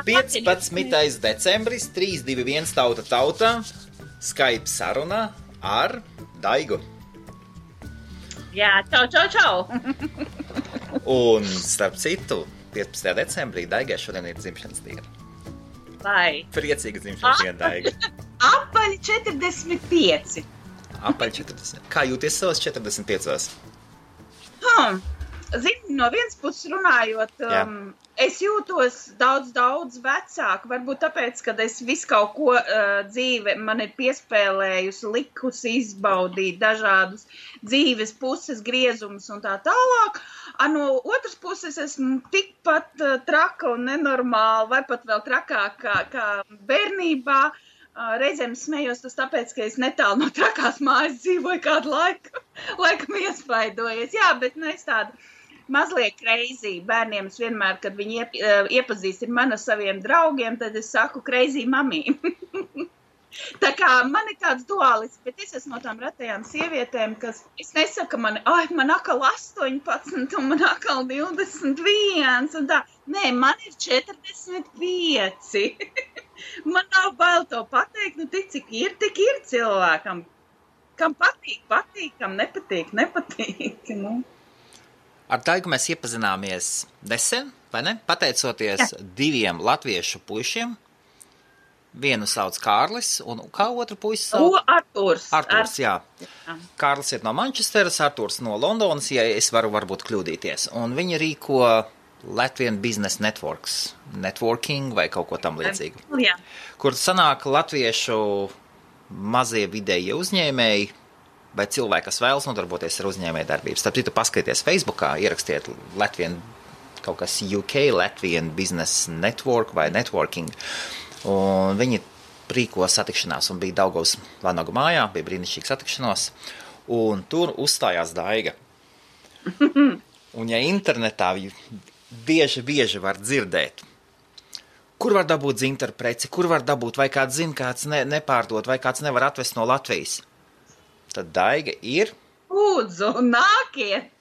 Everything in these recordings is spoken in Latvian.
15. decembris, 321 tauta, Skype saruna ar Daigu. Jā, čau. Un starp citu, 15. decembrī Daigai šodien ir dzimšanas diena. Vai? Priecīga dzimšanas diena, Daiga. Apaļ 45. Apaļ 40. Kā jūties savas 45? Zini, no vienas puses runājot, es jūtos daudz vecāk, varbūt tāpēc, kad es visu kaut ko dzīve man ir piespēlējusi, likusi izbaudīt dažādus dzīves puses griezumus un tā tālāk. No otras puses esmu tikpat traka un nenormāla, vai pat vēl trakāk kā bērnībā. Reizēm smējos tas tāpēc, ka es netālu no trakās mājas dzīvoju kādu laikam iespaidojies. Jā, bet es tādu mazliet crazy bērniem. Es vienmēr, kad viņi iepazīstina mani ar saviem draugiem, tad es saku crazy mamī. Tā kā man ir tāds duālis, bet es esmu no tām retajām sievietēm, kas, es nesaku man atkal 18 un man atkal 21 un tā. Nē, man ir 45. Man nav bail to pateikt, tik cik ir cilvēkam. Kam patīk, kam nepatīk. Ar Daigu mēs iepazināmies nesen, vai ne? Pateicoties diviem latviešu puišiem. Vienu sauc Kārlis, un kā otru puisi sauc? Arturs, jā. Kārlis ir no Manchesteras, Arturs no Londonas, ja es varu varbūt kļūdīties. Un viņi rīko Latvian Business Networking vai kaut ko tam līdzīgu. Jā. Kur sanāk latviešu mazie vidējie uzņēmēji, vai cilvēki, kas vēlas nodarboties ar uzņēmēju darbību. Starp citu, paskatieties Facebookā, ierakstiet Latvian, kaut kas UK, Latvian Business Network vai Networking. Un viņi rīko satikšanās un bija Daugavas Vanagu mājā, bija brīnišķīga satikšanos, un tur uzstājās Daiga. Un ja internetā bieži var dzirdēt, kur var dabūt dzintaru preci, kur var dabūt, vai kāds zina, kāds nepārdot, vai kāds nevar atvest no Latvijas, tad Daiga ir... Lūdzu, nākiet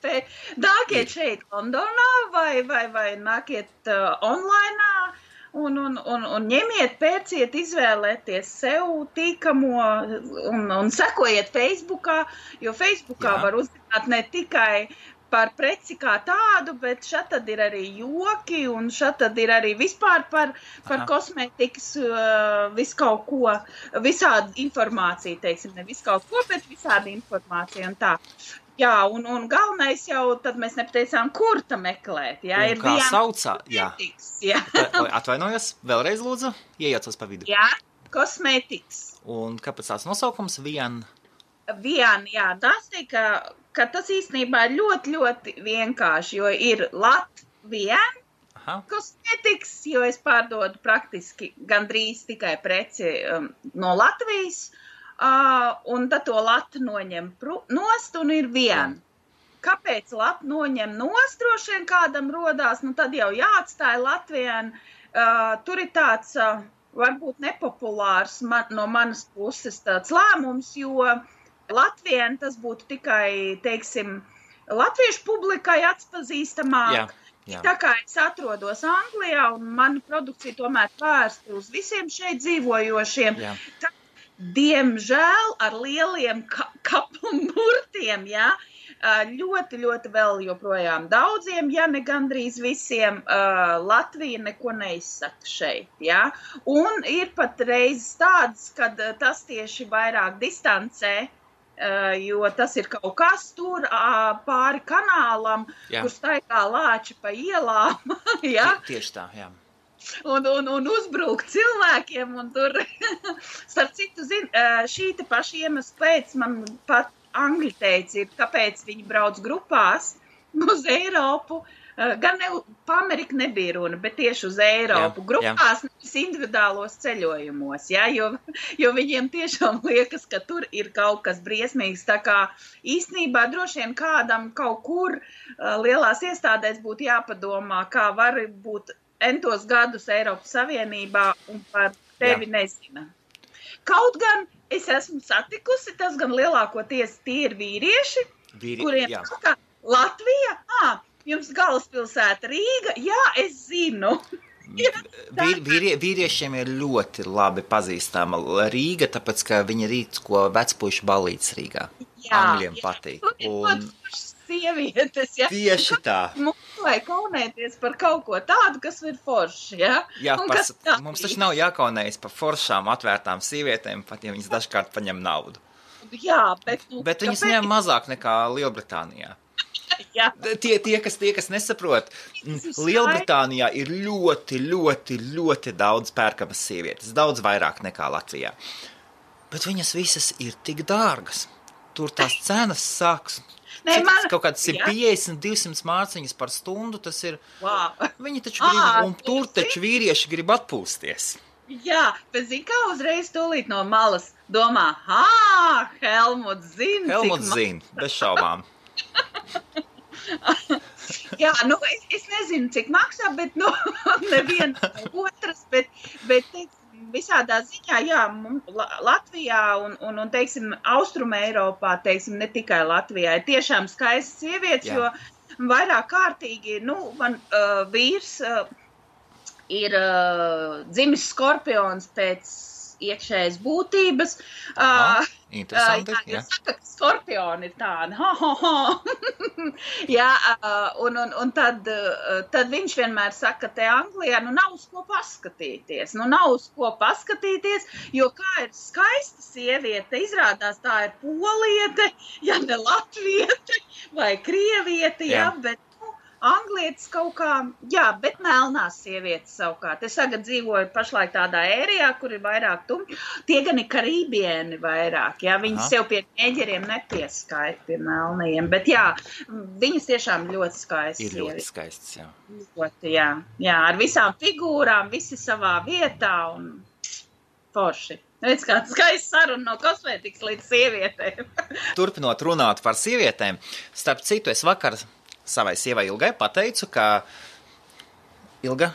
šeit Londonā vai nākiet online. Un ņemiet, pērciet, izvēlēties sev tīkamo un sekojiet Facebookā, jo Facebookā var uzzināt ne tikai par preci kā tādu, bet šeit tad ir arī joki un šeit tad ir arī vispār par kosmētikas visu kaut ko, visādi informācija, teiksim, ne visu kaut ko, bet visādi informācija un tā. Jā, un galvenais jau, tad mēs nepateicām, kur ta meklēt. Jā, un kā saucā? Jā. Atvainojos, vēlreiz lūdzu, iejaucos pa vidu. Jā, kosmētikas. Un kāpēc tās nosaukums Vian? Vian, jā, tas tika, ka tas īstenībā ir ļoti vienkārši, jo ir Latvian kosmētikas, jo es pārdodu praktiski gandrīz tikai preci no Latvijas. Un tad to latu noņem nost un ir vien. Kāpēc latu noņem nost, droši vien kādam rodās, tad jau jāatstāja Latvijai. Tur ir tāds, varbūt nepopulārs no manas puses tāds lēmums, jo Latvijai tas būtu tikai, teiksim, latviešu publikai atpazīstamāk. Jā. Tā kā es atrodos Anglijā un mana produkcija tomēr vērsta uz visiem šeit dzīvojošiem. Jā. Diemžēl ar lieliem kapumurtiem, ļoti vēl joprojām daudziem, ja ne gandrīz visiem, Latvija neko neizsaka šeit, Un ir pat reizes tādas, kad tas tieši vairāk distancē, jo tas ir kaut kas tur pāri kanālam, kur staigā lāči pa ielām, Tieši tā, jā. Un uzbrukt cilvēkiem, un tur, starp citu, šī te paša iemesla pēc man pat angļi teica ir, kāpēc viņi brauc grupās uz Eiropu, gan pa Ameriku nebija runa, bet tieši uz Eiropu, grupās, nevis individuālos ceļojumos, jo viņiem tiešām liekas, ka tur ir kaut kas briesmīgs, tā kā īstenībā droši vien kādam kaut kur lielās iestādēs būtu jāpadomā, kā var būt entos gadus Eiropas Savienībā un par tevi nezina. Kaut gan es esmu satikusi, tas gan lielākoties tie ir vīrieši, kuriem kā Latvija, jums galvaspilsēta Rīga, jā, es zinu. Vīriešiem ir ļoti labi pazīstama Rīga, tāpēc, ka viņi rīt, ko vecpuišu balīts Rīgā. Angļiem patīk. Un sievietes, ja? Tieši tā. Mums vajag kaunēties par kaut ko tādu, kas ir forši, ja? Jā, mums taču nav jākaunējas par foršām atvērtām sievietēm, pat ja viņas dažkārt paņem naudu. Jā, bet viņas ņem mazāk nekā Lielbritānijā. Jā. Tie, kas nesaprot, Lielbritānijā ir ļoti, ļoti, ļoti daudz pērkamas sievietes, daudz vairāk nekā Latvijā. Bet viņas visas ir tik dārgas. Tur tās cenas sāks. Kaut kāds 150-200 mārciņas par stundu, tas ir. Wow. Viņi taču grib, un tur taču vīrieši grib atpūsties. Jā, bet zini, kā uzreiz tūlīt no malas domā, Helmuts zina. Helmuts zina, bez šaubām. Jā, es nezinu, cik maksā, bet, neviens otrs, bet teiksim, visādā ziņā, jā, Latvijā un teiksim, Austruma Eiropā, teiksim, ne tikai Latvijā, ir tiešām skaistas sievietes, jo vairāk kārtīgi, man vīrs ir dzimis skorpions pēc iekšējas būtības. Interesanti, jā. Saka, ka skorpioni ir tādi. Jā, un tad viņš vienmēr saka, te Anglijā, nav uz ko paskatīties. Nav uz ko paskatīties, jo kā ir skaista sieviete, izrādās tā ir poliete, ja ne latviete vai krieviete, jā, bet anglietis kaut kā, jā, bet melnās sievietes savukārt. Es tagad dzīvoju pašlaik tādā ērijā, kur ir vairāk tumļi. Tie gan ir karībieni vairāk, jā. Viņi sev pie ķēģeriem nepieskaita pie melnajiem. Bet jā, viņas tiešām ļoti skaistas. Ir ļoti skaistas, jā. Ļoti, jā. Jā, ar visām figūrām, visi savā vietā un forši. Redz, kāds skaists saruna no kosmētikas līdz sievietēm. Turpinot runāt par sievietēm, starp citu, es vakar savai sievai Ilgai pateicu, ka Ilga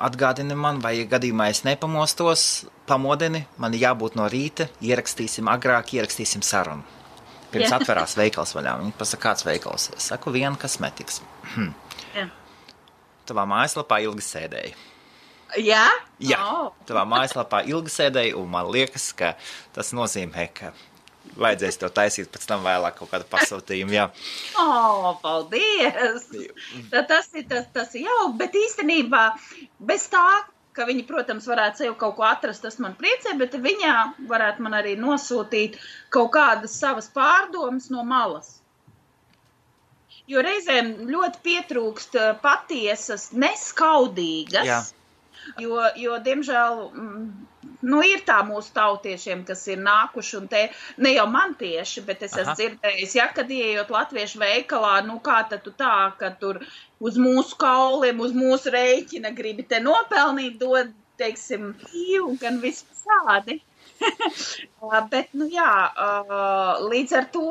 atgādini man, vai gadījumā es nepamostos, pamodini, man jābūt no rīta, ierakstīsim sarunu. Pirms atverās veikals vaļā. Viņa pasaka, kāds veikals? Es saku, viena kosmetikas. Tavā mājaslapā Ilga sēdēja. Jā? Jā, tavā mājaslapā Ilga sēdēja, un man liekas, ka tas nozīmē, ka vajadzēs to taisīt pēc tam vēlāk kaut kādu pasūtījumu, jā. Paldies! Tas ir jau, bet īstenībā bez tā, ka viņi, protams, varētu sev kaut ko atrast, tas man priecē, bet viņā varētu man arī nosūtīt kaut kādas savas pārdomas no malas. Jo reizēm ļoti pietrūkst patiesas, neskaudīgas, jo diemžēl... ir tā mūsu tautiešiem, kas ir nākuši, un te, ne jau man tieši, bet es esmu dzirdējis, kad ieejot latviešu veikalā, kā tad tu tā, ka tur uz mūsu kauliem, uz mūsu rēķina gribi te nopelnīt, dod, teiksim, un gan visādi. Bet, līdz ar to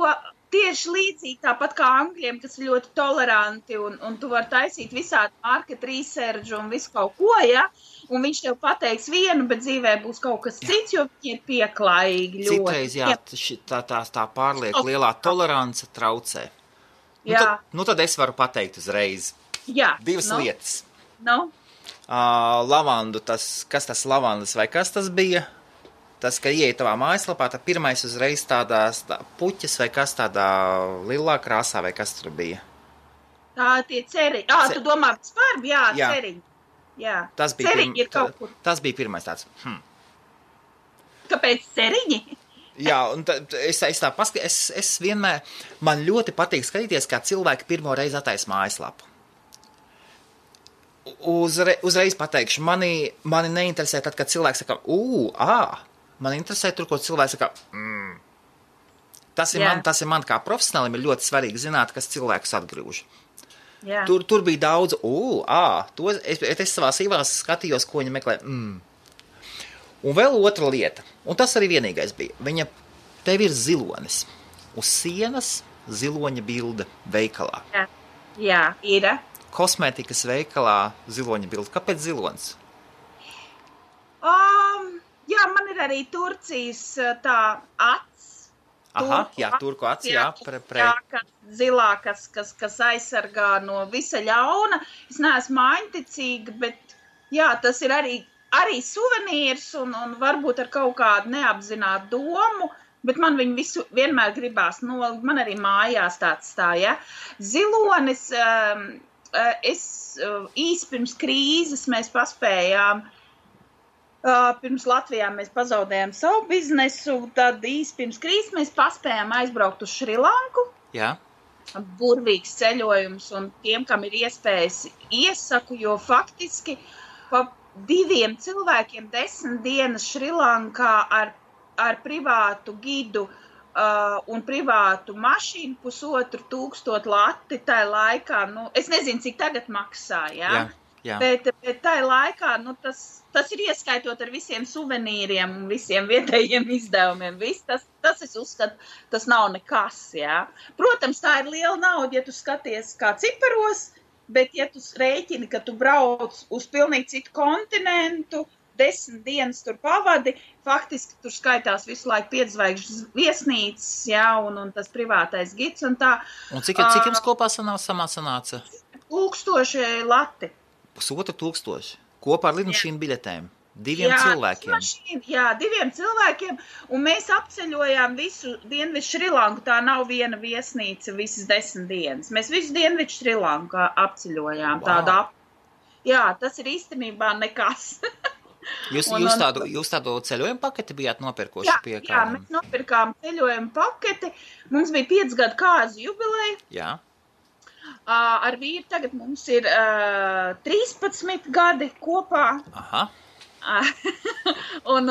tieši līdzīgi, tāpat kā angļiem, kas ir ļoti toleranti, un tu vari taisīt visādi market research un visu kaut ko, ja? Un viņš tev pateiks vienu, bet dzīvē būs kaut kas cits, jo viņi ir pieklājīgi ļoti. Citreiz, tā pārlieku lielā tolerance traucē. Tad es varu pateikt uzreiz. Divas lietas. Lavandu, kas tas lavandas vai kas tas bija? Tas, ka ieeja tavā mājaslapā, tad pirmais uzreiz tādās puķas vai kas tādā lilā krāsā vai kas tur bija? Tā tie ceriņi. Tu domā par ceriņi. Jā, ceriņi ir kaut kur. Tas bija pirmais tāds. Kāpēc ceriņi? Jā, un es tā paskatīju, es vienmēr, man ļoti patīk skatīties, kā cilvēki pirmo reizi attaisa mājaslapu. Uzreiz pateikšu, mani neinteresē tad, kad cilvēks saka, man interesē tur, ko cilvēks saka, Tas ir man kā profesionālim ir ļoti svarīgi zināt, kas cilvēkus atgrūž. Tur bija daudz, es savā sīvās skatījos, ko viņa meklē. Un vēl otra lieta, un tas arī vienīgais bija, tev ir zilonis. Uz sienas ziloņa bilde veikalā. Jā, ir. Kosmētikas veikalā ziloņa bilde. Kāpēc zilonis? Jā, man ir arī Turcijas tā acs. Turku acs, Zilā, kas aizsargā no visa ļauna. Es neesmu māņticīga, bet Jā, tas ir arī suvenīrs un varbūt ar kaut kādu neapzinātu domu, bet man viņu visu vienmēr gribās nolikt. Man arī mājās tāds ja. Zilonis, īsi pirms krīzes mēs paspējām, pirms Latvijā mēs pazaudējām savu biznesu, tad īsi pirms krīzes mēs paspējām aizbraukt uz Šrilanku. Jā. Burvīgs ceļojums, un tiem, kam ir iespējas, iesaku, jo faktiski pa 2 cilvēkiem 10 dienas Šrilankā ar privātu gidu un privātu mašīnu 1500 lati tajā laikā, es nezinu, cik tagad maksā, jā. Bet tajā laikā, tas ir ieskaitot ar visiem suvenīriem un visiem vietējiem izdevumiem. Tas es uzskatu, tas nav nekas, jā. Protams, tā ir liela nauda, ja tu skaties kā ciparos, bet ja tu rēķini, ka tu brauc uz pilnīgi citu kontinentu, 10 dienas tur pavadi, faktiski tur skaitās visu laiku 5 zvaigžņu viesnīcas, jā, un tas privātais gids un tā. Un cik jums kopā sanāca? 1000 lati. 1500 kopā ar lidmašīnu biļetēm. 2 cilvēkiem. Jā, 2 cilvēkiem, un mēs apceļojām visu Dienvidu Šrilanku, tā nav viena viesnīca visas 10 dienas. Mēs visu Dienvidu Šrilanku apceļojām. Wow. Jā, tas ir īstenībā nekas. Jūs tādu ceļojumu paketi bijāt nopirkoši pie kādam? Jā, mēs nopirkām ceļojumu paketi. Mums bija 5 gadu kāzu jubileja. Jā. Ar vīru tagad mums ir 13 gadi kopā. Aha. Un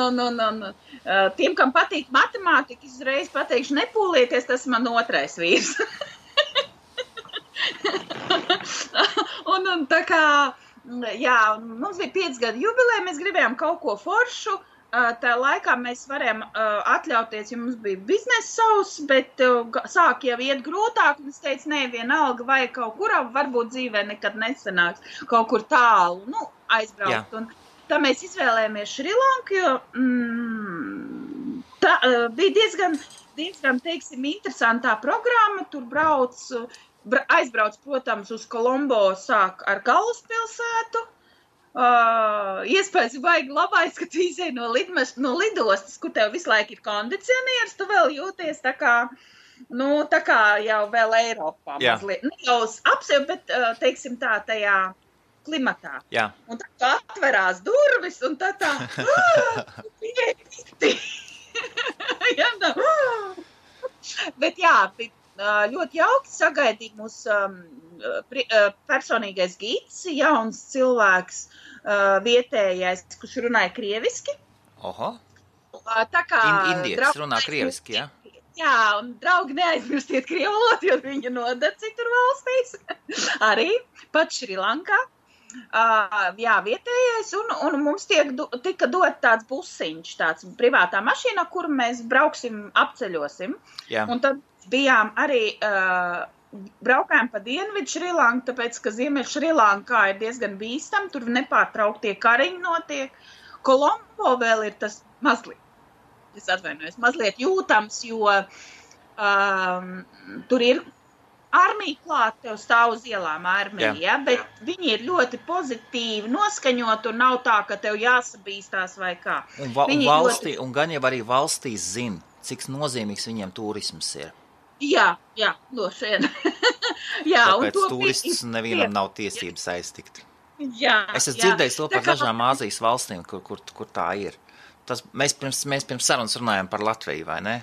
tiem, kam patīk matemātika, uzreiz pateikšu, nepūlieties, tas man otrais vīrs. un tā kā, jā, mums bija 5 gadu jubileja, mēs gribējām kaut ko foršu. Tā laikā mēs varējām atļauties, ja mums bija biznesa savs, bet sāk jau iet grūtāk, un es teicu, vienalga, vai kaut kurā, varbūt dzīvē nekad nesanāks, kaut kur tālu, aizbraukt. Jā. Un tā mēs izvēlējāmies Šrilanku, jo tā bija diezgan, teiksim, interesantā programma, tur aizbrauc, protams, uz Kolombo sāk ar galvaspilsētu. Iespējas baigi labais, ka tu izēj no lidostas, kur tev visu laiku ir kondicionieris, tu vēl jūties tā kā jau vēl Eiropā mazliet. Jau apsev, bet, teiksim tā, tajā klimatā. Jā. Un tā atverās durvis, un tā, bet jā, ļoti jauki sagaidīt mūsu personīgais gids, jauns cilvēks, vietējais, kurš runāja krieviski. Oho. Tā kā indietis runā krieviski, jā? Jā, un draugi neaizmirstiet krievu valodu, jo viņa nodara citur valstīs. Arī, pat Šrilankā. Jā, vietējais, un mums tika dot tāds busiņš, tāds privātā mašīna, kur mēs brauksim, apceļosim. Jā. Un tad bijām arī, braukājām pa Dienvidu Šrilanku, tāpēc, ka Ziemeļ Šrilankā ir diezgan bīstam, tur nepārtrauktie kariņi notiek. Kolombo vēl ir tas mazliet jūtams, jo tur ir armija klāt, tev stāv uz ielām armija, ja? Bet viņi ir ļoti pozitīvi noskaņot un nav tā, ka tev jāsabīstās vai kā. Un gan jau arī valstīs zina, cik nozīmīgs viņiem turisms ir. Jā, no šeit. Tāpēc turistus nevienam nav tiesības aiztikt. Jā. Es esmu dzirdējis to par dažām Āzijas valstīm, kur tā ir. Mēs pirms sarunas runājam par Latviju, vai ne?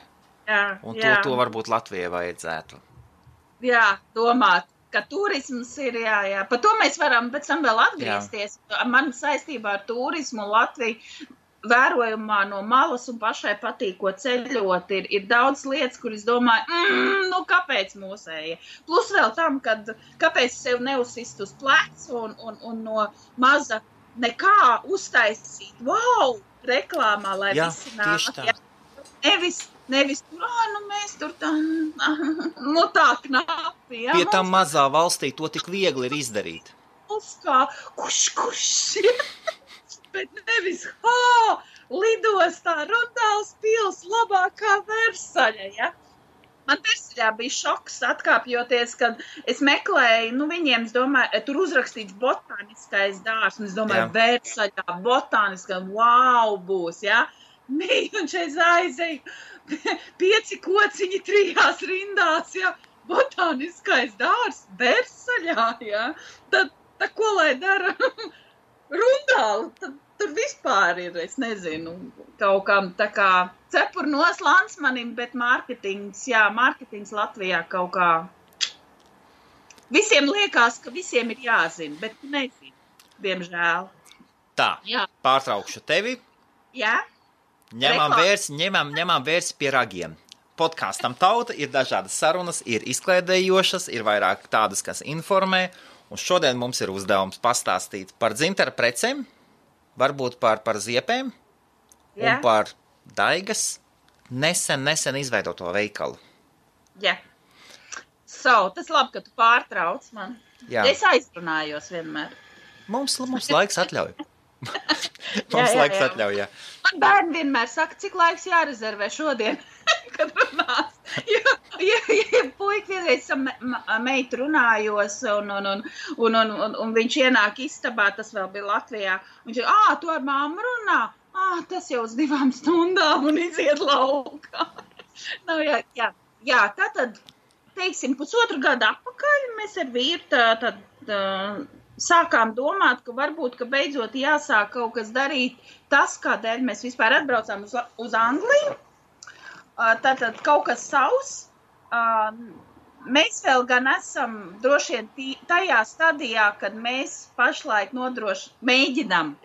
Jā. Un to varbūt Latvijai vajadzētu. Jā, domāt, ka turisms ir, jā. Par to mēs varam pēc tam vēl atgriezties. Man saistībā ar turismu Latviju vērojumā no malas un pašai patīkot ceļot ir daudz lietas, kur es domāju, kāpēc mūsēja? Plus vēl tam, kāpēc sev neuzsist uz plecu un no maza nekā uztaisīt, wow, reklāmā, lai visi nāk. Nevis tur, mēs tur tā knapi. Pie tam mazā valstī to tik viegli ir izdarīt. Kā, kuš. Bet nevis, lidostā Rundāls pils labākā Versaļa, ja? Man Versaļā bija šoks atkāpjoties, kad es meklēju, viņiem, es domāju, tur uzrakstīts botāniskais dārs, un es domāju, Versaļā botāniskā, wow, būs, jā. Un šeit aizēju 5 kociņi 3 rindās, jā, botāniskais dārs Versaļā, jā. Tad ko lai dara Rundāli, tad tur vispār ir, es nezinu, kaut kam tā kā cepurnos Lansmanim, bet mārketings Latvijā kaut kā. Visiem liekas, ka visiem ir jāzina, bet nezinu, diemžēl. Tā, jā. Pārtraukšu tevi. Jā. Ņemam vērsi pie ragiem. Podkastam Tauta ir dažādas sarunas, ir izklaidējošas, ir vairāk tādas, kas informē, un šodien mums ir uzdevums pastāstīt par dzintara precēm, varbūt par ziepēm un par Daigas nesen izveidoto veikalu. Jā. Tas labi, ka tu pārtrauc man. Jā. Es aizrunājos vienmēr. Mums laiks atļauj. Laiks atļauj, jā. Man bērni vienmēr saka, cik laiks jārezervē šodien, kad runās. Ja puika vienreiz meitu runājos, un viņš ienāk istabā, tas vēl bija Latvijā, viņš ir, tu ar mammu runā? Tas jau uz 2 stundām un iziet laukā. Jā, tātad, teiksim, 1,5 gadu atpakaļ mēs ar vīru sākām domāt, ka varbūt, ka beidzot jāsāk kaut kas darīt tas, kādēļ mēs vispār atbraucām uz Angliju. Tātad kaut kas savs. Mēs vēl gan esam droši vien tajā stadijā, kad mēs pašlaik mēģinam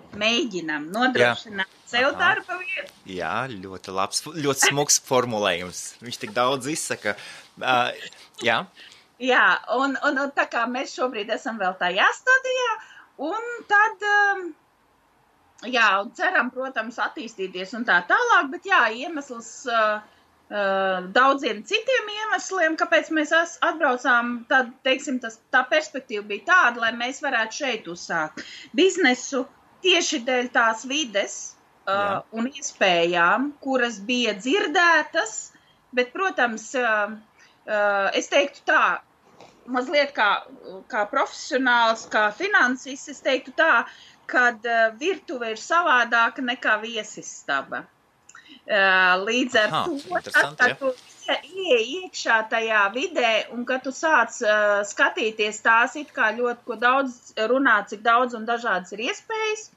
nodrošināt sev darba vietu. Jā, ļoti labs, ļoti smuks formulējums. Viņš tik daudz izsaka. Jā. Jā, un tā kā mēs šobrīd esam vēl tajā stadijā, un tad, un ceram, protams, attīstīties un tā tālāk, bet iemesls daudziem citiem iemesliem, kāpēc mēs atbraucām, tad, teiksim, tā perspektīva bija tāda, lai mēs varētu šeit uzsākt biznesu tieši dēļ tās vides un iespējām, kuras bija dzirdētas, bet, protams, es teiktu tā, mazliet kā profesionāls, kā finansists, es teiktu tā, kad virtuve ir savādāka nekā viesistaba. Līdz ar to, kad tu ieej iekšā tajā vidē un kad tu sāc skatīties tās it kā ļoti, ko daudz runā, cik daudz un dažādas ir iespējas,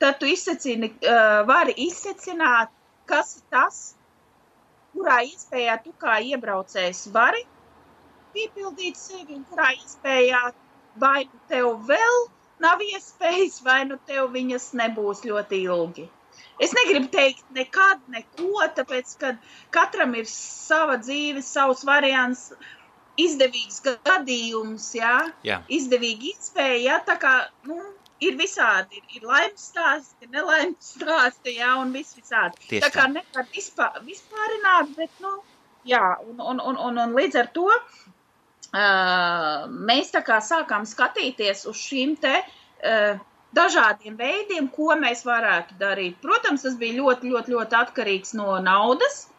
tad tu vari izsecināt, kas ir tas, kurā iespējā tu kā iebraucējs vari piepildīt sevi un kurā iespējā vai nu tev vēl nav iespējas, vai nu tev viņas nebūs ļoti ilgi. Es negribu teikt nekad, neko, tāpēc, ka katram ir sava dzīve, savs variants, izdevīgs gadījums, izdevīga iespēja, tā kā, ir visādi, ir laimes stāsti, ir nelaimes stāsti, un visādi. Tieši tā kā nevar vispārināt, bet, un līdz ar to mēs tā kā sākām skatīties uz šīm te dažādiem veidiem, ko mēs varētu darīt. Protams, tas bija ļoti, ļoti, ļoti atkarīgs no naudas,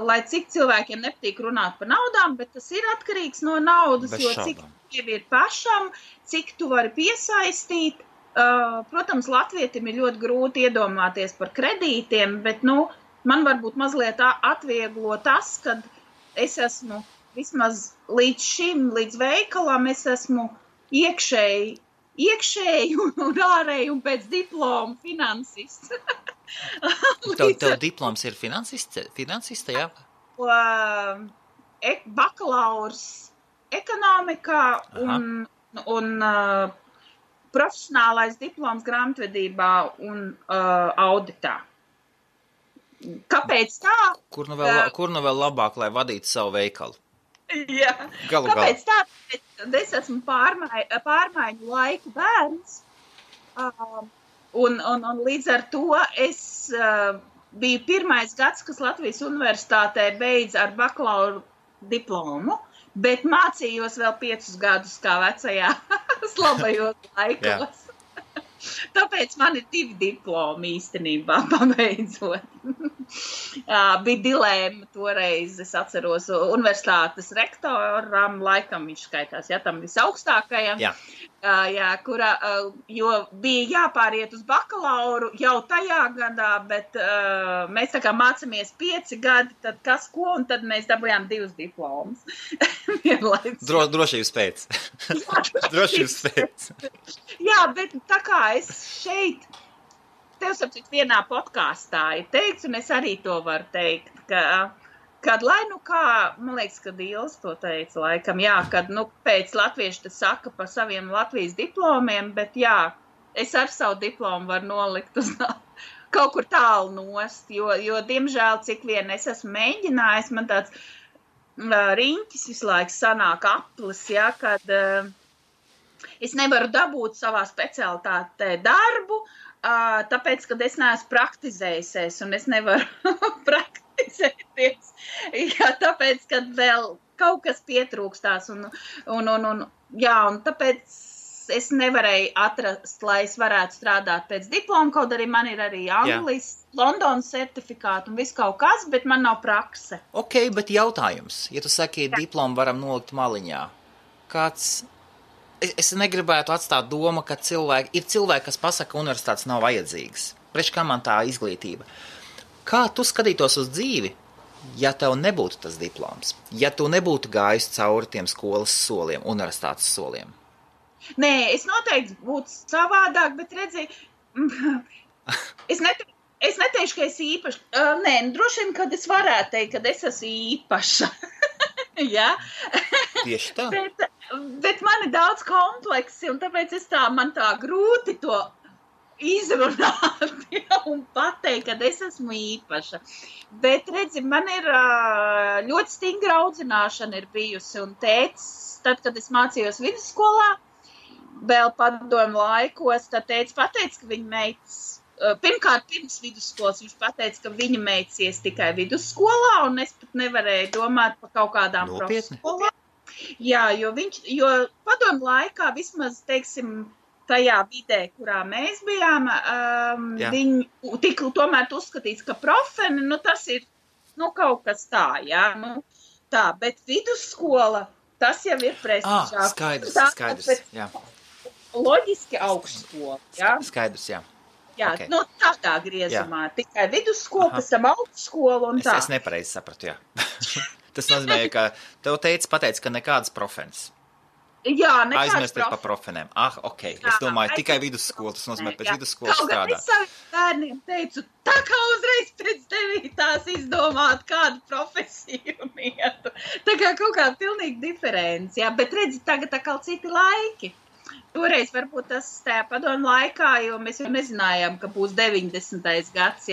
lai cik cilvēkiem nepatīk runāt par naudām, bet tas ir atkarīgs no naudas, jo cik tev ir pašam, cik tu vari piesaistīt. Protams, latvietim ir ļoti grūti iedomāties par kredītiem, bet, man varbūt mazliet atvieglo tas, kad es esmu vismaz līdz šim, līdz veikalam, es esmu iekšēji un ārēji un pēc diploma finansists. Tev diploms ir finansista, jā? Bakalaurs ekonomikā un profesionālais diploms grāmatvedībā un auditā. Kāpēc tā? Kur nu vēl labāk, lai vadītu savu veikalu? Jā, kāpēc tā? Es esmu pārmaiņu laiku bērns, un līdz ar to es biju pirmais gads, kas Latvijas universitātē beidz ar bakalauru diplomu, bet mācījos vēl 5 gadus kā vecajā slabajos laikos. Tāpēc man ir 2 diplomi īstenībā, pabeidzot. Bija dilēma toreiz, es atceros, universitātes rektoram, laikam viņš skaitās, tam visaugstākajam, jo bija jāpāriet uz bakalauru jau tajā gadā, bet mēs tā kā mācāmies 5 gadi, tad kas ko, un tad mēs dabūjām 2 diplomus. Drošības pēc. Drošības pēc. Jā, bet tā kā es šeit, tev sapcīt vienā podkāstā ir teikts, un es arī to varu teikt, kad lai nu kā, man liekas, kad Ilis to teica laikam, kad pēc latvieši te saka par saviem Latvijas diplomiem, bet es ar savu diplomu varu nolikt uz kaut kur tālu nost, jo diemžēl, cik vien es esmu mēģinājis, man tāds riņķis visu laiku sanāk aplis, kad es nevaru dabūt savā specialitātē darbu, tāpēc, kad es neesmu praktizējusies, un es nevaru praktizēties, tāpēc, kad vēl kaut kas pietrūkstās, un tāpēc es nevarēju atrast, lai es varētu strādāt pēc diploma, kaut arī man ir arī Anglijas, Londonas certifikāti un viss kaut kas, bet man nav prakse. Ok, bet jautājums, ja tu saki, diplomu varam nolikt maliņā, es negribētu atstāt domu, ka ir cilvēki, kas pasaka, ka universitātes nav vajadzīgas. Priekš kā man tā izglītība? Kā tu skatītos uz dzīvi, ja tev nebūtu tas diploms? Ja tu nebūtu gājis cauri tiem skolas soliem, universitātes soliem? Nē, es noteikti būtu savādāk, bet redzi, es neteikšu, ka es īpaši, droši vien, kad es varētu teikt, kad es esmu īpaša. Tieši tā. Bet man ir daudz kompleksi, un tāpēc man tā grūti to izrunāt un pateikt, kad es esmu īpaša. Bet, redzi, man ir ļoti stingra audzināšana ir bijusi, un tētis, tad, kad es mācījos vidusskolā, vēl padomu laikos, tad tētis pateica, ka viņa meitas, pirmkārt, pirms vidusskolas viņš pateica, ka viņa meitas tikai vidusskolā, un es pat nevarēju domāt par kaut kādām profeskolām. Jā, jo padomu laikā vismaz, teiksim, tajā vidē, kurā mēs bijām, viņi tika tomēr uzskatīts, ka profeni, tas ir, kaut kas tā, tā, bet vidusskola, tas jau ir prestižāk. Skaidrs, jā. Loģiski augstskola, Skaidrs, jā. Jā, okay. Tādā griezumā. Tikai vidusskola, pēc tam augstskola un tā. Es nepareizi sapratu, jā. Tas nozīmē, ka tev pateica, ka nekādas profenes. Jā, nekādas aizmirsties par profenēm. Ok. Es domāju, tikai vidusskola, tas nozīmē pēc vidusskolas strādāt. Es saviem bērniem teicu, tā kā uzreiz pēc 9. izdomāt kādu profesiju un ietu. Tā kā kaut kā pilnīgi diferenci, bet redzi, tagad tā kā citi laiki. Toreiz varbūt tas tajā padomu laikā, jo mēs jau nezinājām, ka būs 90. gads,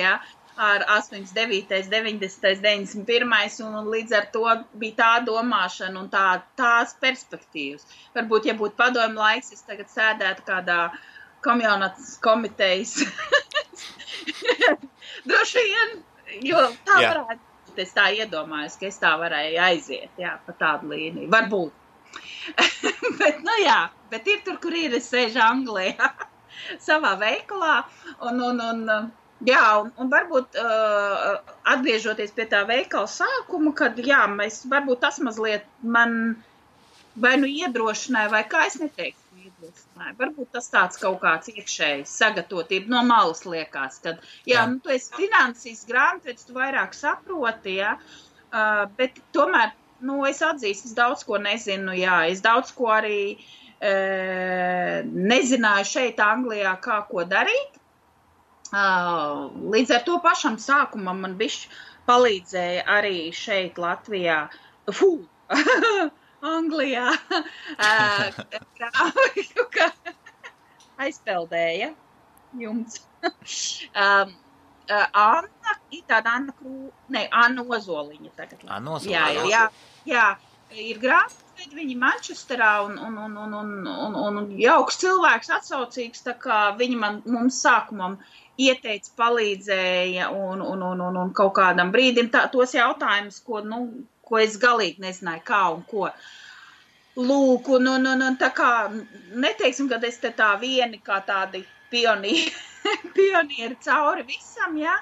ar 89., 90., 91. un līdz ar to bija tā domāšana un tās perspektīvas. Varbūt, ja būtu padomu laiks, es tagad sēdētu kādā komitejas. Droši vien, jo tā varētu būt, es tā iedomājos, ka es tā varēju aiziet, pa tādu līniju. Varbūt. Bet ir tur, kur ir, es sēžu Anglijā savā veikalā, un varbūt atgriežoties pie tā veikala sākuma, kad, varbūt tas mazliet man vai iedrošināja, vai kā es neteiktu iedrošināja. Varbūt tas tāds kaut kāds iekšējs sagatavotība no malas liekas, kad, tu esi finansīs grāmatvedis, tu vairāk saproti, bet tomēr, es atzīstu, es daudz ko nezinu, es daudz ko arī nezināju šeit Anglijā, kā ko darīt. Līdz ar to pašam sākumam man bišķi palīdzēja arī šeit Latvijā, Anglijā, aizpeldēja jums. Anna Ozoliņa tagad. Anna Ozoliņa. Jā, ir grāmatveidi, viņi Mančesterā un jauks cilvēks atsaucīgs, tā kā viņi mums sākumam ieteica, palīdzēja un kaut kādam brīdim tos jautājumus, ko es galīgi nezināju, kā un ko. Lūk, tā kā neteiksim, kad es te tā vieni kā tādi pionieri cauri visam, jā.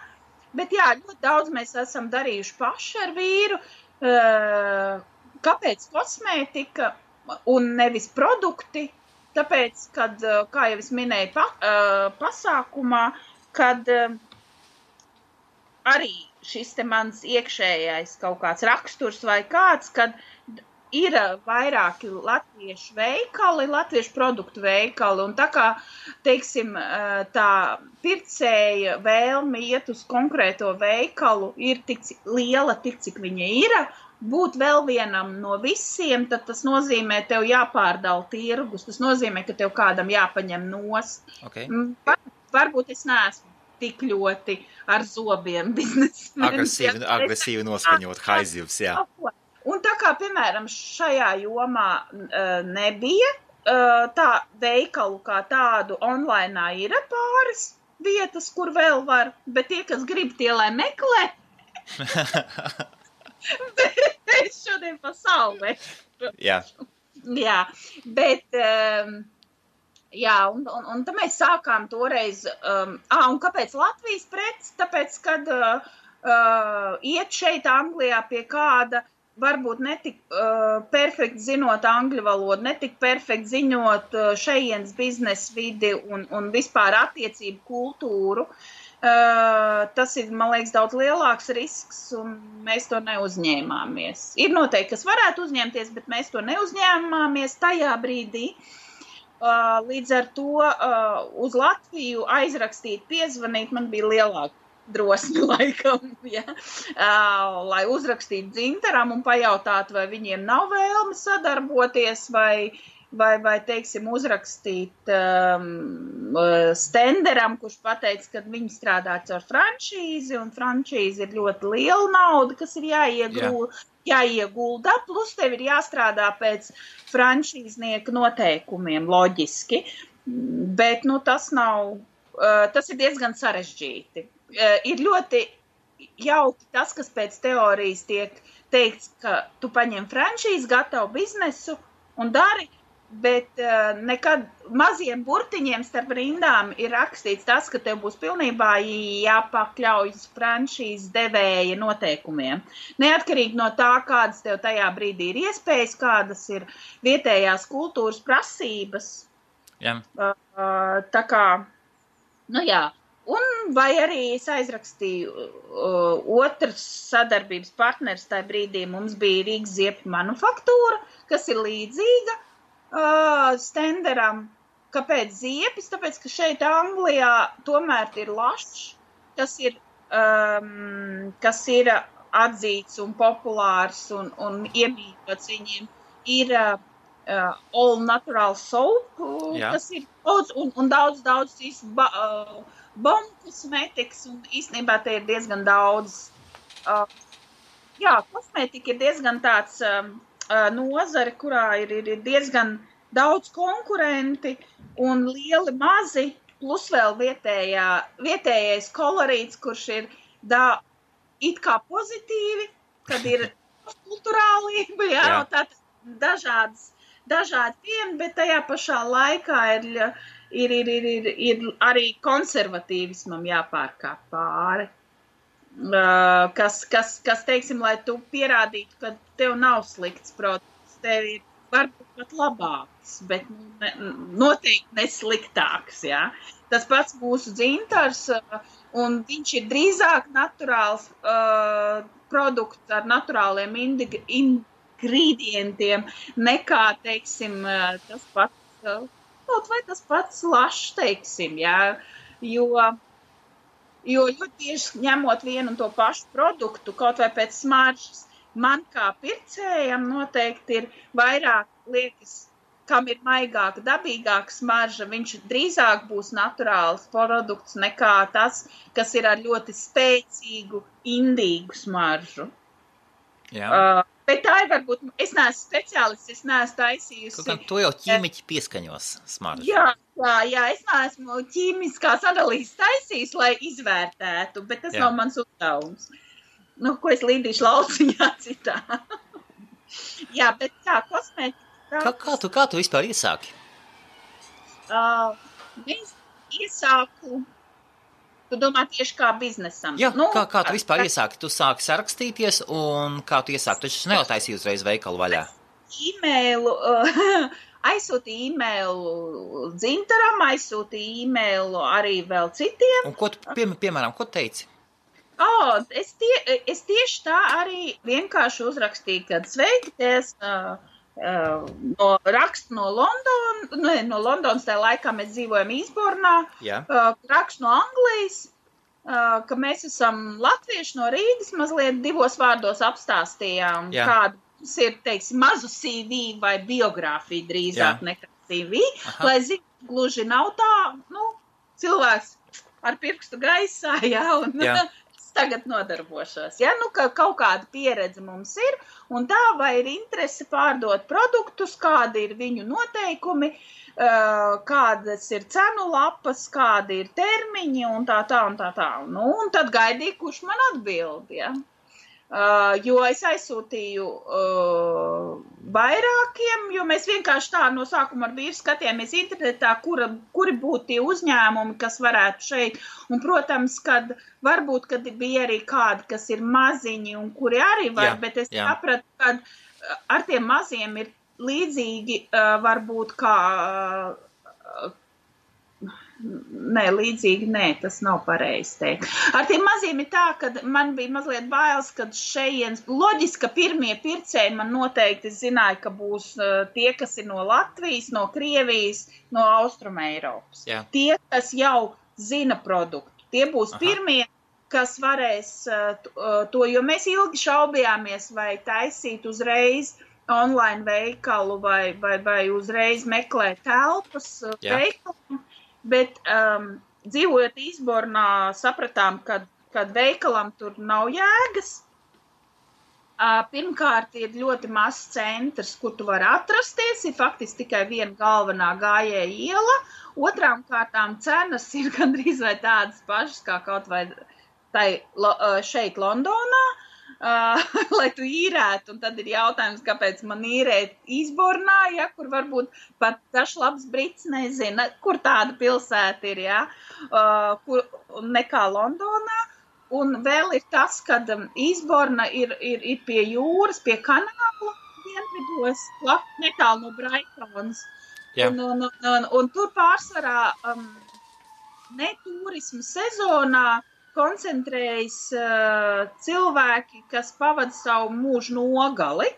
Bet jā, ļoti daudz mēs esam darījuši paši ar vīru. Kāpēc kosmētika un nevis produkti? Tāpēc, kad, kā jau es minēju pasākumā, kad arī šis te mans iekšējais kaut kāds raksturs vai kāds, kad ir vairāki latviešu veikali, latviešu produktu veikali, un tā kā, teiksim, tā pircēja vēlme iet uz konkrēto veikalu ir tik liela, tik cik viņa ir, būt vēl vienam no visiem, tad tas nozīmē, tev jāpārdala tirgus, tas nozīmē, ka tev kādam jāpaņem nost. Okay. Varbūt es neesmu tik ļoti ar zobiem biznesmenis. Agresīvi noskaņot haizivs, jā. Un tā kā, piemēram, šajā jomā nebija tā veikalu kā tādu online ir pāris vietas, kur vēl var, bet tie, kas grib, tie lai meklē. Bet es šodien pasaulē. Jā. Jā, bet, jā, un tad mēs sākām toreiz, un kāpēc Latvijas preces? Tāpēc, kad iet šeit Anglijā pie kāda, varbūt netik perfekti zinot angļu valodu, netik perfekti ziņot šejienes biznesa vidi un vispār attiecību kultūru, tas ir, man liekas, daudz lielāks risks, un mēs to neuzņēmāmies. Ir noteikti, kas varētu uzņemties, bet mēs to neuzņēmāmies tajā brīdī. Līdz ar to uz Latviju aizrakstīt, piezvanīt, man bija lielāka drosmi laikam, ja? Lai uzrakstītu Dzintaram un pajautātu, vai viņiem nav vēlme sadarboties, vai teiksim, uzrakstīt Stenderam, kurš pateica, ka viņi strādā ar franšīzi, un franšīzi ir ļoti liela nauda, kas ir jāiegulda, plus tev ir jāstrādā pēc franšīznieka noteikumiem, loģiski, bet, nu, tas ir diezgan sarežģīti. Ir ļoti jauki tas, kas pēc teorijas tiek teikts, ka tu paņem franšīzi, gatavu biznesu un dari, bet nekad maziem burtiņiem starp rindām ir rakstīts tas, ka tev būs pilnībā jāpakļaujas franšīzes devēja noteikumiem. Neatkarīgi no tā, kādas tev tajā brīdī ir iespējas, kādas ir vietējās kultūras prasības. Jā. Tā kā, nu jā. Un vai arī es aizrakstīju otrs sadarbības partners tajā brīdī, mums bija Rīgas ziepju manufaktūra, kas ir līdzīga Stenderam. Kāpēc ziepis? Tāpēc, ka šeit Anglijā tomēr ir lašs, kas ir atzīts un populārs un iemīļots viņiem, ir all natural soap, kas ir daudz un daudz bombu kosmētikas, un īstenībā te ir diezgan daudz. Jā, kosmētika ir diezgan tāds nozare, kurā ir diezgan daudz konkurenti un lieli mazi, plus vēl vietējais kolorīts, kurš ir it kā pozitīvi, kad ir kulturālība, jā. Tātad dažādi pieni, bet tajā pašā laikā ir arī konservatīvismam jāpārkāp pāri. Kas, teiksim, lai tu pierādītu, ka tev nav slikts produkts, tev ir varbūt pat labāks, bet noteikti nesliktāks, jā. Tas pats mūsu Dzintars, un viņš ir drīzāk naturāls produkts ar naturāliem ingredientiem, nekā, teiksim, tas pats, kaut vai tas pats lašs, teiksim, jā, jo ļoti bieži ņemot vienu un to pašu produktu, kaut vai pēc smaržas, man kā pircējam noteikti ir vairāk liekas, kam ir maigāka, dabīgāka smarža, viņš drīzāk būs naturāls produkts nekā tas, kas ir ar ļoti spēcīgu, indīgu smaržu. Jā. Bet tā ir varbūt, es neesmu speciālists, es neesmu taisījusi. Kaut to jau ķīmiķi pieskaņos smaržu. Jā, es neesmu ķīmiskās analīzes taisījis, lai izvērtētu, bet tas nav mans uzdevums. Nu, ko es līdīšu lauciņā citā. Jā, bet kā kosmētika. Kā tu vispār iesāki? iesāku, tu domā tieši kā biznesam? Jā, kā tu vispār iesāki? Tu sāki sarakstīties un kā tu iesāki? Tu taču nejotaisīji uzreiz veikalu vaļā. Aizsūtīju e-mailu Dzintaram, aizsūtīju e-mailu arī vēl citiem. Un ko tu, piemēram, ko teici? Es tieši tā arī vienkārši uzrakstīju, kad sveikties rakstu no Londonas, tajā laikā mēs dzīvojam Īsbornā, rakstu no Anglijas, ka mēs esam latvieši no Rīgas, mazliet 2 vārdos apstāstījām, kāda ir, teiksim, mazu CV vai biogrāfiju drīzāk nekā CV, lai zinu, gluži nav tā, cilvēks ar pirkstu gaisā, un tagad nodarbošos, ka kaut kāda pieredze mums ir, un tā vai ir interese pārdot produktus, kādi ir viņu noteikumi, kādas ir cenu lapas, kādi ir termiņi, un tā. Un tad gaidīju, kurš man atbild, jo es aizsūtīju vairākiem, jo mēs vienkārši tā no sākuma ar vīru skatījāmies internetā, kuri būtu tie uzņēmumi, kas varētu šeit. Un, protams, kad varbūt, kad bija arī kādi, kas ir maziņi un kuri arī var, bet es sapratu, ka ar tiem maziem ir līdzīgi varbūt kā... tas nav pareizi teikt. Ar tiem maziem ir tā, ka man bija mazliet bailes, kad šejienes, loģiski, ka pirmie pircēji man noteikti zināja, ka būs tie, kas ir no Latvijas, no Krievijas, no Austruma Eiropas. Tie, kas jau zina produktu. Tie būs pirmie, kas varēs to, jo mēs ilgi šaubījāmies, vai taisīt uzreiz online veikalu vai uzreiz meklēt telpas veikalu. Bet dzīvojot Īsbornā, sapratām, ka veikalam tur nav jēgas. Pirmkārt, ir ļoti mazs centrs, kur tu vari atrasties, ir faktiski tikai viena galvenā gājēja iela. Otrām kārtām cenas ir gandrīz vai tādas pašas, kā kaut vai šeit Londonā, lai tu īrētu, un tad ir jautājums, kāpēc man īrēt Īsbornā, kur varbūt pat dažs labs brits nezina, kur tāda pilsēta ir, kur nekā Londonā. Un vēl ir tas, ka Īsborna ir pie jūras, pie kanāla dienvidos, netālu no Braitonas. Un tur pārsvarā ne turismu sezonā koncentrējas cilvēki, kas pavada savu mūžu nogali.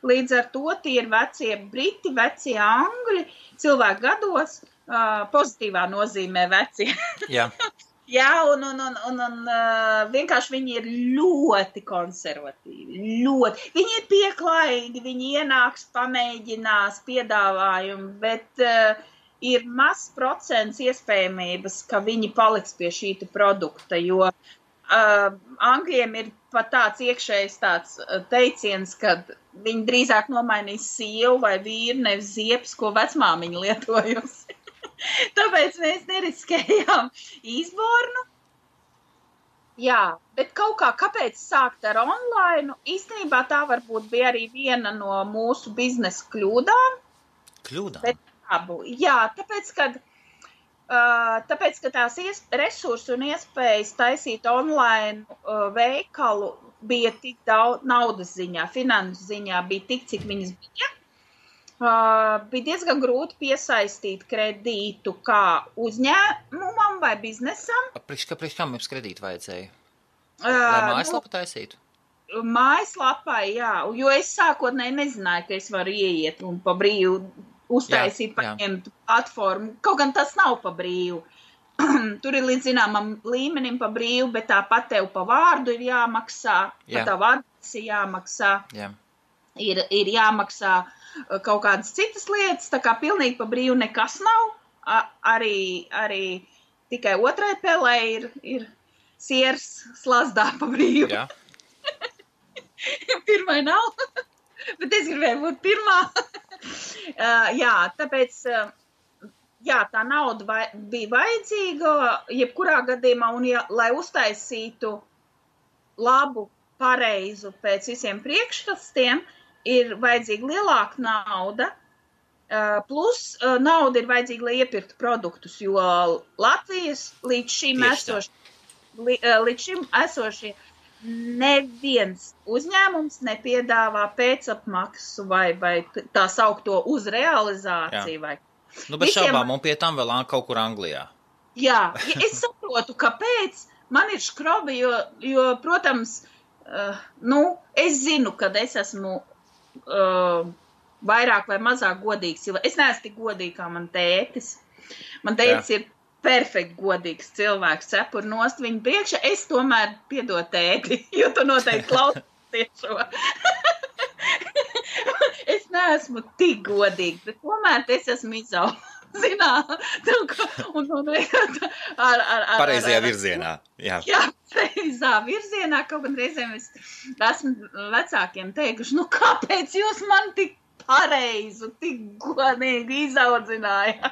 Līdz ar to tie ir vecie briti, vecie angļi, cilvēki gados, pozitīvā nozīmē vecie. Un vienkārši viņi ir ļoti konservatīvi, ļoti. Viņi ir pieklājīgi, viņi ienāks, pamēģinās piedāvājumu, bet ir mazs procents iespējamības, ka viņi paliks pie šīta produkta, jo Angļiem ir pat tāds iekšējs tāds teiciens, ka viņi drīzāk nomainīs sievu vai vīru, nevis ziepes, ko vecmāmiņa lietojusi. Tāpēc mēs neriskējām Īsbornu. Jā, bet kaut kāpēc sākt ar online? Īstenībā tā varbūt bija arī viena no mūsu biznesa kļūdām. Kļūdām? Jā, tāpēc, ka tās resursi un iespējas taisīt online veikalu bija tik daudz naudas ziņā, finanses ziņā bija tik, cik viņas bija. Bija diezgan grūti piesaistīt kredītu kā uzņēmumam vai biznesam. Priekš kam jums kredītu vajadzēja? Lai mājaslapu taisītu? Mājaslapai, jā, jo es sākotnēji nezināju, ka es varu ieiet un pa brīvu uztaisīt, paņemt platformu. Kaut gan tas nav pa brīvu. Tur ir līdz zināmam līmenim pa brīvu, bet tāpat tev pa vārdu ir jāmaksā, pa tavu adresi jāmaksā, ir jāmaksā kaut kādas citas lietas, tā kā pilnīgi pa brīvu nekas nav. Arī tikai otrai pelē ir siers slazdā pa brīvu. Jā. Pirmai nav, bet es gribēju būt pirmā. Tāpēc, tā nauda bija vajadzīga, jebkurā gadījumā, un lai uztaisītu labu, pareizu pēc visiem priekšrastiem, ir vajadzīga lielāka nauda, Plus nauda ir vajadzīga, lai iepirktu produktus, jo Latvijas līdz šim esošie neviens uzņēmums nepiedāvā pēcapmaksu vai tā saukto uz realizāciju. Vai. Bez šaubām, un pie tam vēl kaut kur Anglijā. Jā, es saprotu, kāpēc man ir škrobi, jo protams, es zinu, kad es esmu vairāk vai mazāk godīgs. Es neesmu tik godīgi kā man tētis. Man tētis ir perfekti godīgs cilvēks, cepur nost viņu priekšā. Es tomēr piedod tēti, jo tu noteikti klausies šo. Es neesmu tik godīgi, bet tomēr es esmu pareizajā virzienā. Jā, pareizā virzienā. Kaut gan reizēm es esmu vecākiem teikuši, kāpēc jūs man tik pareizu, tik godīgi izaudzināja.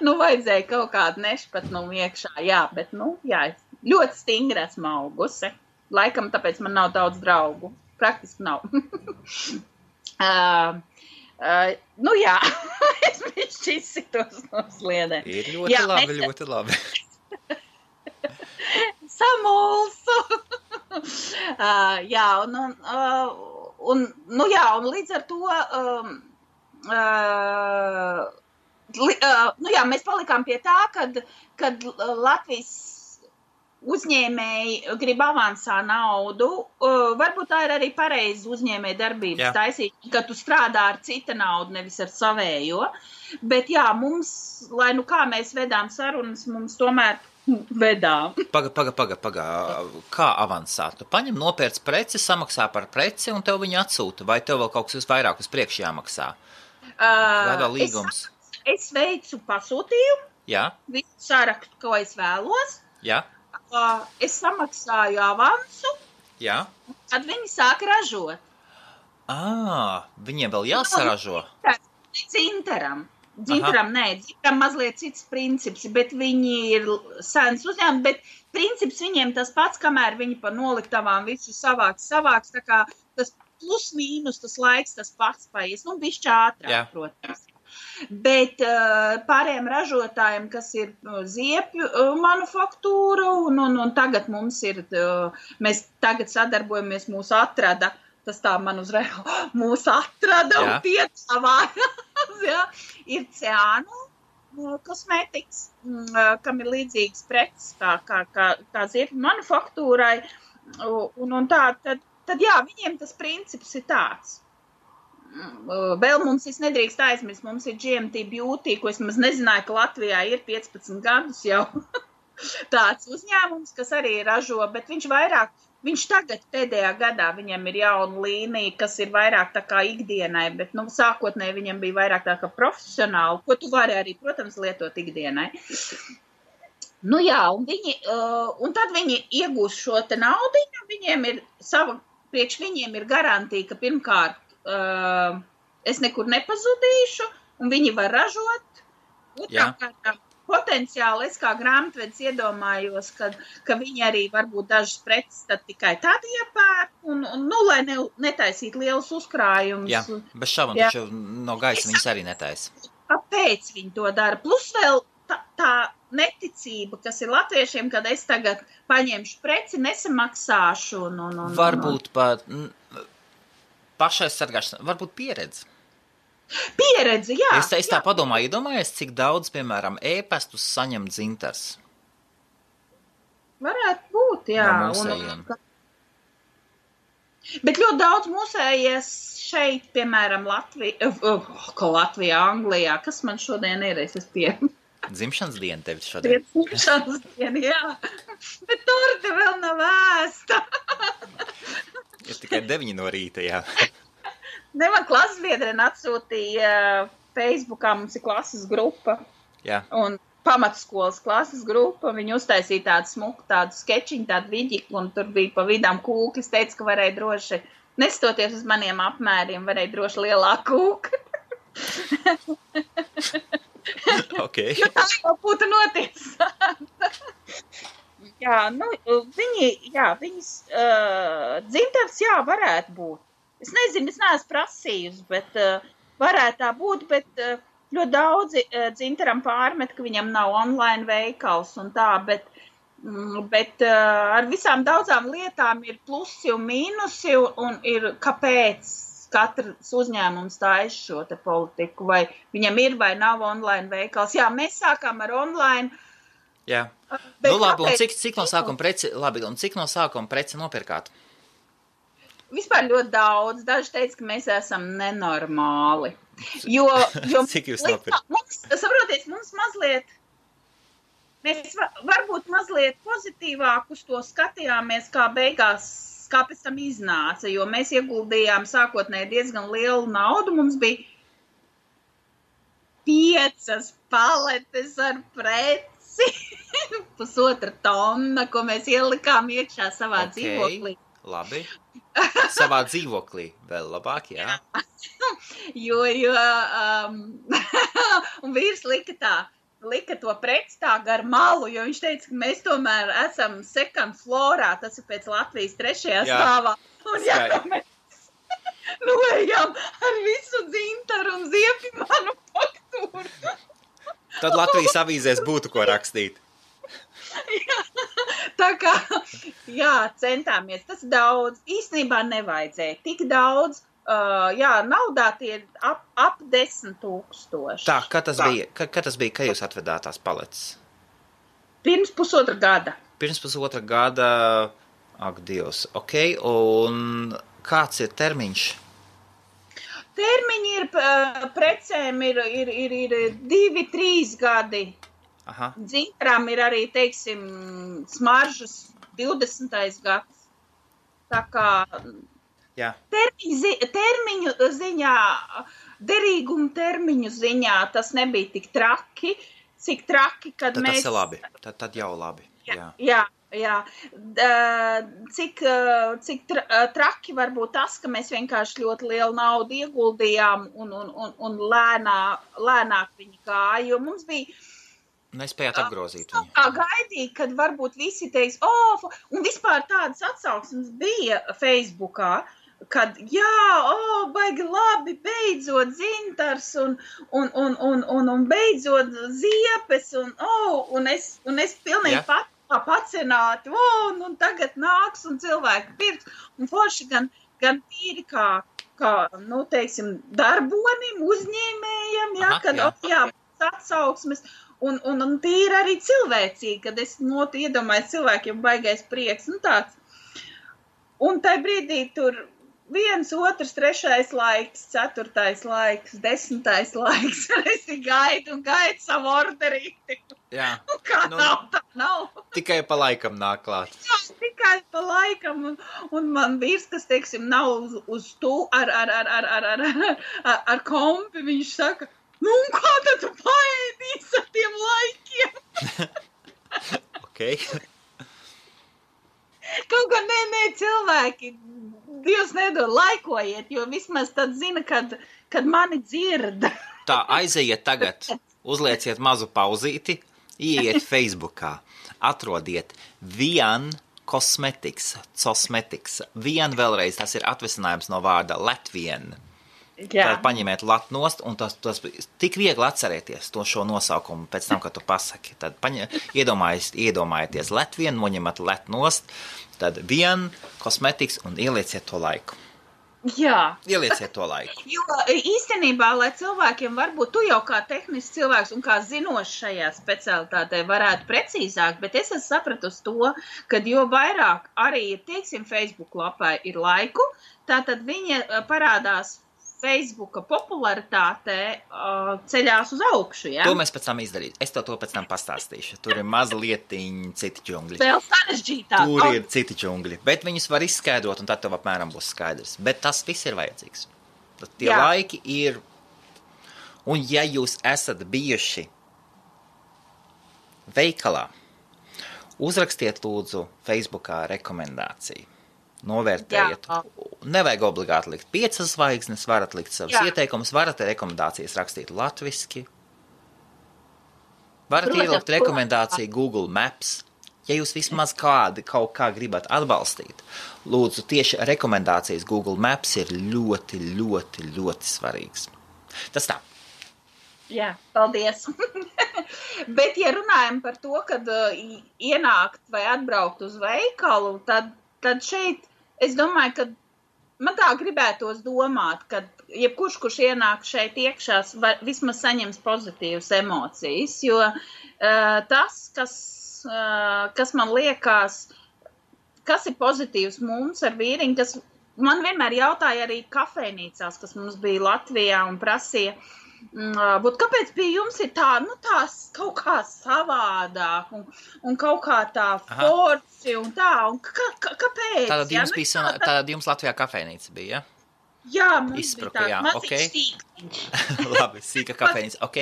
Vajadzēja kaut kādu nešpatnumu iekšā, bet, ļoti stingri esmu augusi. Laikam, tāpēc man nav daudz draugu. Praktiski nav. Es bišķi izsitos no sliedēm. Ir ļoti labi. Samulsu. Un līdz ar to, mēs palikām pie tā, kad Latvijas uzņēmēji grib avansā naudu, varbūt tā ir arī pareizi uzņēmēji darbības taisīt, ka tu strādā ar cita naudu, nevis ar savējo, bet mums, lai kā mēs vedām sarunas, mums tomēr vedām. Paga. Kā avansā? Tu paņem nopērc preci, samaksā par preci un tev viņu atsūta, vai tev vēl kaut kas vairāk uz priekšu jāmaksā? Kādā līgums? Es veicu pasūtījumu, visu sarakstu, ko es vēlos. Jā. Es samaksāju avansu, tad viņi sāk ražot. Viņiem vēl jāsaražo? Dzintaram. Dzintaram mazliet cits princips, bet viņi ir sens uzņēmumi, bet princips viņiem tas pats, kamēr viņi pa noliktavām visu savāks, tā kā tas plus mīnus, tas laiks, tas pats paies, bišķi ātrāk, protams. Bet pārējiem ražotājiem, kas ir ziepju manufaktūra, un tagad mums ir, mēs tagad sadarbojamies, mūs atrada, tas tā man uzreiz, mūs atrada un piedāvājās, ir Ciānu kosmētikas, kam ir līdzīgs preces kā ziepju manufaktūrai, un tā, tad viņiem tas princips ir tāds. Vēl mums nedrīkst aizmirst, mums ir GMT Beauty, ko es maz nezināju, ka Latvijā ir 15 gadus jau tāds uzņēmums, kas arī ražo, bet viņš tagad pēdējā gadā viņam ir jauna līnija, kas ir vairāk tā kā ikdienai, bet sākotnēji viņam bija vairāk tā kā profesionāli, ko tu vari arī, protams, lietot ikdienai. Un tad viņi iegūs šo te naudiņu, priekš viņiem ir garantija, ka pirmkārt es nekur nepazudīšu, un viņi var ražot. Otrkārt, potenciāli es kā grāmatvedis iedomājos, ka viņi arī varbūt dažas preces tad tikai tad iepērk, un lai netaisītu lielus uzkrājumus. Jā, bez šaubām, taču no gaisa viņas arī netaisa. Kāpēc viņi to dara? Plus vēl tā neticība, kas ir latviešiem, kad es tagad paņemšu preci, nesamaksāšu. Varbūt pat pašaizsargāšana, varbūt pieredze. Pieredze, jā. Es tā padomāju, iedomājies, cik daudz, piemēram, ēpastus saņem dzintars. Varētu būt, jā. No mūsējiem. Bet ļoti daudz mūsējies šeit, piemēram, Latvijā, Anglijā. Kas man šodien ir? Dzimšanas diena tev šodien. Dzimšanas diena, jā. Bet torte vēl nav ēsta. Ir tikai 9 no rīta, jā. Man klases biedrene atsūtīja Facebookā, mums ir klases grupa. Jā. Un pamatskolas klases grupa, viņi uztaisīja tādu smuku, tādu skečiņu, tādu viģiklu, un tur bija pa vidām kūklis, teica, ka varēja droši, nestoties uz maniem apmēriem, varēja droši lielāku kūku. Okay. Jo tā jau būtu notiesāta. Viņas dzintars, varētu būt. Es nezinu, es neesmu prasījusi, bet varētu tā būt, bet ļoti daudzi Dzintaram pārmet, ka viņam nav online veikals un tā, bet ar visām daudzām lietām ir plusi un mīnusi un ir kāpēc katrs uzņēmums taisa šo te politiku, vai viņam ir vai nav online veikals. Jā, mēs sākām ar online. Jā. Nu labi, un cik no sākuma preci nopirkāt? Vispār ļoti daudz. Daži teica, ka mēs esam nenormāli. Jo cik jūs nopirkat? Saprotiet, mums mazliet, mēs varbūt mazliet pozitīvāk uz to skatījāmies, kā beigās, kā pēc tam iznāca, jo mēs ieguldījām sākotnēji diezgan lielu naudu. Mums bija 5 paletes ar preci, 1,5 tonna, ko mēs ielikām iekšā savā dzīvoklī. Labi. Savā dzīvoklī vēl labāk, jā. Un vīrs lika to preci tā gar malu, jo viņš teica, ka mēs tomēr esam second florā, tas ir pēc Latvijas 3. stāvā. Un mēs ejam ar visu Dzintaru un Ziepju manufaktūru. Tad Latvijas avīzēs būtu ko rakstīt. Tā kā, centāmies. Tas daudz. Īstenībā nevajadzēja tik daudz. Naudā tie ir ap 10 000. Tā, kad tas bija, kad jūs atvedāt tās paletes? Pirms 1,5 gada. Pirms 1,5 gada, ak, Dievs, ok, un kāds ir termiņš? Termiņi ir, precēm ir 2-3 gadi. Aha. Dzintaram ir arī, teiksim, smaržas 20. gads. Tā kā... Jā. Termiņu ziņā, derīgumu termiņu ziņā tas nebija tik traki, cik traki, kad tad mēs... Tas ir labi, tad jau labi. Jā. Cik traki var būt tas, ka mēs vienkārši ļoti lielu naudu ieguldījām un lēnāk viņi gāja, jo mums bija... Nespējāt apgrozīt viņu. Kā gaidīt, kad varbūt visi teiks, un vispār tādas atsauksmes bija Facebookā, kad, baigi labi, beidzot Dzintars un beidzot Ziepes, un es pilnīgi pacināti, un tagad nāks un cilvēki pirks, un forši gan tīri kā teiksim, darbonim, uzņēmējam, atsauksmes, un tīri arī cilvēcīgi, kad es iedomāju cilvēkiem baigais prieks, tāds. Un tai brīdī tur 1, 2, 3 laiks, 4 laiks, 10 laiks, es gaidu savu orderīti. Jā. Kā nav, tā nav. Tikai pa laikam nāk klāt. Jā, tikai pa laikam, un man vīrs, kas, teiksim, nav uz tu ar kompi, viņš saka, un kā tad tu paēdīs ar tiem laikiem? Ok. Kaut kā nē, cilvēki, Dievs nedod, laikojiet, jo vismaz tad zina, kad mani dzird. Tā, aizejiet tagad, uzlieciet mazu pauzīti, ieiet Facebookā, atrodiet Vien Cosmetics, Vien vēlreiz, tas ir atvesinājums no vārda Latvien. Tad paņemiet latu nost, un tas tik viegli atcerēties to šo nosaukumu pēc tam, kad tu pasaki. Tad iedomājieties Latvien, noņemat latu nost, tad Vien Cosmetics un ielieciet to laiku. Jā. Ielieciet to laiku. Jo īstenībā, lai cilvēkiem varbūt, tu jau kā tehnisks cilvēks un kā zinošs šajā specialitātē varētu precīzāk, bet es esmu sapratusi to, kad jo vairāk arī, teiksim, Facebook lapā ir laiku, tātad viņa parādās Facebooka popularitāte ceļās uz augšu, ja? To mēs pēc tam izdarīsim. Es to pēc tam pastāstīšu. Tur ir mazlietiņi citi džungļi. Vēl sarežģītāk. Tur ir citi džungļi. Bet viņus var izskaidrot, un tad tev apmēram būs skaidrs. Bet tas viss ir vajadzīgs. Tie laiki ir... Un ja jūs esat bijuši veikalā, uzrakstiet lūdzu Facebookā rekomendāciju. Novērtējiet. Nevajag obligāti likt 5 zvaigznes, varat likt savus ieteikumus, varat rekomendācijas rakstīt latviski. Varat ielikt rekomendāciju Google Maps. Ja jūs vismaz kaut kā gribat atbalstīt, lūdzu, tieši rekomendācijas Google Maps ir ļoti, ļoti, ļoti svarīgs. Tas tā. Jā, paldies. Bet, ja runājam par to, kad ienākt vai atbraukt uz veikalu, tad šeit, es domāju, ka man tā gribētos domāt, ka jebkurš, kurš ienāk šeit iekšā, vismaz saņems pozitīvas emocijas, jo tas, kas man liekas, kas ir pozitīvs mums ar vīriņu, kas man vienmēr jautāja arī kafejnīcās, kas mums bija Latvijā un prasīja, kāpēc pie jums ir tās kaut kā savādāk un kaut kā tā forci un tā, un kāpēc? Tātad jums Latvijā kafejnīca bija, ja? Jā, mums Izspruka, bija tāds maziņš sīktiņš. Labi, sīka kafejnīca, ok.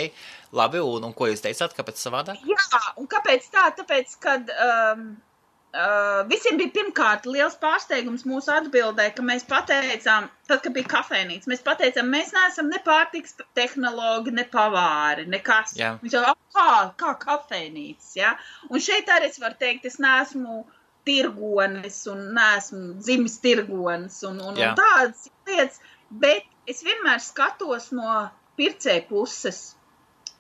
Labi, un ko jūs teicāt, kāpēc savādāk? Jā, un kāpēc tā? Tāpēc, kad visiem bija pirmkārt liels pārsteigums mūsu atbildē, ka mēs pateicām, tad, kad bija kafejnīca, mēs pateicām, mēs neesam ne pārtiks tehnologi, ne pavāri, nekas. Viņš jau, kā kafejnīca, ja? Un šeit arī es varu teikt, es neesmu tirgonis un neesmu dzimis tirgonis un tādas lietas, bet es vienmēr skatos no pircēja puses.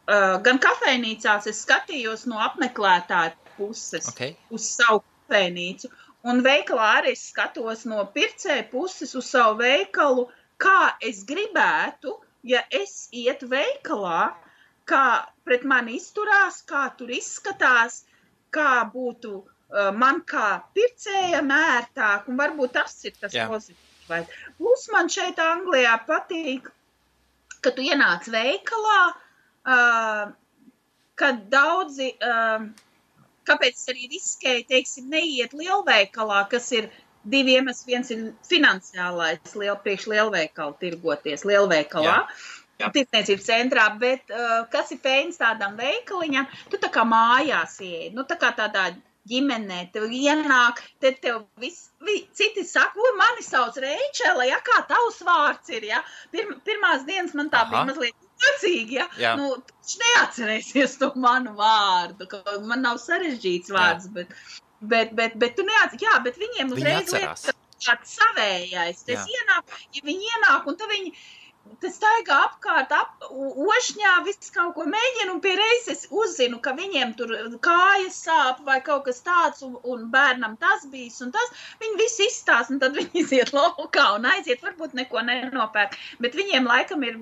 Gan kafejnīcās es skatījos no apmeklētāja puses uz savu kafejnīcu, un veikalā arī es skatos no pircēja puses uz savu veikalu, kā es gribētu, ja es ietu veikalā, kā pret mani izturās, kā tur izskatās, kā būtu man kā pircējam ērtāk, un varbūt tas ir tas pozitīvais. Plus man šeit Anglijā patīk, ka tu ienāc veikalā, kad daudzi, kāpēc es arī riskēju, teiksim, neiet lielveikalā, kas ir divi iemesli, viens ir finansiālais priekš lielveikalu tirgoties lielveikalā, tirdzniecības centrā, bet kas ir fēns tādam veikaliņam, tu tā kā mājās ieej, tā kā tādā ģimenē, tev ienāk, tad tev citi saka, mani sauc Reičela, ja, kā tavs vārds ir, ja, pirmās dienas man tā bija mazliet jocīgi, ja, tu neatcerēsies to manu vārdu, ka man nav sarežģīts vārds, bet tu neatcerēsies, bet viņiem uzreiz liekas, tāds savējais, tas ienāk, ja viņi ienāk, un tad viņi staigā apkārt, ošņā, viss kaut ko mēģina, un pie reizes uzzinu, ka viņiem tur kājas sāp vai kaut kas tāds, un bērnam tas bijis, un tas, viņi visi izstās, un tad viņi iziet laukā un aiziet, varbūt neko nenopērk, bet viņiem laikam ir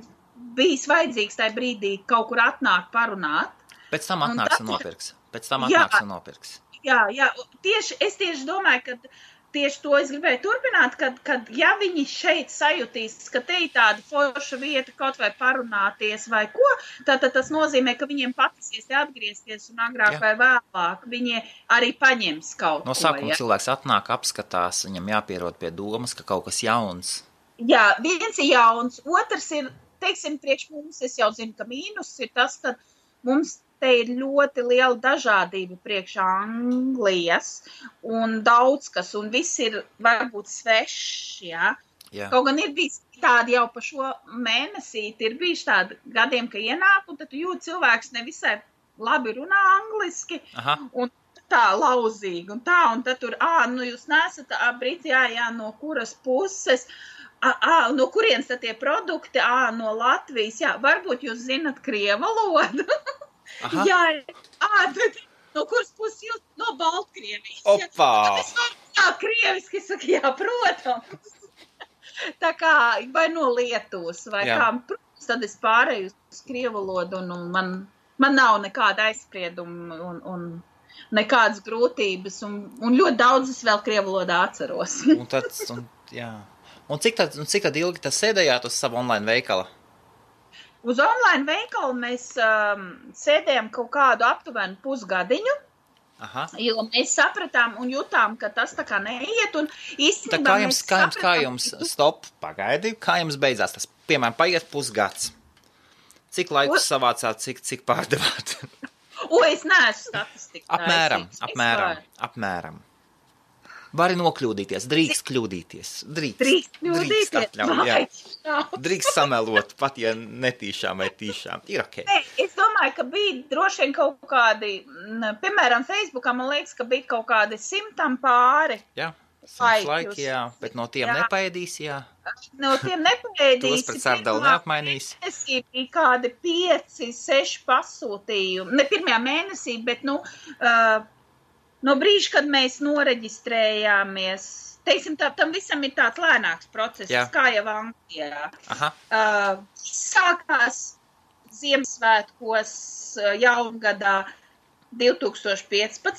bijis vajadzīgs tajā brīdī kaut kur atnākt parunāt. Pēc tam atnāks un nopirks. Jā, es tieši domāju, ka tieši to es gribēju turpināt, kad ja viņi šeit sajutīs, ka te ir tāda forša vieta kaut vai parunāties vai ko, tad tas nozīmē, ka viņiem patisies atgriezties un agrāk vai vēlāk viņi arī paņems kaut ko. No sākuma cilvēks atnāk, apskatās, viņam jāpierod pie domas, ka kaut kas jauns. Jā, viens ir jauns, otrs ir, teiksim, priekš mums, es jau zinu, ka mīnus ir tas, ka mums te ir ļoti liela dažādība priekš Anglijas un daudz kas, un viss ir varbūt svešs, ja? Kaut gan ir bijis tādi jau pa šo mēnesīti, ir bijuši tādi gadiem, ka ienāk, un tad tu jūt cilvēks nevisai labi runā angliski, un tā lauzīgi, un tad tur, jūs nesat briti, no kuras puses, no kurienes tad tie produkti, no Latvijas, varbūt jūs zinat krievu valodu. Jā, no kuras puses jūs? No Baltkrievijas. Opā! Krieviski saka, protams. Tā kā, vai no Lietuvas, vai kā, protams, tad es pārēju uz krievu valodu, un man nav nekāda aizsprieduma, un nekādas grūtības, un ļoti daudz es vēl krievu valodā atceros. Un cik tad ilgi tas sēdējāt uz savu online veikala? Uz online veikalu mēs sēdējām kaut kādu aptuvenu pusgadiņu, jo mēs sapratām un jutām, ka tas tā kā neiet, un īstenībā kā jums pagaidi, kā jums beidzās tas? Piemēram, paiet pusgads. Cik laikus savācāt, cik pārdevāt? Es neesmu statistika. Apmēram. Vari nokļūdīties, drīkst kļūdīties. Drīkst atļaut, drīkst samelot, pat ja netīšām vai tīšām. Ir ok. Es domāju, ka bija droši vien kaut kādi, piemēram, Facebookā man liekas, ka bija kaut kādi 100 pāri. Simtlaiki, jā, bet no tiem nepaēdīs, jā. No tiem nepaēdīs. Tos pret sārdalu neapmainīs. Mēnesī bija kādi 5-6 pasūtījumi. Ne pirmajā mēnesī, bet, no brīža, kad mēs noreģistrējāmies, teiksim, tam visam ir tāds lēnāks process, kā jau Anglijā. Sākās Ziemassvētkos jaungadā 2015.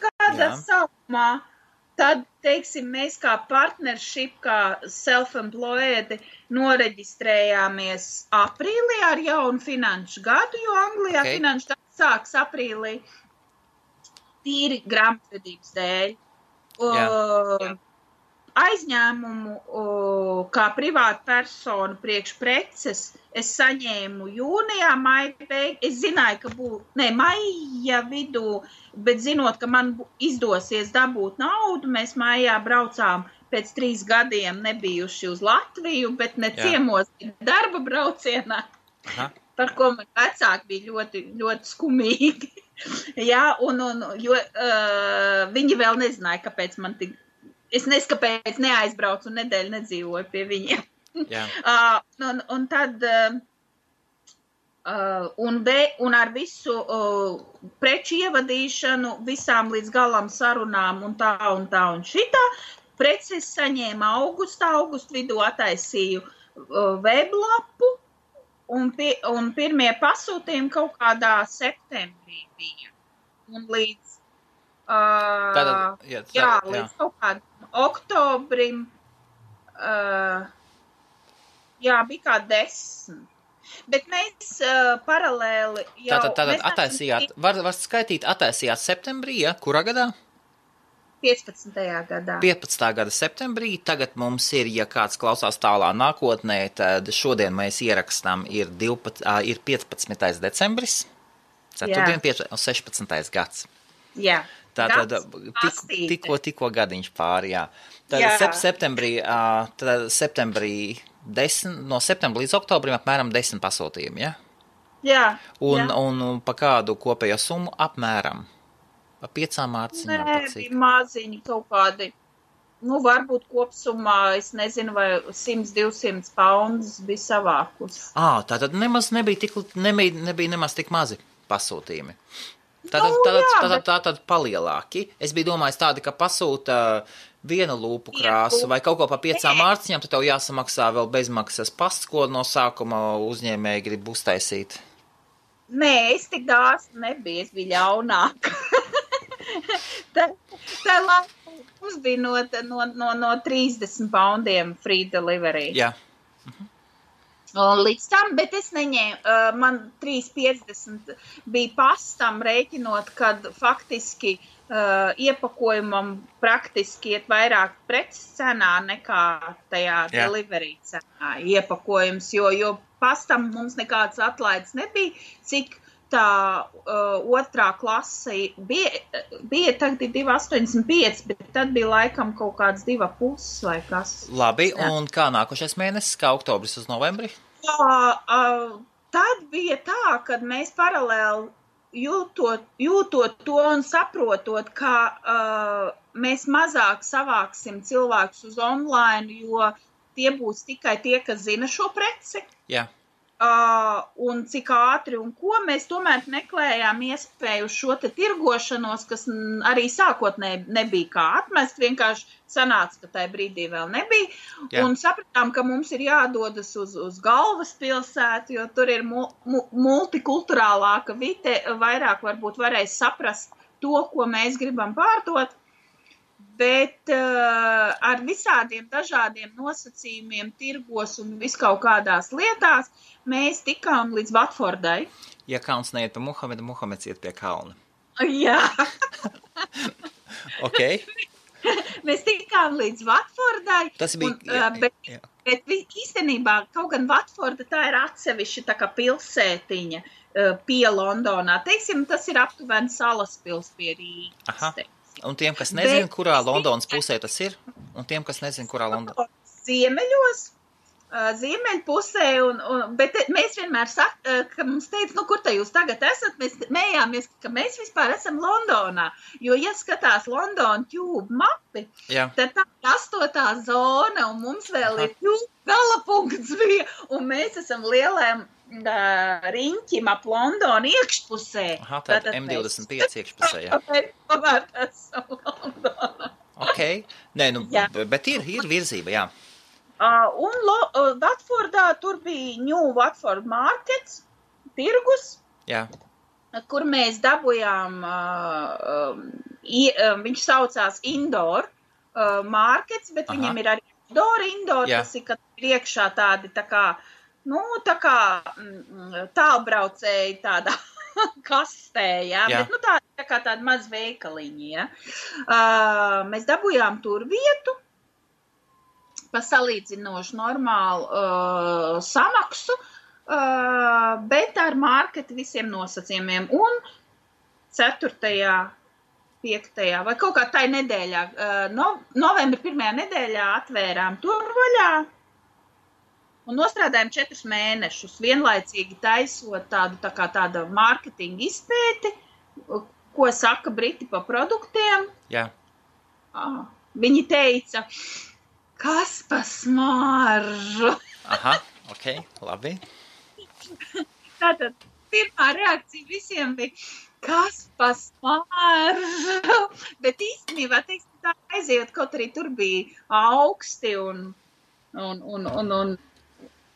gada sākumā. Tad, teiksim, mēs kā partnership, kā self-employed noreģistrējāmies aprīlī ar jaunu finanšu gadu, jo Anglijā finanšu gadu sāks aprīlī tīri grāmatvedības dēļ. Aizņēmumu kā privāta persona priekš preces es saņēmu jūnijā, es zināju, ka maija vidū, bet zinot, ka man izdosies dabūt naudu, mēs maijā braucām pēc 3 gadiem nebijuši uz Latviju, bet ne ciemos darba braucienā, par ko man vecāki bija ļoti, ļoti skumīgi. Jo viņi vēl nezināja, kāpēc man tik. Es neskapēc neaizbraucu un nedēļu nedzīvoju pie viņiem. Un tad, un ar visu preču ievadīšanu, visām līdz galam sarunām un tā un šitā, preces saņēma augustu vidū ataisīju weblapu, un pirmie pasūtījumi kaut kādā septembrī bija. Un līdz līdz kaut kādam oktobrim, bija kā 10. Bet mēs paralēli jau... Tātad ataisījāt, var skaitīt, ataisījāt septembrī, kurā gadā? 15. gadā. 15. gada septembrī, tagad mums ir, ja kāds klausās tālā nākotnē, tad šodien mēs ierakstām ir 15. decembris, ceturtdien 16. gads. Jā. Tātad tikko gadiņš pāri, jā. Tad septembrī 10, no septembra līdz oktobrim apmēram 10 pasūtījumi, ja? Jā. Un pa kādu kopējo summu apmēram? Pa 5 mārciņām? Bija maziņi kaut kādi. Varbūt kopsumā, es nezinu, vai 100-200 poundus bija savākus. Tātad nemaz nebija nemaz tik mazi pasūtījumi. Tātad palielāki. Es biju domājis tādi, ka pasūta viena lūpu krāsu vai kaut ko pa 5 mārciņām, tad tev jāsamaksā vēl bezmaksas pasts, ko no sākuma uzņēmēji grib uztaisīt. Nē, es tik dāsna nebiju, es biju ļaunāka. Tā laikā mums bija no 30 poundiem free delivery. Jā. Līdz tam, bet es neņēmu, man 3,50 bija pastam rēķinot, kad faktiski iepakojumam praktiski iet vairāk preces cenā nekā tajā delivery cenā iepakojums, jo pastam mums nekāds atlaides nebija, cik tā otrā klase bija tagad 2,85, bet tad bija laikam kaut kāds 2,5 vai kas. Labi, un kā nākošais mēnesis, kā oktobris uz novembri? Tad bija tā, kad mēs paralēli jūtot to un saprotot, ka mēs mazāk savāksim cilvēkus uz online, jo tie būs tikai tie, kas zina šo preci. Jā. Un cik ātri un ko mēs tomēr meklējām iespēju šo te tirgošanos, kas arī sākotnēji nebija kā atmest, vienkārši sanāca, ka tajā brīdī vēl nebija. Jā. Un sapratām, ka mums ir jādodas uz galvaspilsētu, jo tur ir multikulturālāka vide, vairāk varbūt varēs saprast to, ko mēs gribam pārdot. Bet ar visādiem dažādiem nosacījumiem, tirgos un viskaut kādās lietās mēs tikām līdz Watfordai. Ja kauns neiet pa Muhamedu, Muhameds iet pie kauna. Jā. Ok. Mēs tikām līdz Watfordai. Tas bija... Bet īstenībā, kaut gan Watforda tā ir atsevišķa tā kā pilsētiņa pie Londonā. Teiksim, tas ir aptuveni salas pils pie Rīgas. Aha. Un tiem, kas nezina, kurā Londonas pusē tas ir? Un tiem, kas nezina, kurā Londonas... Ziemeļos, Ziemeļpusē, bet mēs vienmēr ka mums teica, kur te jūs tagad esat, mēs mējāmies, ka mēs vispār esam Londonā, jo, ja skatās London Tube mapi, tad tā ir 8. zona, un mums vēl ir Tube galapunkts bija, un mēs esam lielēm riņķim ap Londonu iekšpusē. Tātad M25 iekšpusē, jā. Tomēr esam Londonā. Nē, bet ir virzība, jā. Un Watfordā tur bija New Watford Markets, tirgus, kur mēs dabujām, viņš saucās Indoor Markets, bet viņam ir arī Indoor, tas ir, kad ir iekšā tādi tā kā tālbraucēji tādā kastē, bet tā kā tāda maz veikaliņi, Mēs dabujām tur vietu, pa salīdzinoši normālu samaksu, bet ar marketu visiem nosacījumiem. Un 4., 5. vai kaut kā tai nedēļā, novembra 1. nedēļā atvērām turvaļā un nostrādājām 4 mēnešus, vienlaicīgi taisot tāda mārketinga izpēti, ko saka Briti pa produktiem. Jā. Viņi teica, kas pa smaržu? Labi. Tātad pirmā reakcija visiem bija, kas pa smaržu? Bet īstenībā, tā aiziet, kaut arī tur bija augsti un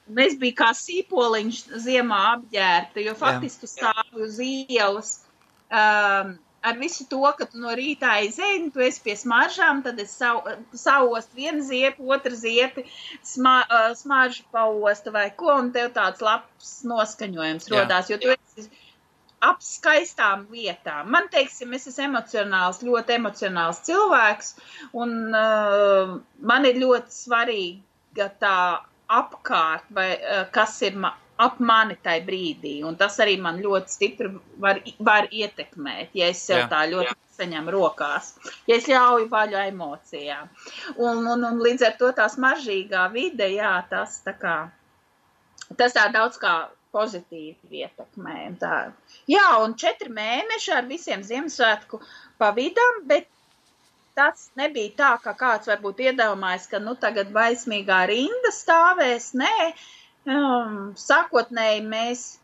mēs bija kā sīpoliņš ziemā apģērta, jo faktiski tu stāvi uz ielas ar visu to, ka tu no rītā aizēji, tu esi pie smaržām, tad es sauostu vienu ziepi, otru ziepi, smaržu paostu vai ko, un tev tāds labs noskaņojums rodās, jo tu esi ap skaistām vietām. Man, teiksim, es esmu ļoti emocionāls cilvēks, un man ir ļoti svarīga tā apkārt, vai kas ir ap mani tai brīdī, un tas arī man ļoti stipri var ietekmēt, ja es sev tā ļoti saņem rokās, ja es ļauju vaļu emocijām. Un līdz ar to tā smaržīgā vide, tas tā daudz kā pozitīvi ietekmē. Un 4 mēneši ar visiem Ziemassvētku pavidam, bet tas nebija tā, ka kāds varbūt iedomājas, ka tagad baismīgā rinda stāvēs, nē, sākotnēji mēs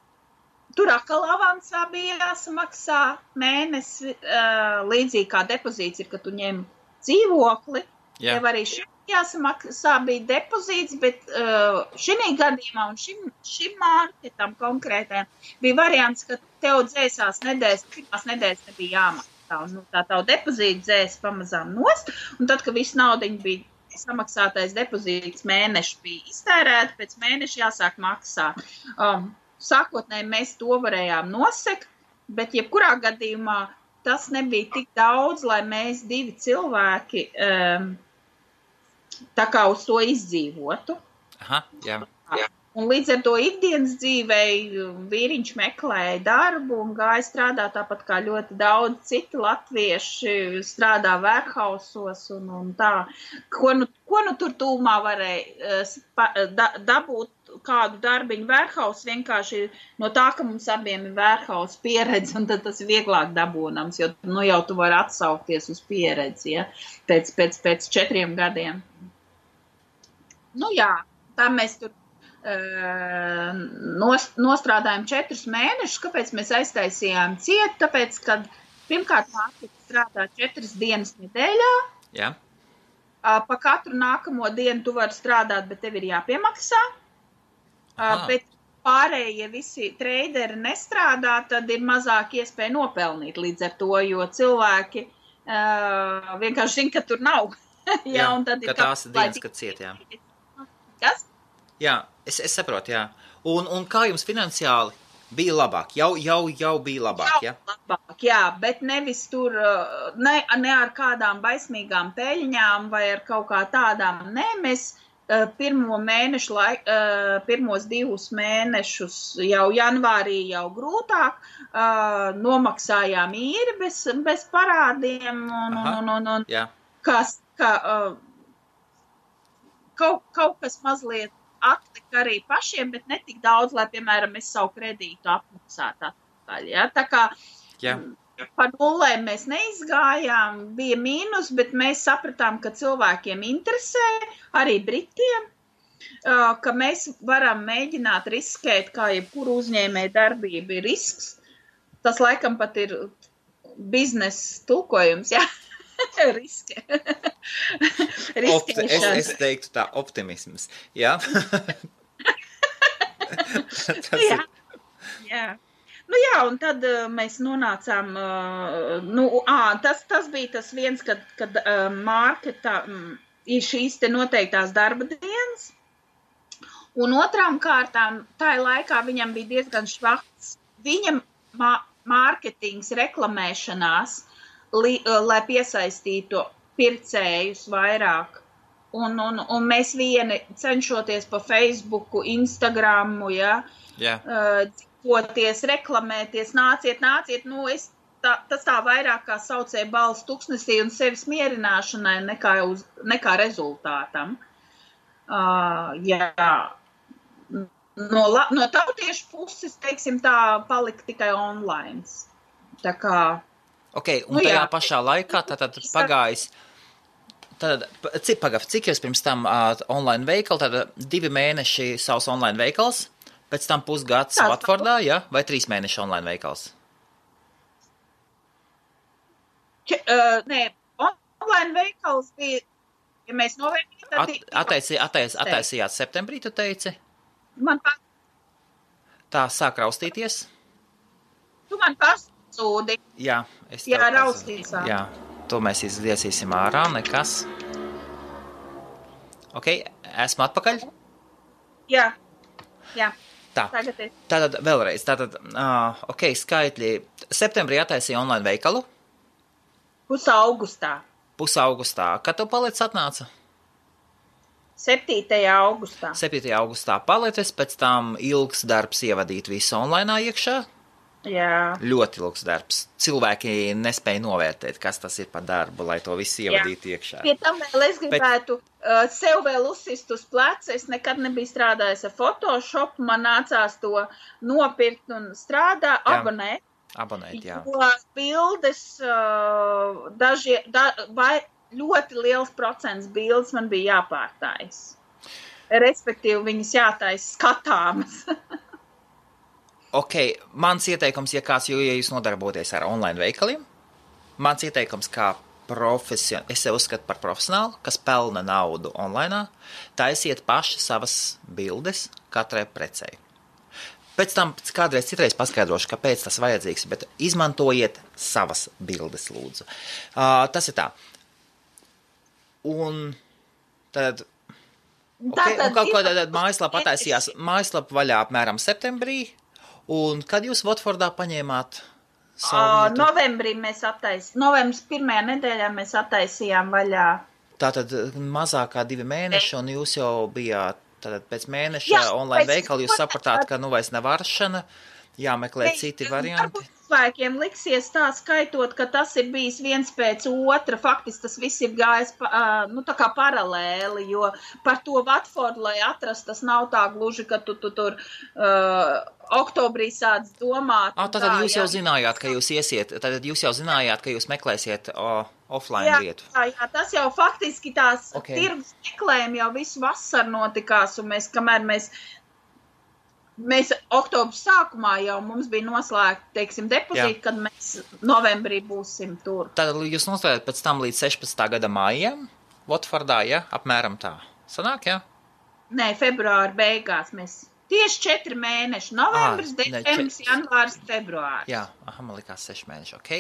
tur atkal avansā bija jāsamaksā mēnesi, līdzīgi kā depozīts ir, ka tu ņem dzīvokli, tev arī jāsamaksā bija depozīts, bet šī gadījumā un šim marketam konkrētām bija variants, ka tev dzēsās pirmās nedēļas nebija jāmaksā, un tā tavu depozītu dzēs pamazām nost, un tad, kad viss naudiņa bija samaksātais depozīts mēneši bija iztērēti, pēc mēneša jāsāk maksāt. Sākotnēji mēs to varējām nosekt, bet jebkurā gadījumā tas nebija tik daudz, lai mēs 2 cilvēki tā kā uz to izdzīvotu. Un līdz ar to ikdienas dzīvei vīriņš meklēja darbu un gāja strādāt tāpat kā ļoti daudz citi latvieši strādā warehousos un tā. Ko nu tur tūmā varēja dabūt kādu darbiņu warehouse, vienkārši no tā, ka mums abiem ir warehouse pieredze, un tad tas ir vieglāk dabūnams, jo jau tu vari atsaukties uz pieredzi, pēc 4 gadiem. Tā mēs tur nostrādājām 4 mēnešus. Kāpēc mēs aiztaisījām ciet? Tāpēc, kad pirmkārt mākslinieks strādā 4 dienas nedēļā. Pa katru nākamo dienu tu vari strādāt, bet tev ir jāpiemaksā. Bet pārējie visi treideri nestrādā, tad ir mazāk iespēja nopelnīt līdz ar to, jo cilvēki vienkārši zina, ka tur nav. Un tad ka tās ir dienas, kad ciet, Kas? Es saprotu, Un kā jums finansiāli bija labāk? Jau bija labāk, labāk, bet nevis tur, ne ar kādām baismīgām peļņām vai ar kaut kā tādām. Nē, mēs pirmos 2 mēnešus jau janvārī jau grūtāk, nomaksājām īri bez parādiem un kaut kas mazliet atlika arī pašiem, bet ne tik daudz, lai, piemēram, es savu kredītu apmaksātu atpakaļ. Ja? Tā kā par nulēm mēs neizgājām, bija mīnus, bet mēs sapratām, ka cilvēkiem interesē, arī Britiem, ka mēs varam mēģināt riskēt, kā jebkuru uzņēmēju darbību ir risks. Tas laikam pat ir biznesa tulkojums, jā. Riske. Es teiktu tā, optimisms, jā? Jā. Nu jā, un tad mēs nonācām, tas bija tas viens, kad marketā ir šīs te noteiktās darba dienas, un otrām kārtām, tā laikā viņam bija diezgan švakts, viņam mārketings, reklamēšanās, lai piesaistītu pircējus vairāk. Un mēs vieni cenšoties pa Facebooku, Instagramu, dzīvoties, reklamēties, nāciet, tas tā vairāk kā saucēja balss tuksnesī un sevis mierināšanai nekā rezultātam. No tautiešu puses, teiksim tā, palika tikai online. Tā kā Ok, un tajā pašā laikā tātad pagājis, cik jūs pirms tam online veikali, tātad 2 mēneši savs online veikals, pēc tam pusgads Watfordā, ja? Vai 3 mēneši online veikals? Nē, online veikals bija, ja mēs novērtījām, tad... Attaisījāt septembrī, tu teici? Man Tā sāk raustīties? Tu man pasūdi. Jā, raustīs. Jā, to mēs izliesīsim ārā, nekas. Ok, esmu atpakaļ? Jā. Tā, tātad vēlreiz, ok, skaitļi. Septembrī attaisīja online veikalu? Pusaugustā. Kad tu paliec atnāca? 7. augustā. 7. augustā palicis, pēc tam ilgs darbs ievadīt visu online iekšā? Jā. Ļoti ilgs darbs. Cilvēki nespēja novērtēt, kas tas ir par darbu, lai to visu ievadītu iekšā. Pie tam vēl es gribētu sev vēl uzsist uz pleca. Es nekad nebiju strādājis ar Photoshop, man nācās to nopirkt un abonēt. Abonēt, jā. Jo bildes, ļoti liels procents bildes man bija jāpārtājas. Respektīvi, viņas jātais skatāmas. Ok, mans ieteikums, ja jūs nodarboties ar online veikaliem, mans ieteikums kā es sev uzskatu par profesionālu, kas pelna naudu online, taisiet paši savas bildes katrai precei. Pēc tam kādreiz citreiz paskaidrošu, kāpēc tas vajadzīgs, bet izmantojiet savas bildes, lūdzu. Tas ir tā. Un tad... Okay, un kaut ko tad mājaslapa attaisījās, mājaslapa vaļā apmēram septembrī, un kad jūs Watfordā paņēmāt savu vietu? Novembrī mēs novembris 1. nedēļā mēs attaisījām vaļā. Tātad mazāk kā 2 mēneši, un jūs jau bijāt tātad pēc mēneša online veikali, jūs sapratāt, ka vairs nav varšana, jāmeklē citi varianti. Cilvēkiem liksies tā skaitot, ka tas ir bijis viens pēc otra, faktiski tas viss ir gājis tā kā paralēli, jo par to Watfordu, lai atrast, tas nav tā gluži, ka tu tur oktobrī sāc domāt. Tātad jūs jau zinājāt, ka jūs iesiet, tātad jūs jau zinājāt, ka jūs meklēsiet offline vietu. Jā, tas jau faktiski tās tirgus meklējumi jau visu vasaru notikās, un mēs oktobra sākumā jau mums bija noslēgta, teiksim, depozīti, kad mēs novembrī būsim tur. Tad jūs noslēgat pēc tam līdz 16. gada mājiem, Watfordā, apmēram tā. Sanāk, Nē, februāra beigās mēs tieši 4 mēneši. Novembris, decembris, janvārs, februārs. Jā, man likās 6 mēneši, ok.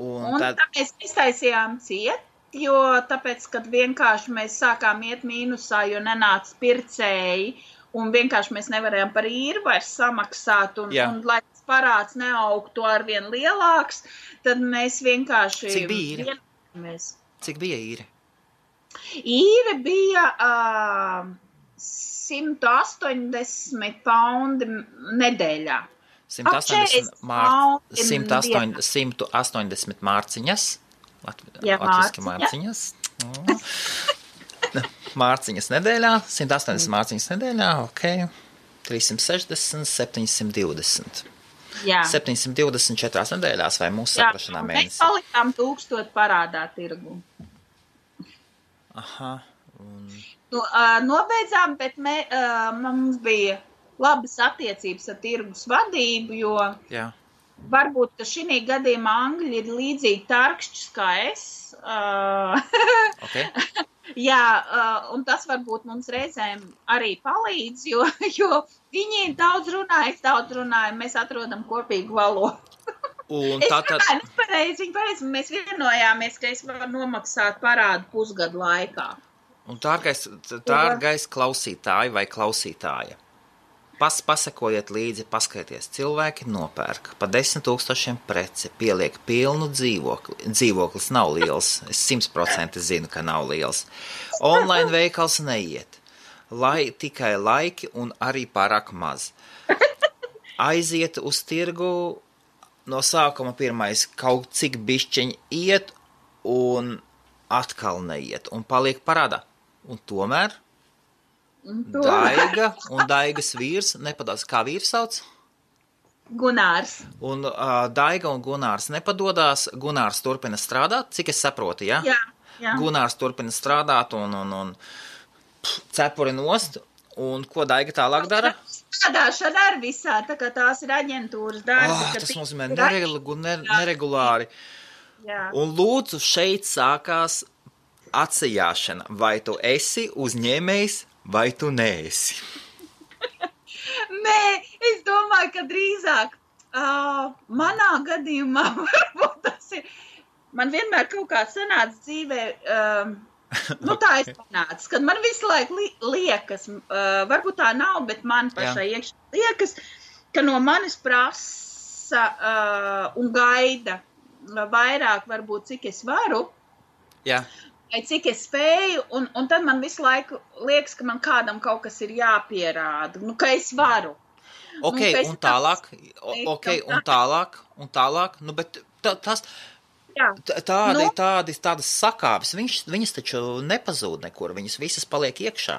Un tad mēs iztaisījām jo tāpēc, kad vienkārši mēs sākām iet mīnusā, jo nenāca pircēji, un vienkārši mēs nevarējām par īri vairs samaksāt, un lai tas parāds neaugtu arvien lielāks, tad mēs vienkārši... Cik bija īri? Cik bija īri? Īri bija 180 paundi nedēļā. 180 mārciņas. Latviski mārciņas. Mārciņas nedēļā, 180 mārciņas nedēļā, ok, 360, 720. Jā. 724 nedēļās vai mūsu saprašanā mēnesī. Mēs palikām 1000 parādā tirgu. Aha. Nobeidzām, bet mums bija labas attiecības ar tirgus vadību, jo varbūt, ka šī gadījumā Angļi ir līdzīgi tarkšķis kā es. Okay. Jā, un tas varbūt mums reizēm arī palīdz, jo viņi daudz runāja, es daudz runāju, mēs atrodam kopīgu valodu. Un es pareizi, mēs vienojāmies, ka es varu nomaksāt parādu pusgadu laikā. Un dārgais klausītāji vai klausītāja, pasakojiet līdzi, paskaities, cilvēki nopērk pa 10 000 preci, pieliek pilnu dzīvokli. Dzīvoklis nav liels, es 100% zinu, ka nav liels. Online veikals neiet, tikai laiki un arī pārāk maz. Aiziet uz tirgu, no sākuma pirmais kaut cik bišķiņ iet un atkal neiet un paliek parādā. Un tomēr Daiga un Daigas vīrs nepadās. Kā vīrs sauc? Gunārs. Un Daiga un Gunārs nepadodās. Gunārs turpina strādāt, cik es saprotu, ja? Jā. Gunārs turpina strādāt un cepuri nost. Un ko Daiga tālāk dara? Strādāšana ar visā, tā kā tās ir aģentūras darbi. Tas nozīmē neregulāri. Jā. Un lūdzu, šeit sākās atsajāšana. Vai tu esi uzņēmējs, vai tu neesi? Nē, es domāju, ka drīzāk manā gadījumā varbūt tas ir. Man vienmēr kaut kā sanāca dzīvē, tā es panācu, kad man visu laiku liekas, varbūt tā nav, bet man pašai iekšā liekas, ka no manis prasa un gaida vairāk varbūt, cik es varu. Jā. Vai cik es spēju, un tad man visu laiku liekas, ka man kādam kaut kas ir jāpierāda, ka es varu. Ok, un tālāk, bet tādas sakāves, viņas taču nepazūd nekur, viņas visas paliek iekšā.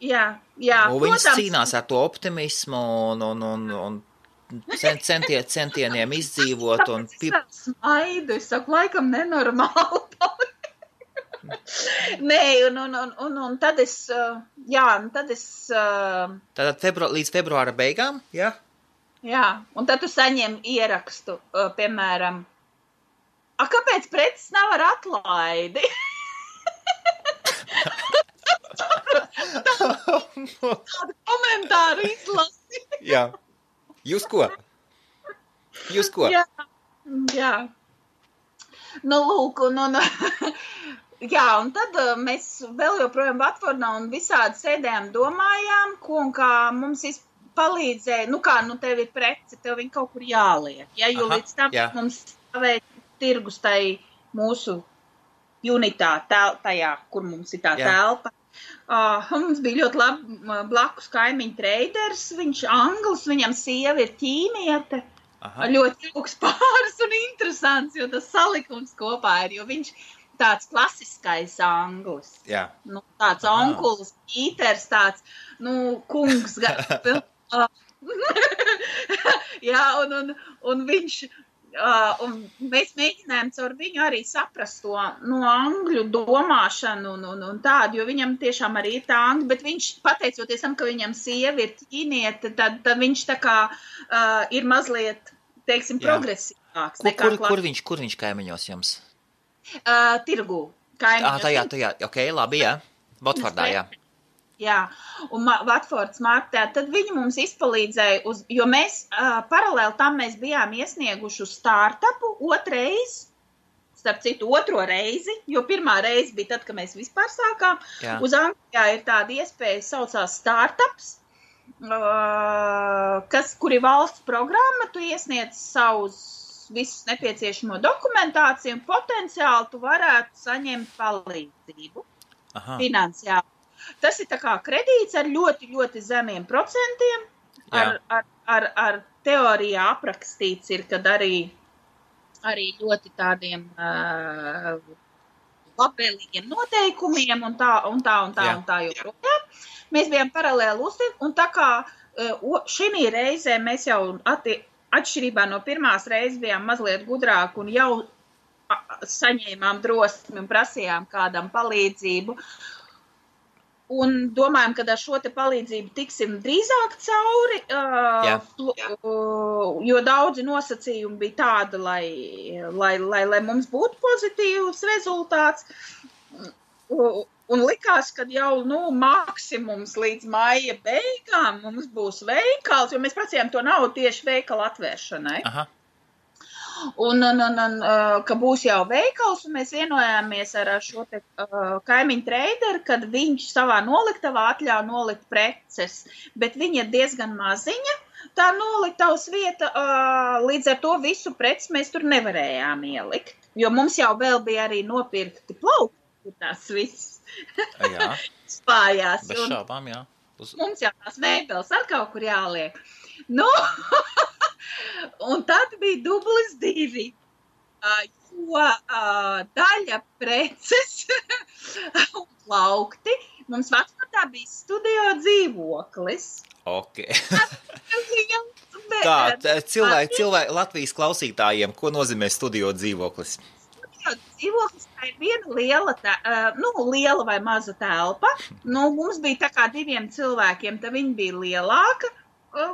Jā. Un viņas cīnās ar to optimismu un centieniem izdzīvot. Smaidu, es saku, laikam nenormāli. Nē, un tad es, Tātad līdz februāra beigām, jā? Jā, un tad tu saņem ierakstu, piemēram, kāpēc preces nav ar atlaidi? Tādu komentāru izlasi. Jā. Jūs ko? Jā. Lūk, jā, un tad mēs vēl joprojām Vatfordā un visādi sēdējām, domājām, ko un kā mums palīdzēja, tev ir prece, tev viņa kaut kur jāliek, jo līdz tam mums stāvēja tirgus tai mūsu unitā, tajā, kur mums ir tā telpa. Mums bija ļoti labi blakus kaimiņu treiders, viņš anglis, viņam sieva ir ķīniete, ļoti jauks pāris un interesants, jo tas salikums kopā ir, jo viņš tāds klasiskais anglis. Jā. Tāds onkulis, Pīters, tāds, kungs. Jā, un viņš, un mēs mēģinājām caur viņu arī saprast to angļu domāšanu un tādu, jo viņam tiešām arī ir tā angļu, bet viņš, pateicoties tam, ka viņam sieva ir ķīniete, tad viņš tā kā ir mazliet, teiksim, progresīvāks. Kur viņš kaimiņos jums? Tirgu. Kaimiņos. Tajā, ok, labi, jā. Vatfordā, jā. Jā, un Vatfords martā, tad viņi mums izpalīdzēja, jo mēs paralēli tam mēs bijām iesnieguši uz startupu starp citu otro reizi, jo pirmā reize bija tad, kad mēs vispār sākām. Jā. Uz Anglijā ir tāda iespēja saucās startups, kur ir valsts programma, tu iesniedz savus visus nepieciešamo dokumentāciju un potenciāli tu varētu saņemt palīdzību finansiāli. Tas ir tā kā kredīts ar ļoti, ļoti zemiem procentiem. Ar teorijā aprakstīts ir, kad arī ļoti tādiem labvēlīgiem noteikumiem un tā joprojām. Mēs bijām paralēli uztiek, un tā kā šī reizē mēs jau atšķirībā no pirmās reizes bijām mazliet gudrāki un jau saņēmām drosmi un prasījām kādam palīdzību. Un domājam, ka ar šo te palīdzību tiksim drīzāk cauri, jo daudzi nosacījumi bija tādi, lai mums būtu pozitīvs rezultāts. Un likās, ka jau maksimums līdz maija beigām mums būs veikals, jo mēs prasījām to naudu tieši veikala atvēršanai. Aha. Un ka būs jau veikals, un mēs vienojāmies ar šo te kaimiņu treideru, kad viņš savā noliktavā atļauj nolikt preces, bet viņa ir diezgan maziņa, tā noliktavas vieta, līdz ar to visu preces mēs tur nevarējām ielikt, jo mums jau vēl bija arī nopirkti plaukti, tās viss spājās. Bez šaubām, jā. Mums jau tās mēbeles ar kaut kur jāliek. Un tad bija dublis 2, jo daļa preces un plaukti mums vecpatā bija studio dzīvoklis. Ok. Tā, cilvēki Latvijas klausītājiem, ko nozīmē studio dzīvoklis? Studio dzīvoklis tā ir viena liela vai maza telpa. Mums bija tā kā 2 cilvēkiem, tā viņa bija lielāka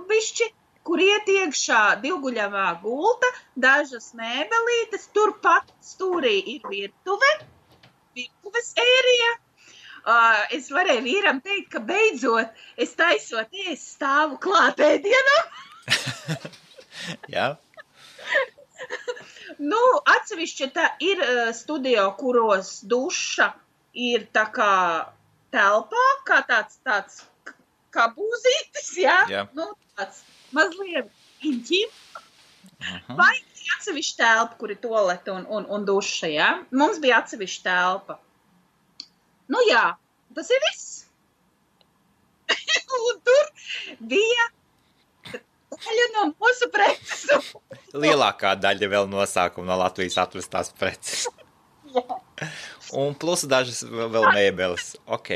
bišķi, kur iet iekšā 2-guļamā gulta, dažas mēbelītes, turpat stūrī ir virtuves ērija. Es varēju vīram teikt, ka beidzot es taisot stāvu klāt ēdienam. Jā. Atsevišķi tā ir studio, kuros duša ir tā kā telpā, kā tāds kā būzītis, jā? Tāds mazliet inķim, vai atsevišķa telpa, kur ir toalete un duša, jā? Mums bija atsevišķa telpa. Jā, tas ir viss. Un tur bija daļa no mūsu preces. Lielākā daļa vēl nosākuma no Latvijas atvestās preces. Jā. Un plus dažas vēl mēbeles. Ok.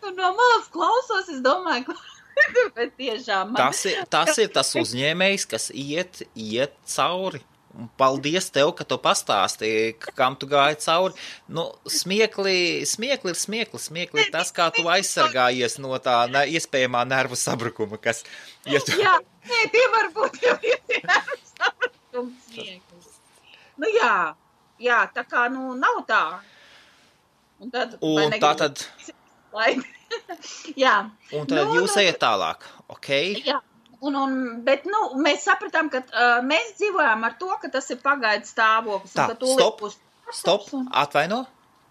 No malas klausos, es domāju, ka bet tiešām tas ir tas uzņēmējs, kas iet cauri. Un paldies tev, ka tu pastāstīji, kam tu gāji cauri. Smiekli ir tas, kā tu aizsargājies no tā iespējamā nervu sabrukuma, kas... Jā, tie var būt jau nervu sabrukums smieklis. Jā, tā kā, nav tā. Un tātad... Jā. Un tad jūs ejat tālāk, ok? Jā, bet mēs sapratām, ka mēs dzīvojām ar to, ka tas ir pagaidu stāvoklis. Tā, stop, atvaino,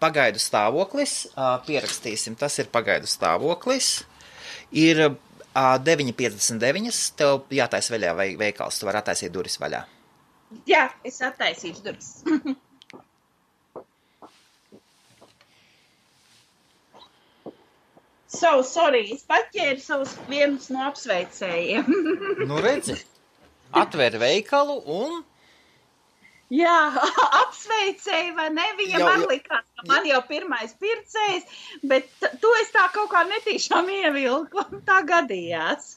pagaidu stāvoklis, pierakstīsim, tas ir pagaidu stāvoklis, ir 9,59, tev jātais vaļā veikals, tu vari attaisīt duris vaļā. Jā, es attaisīšu duris. Sorry, es paķēru savus vienus no apsveicējiem. Redzi, atver veikalu un... Jā, apsveicēji, vai ne? Viņa man likās, ka man jau pirmais pircējs, bet to es tā kaut kā netīšām ievilku, un tā gadījās.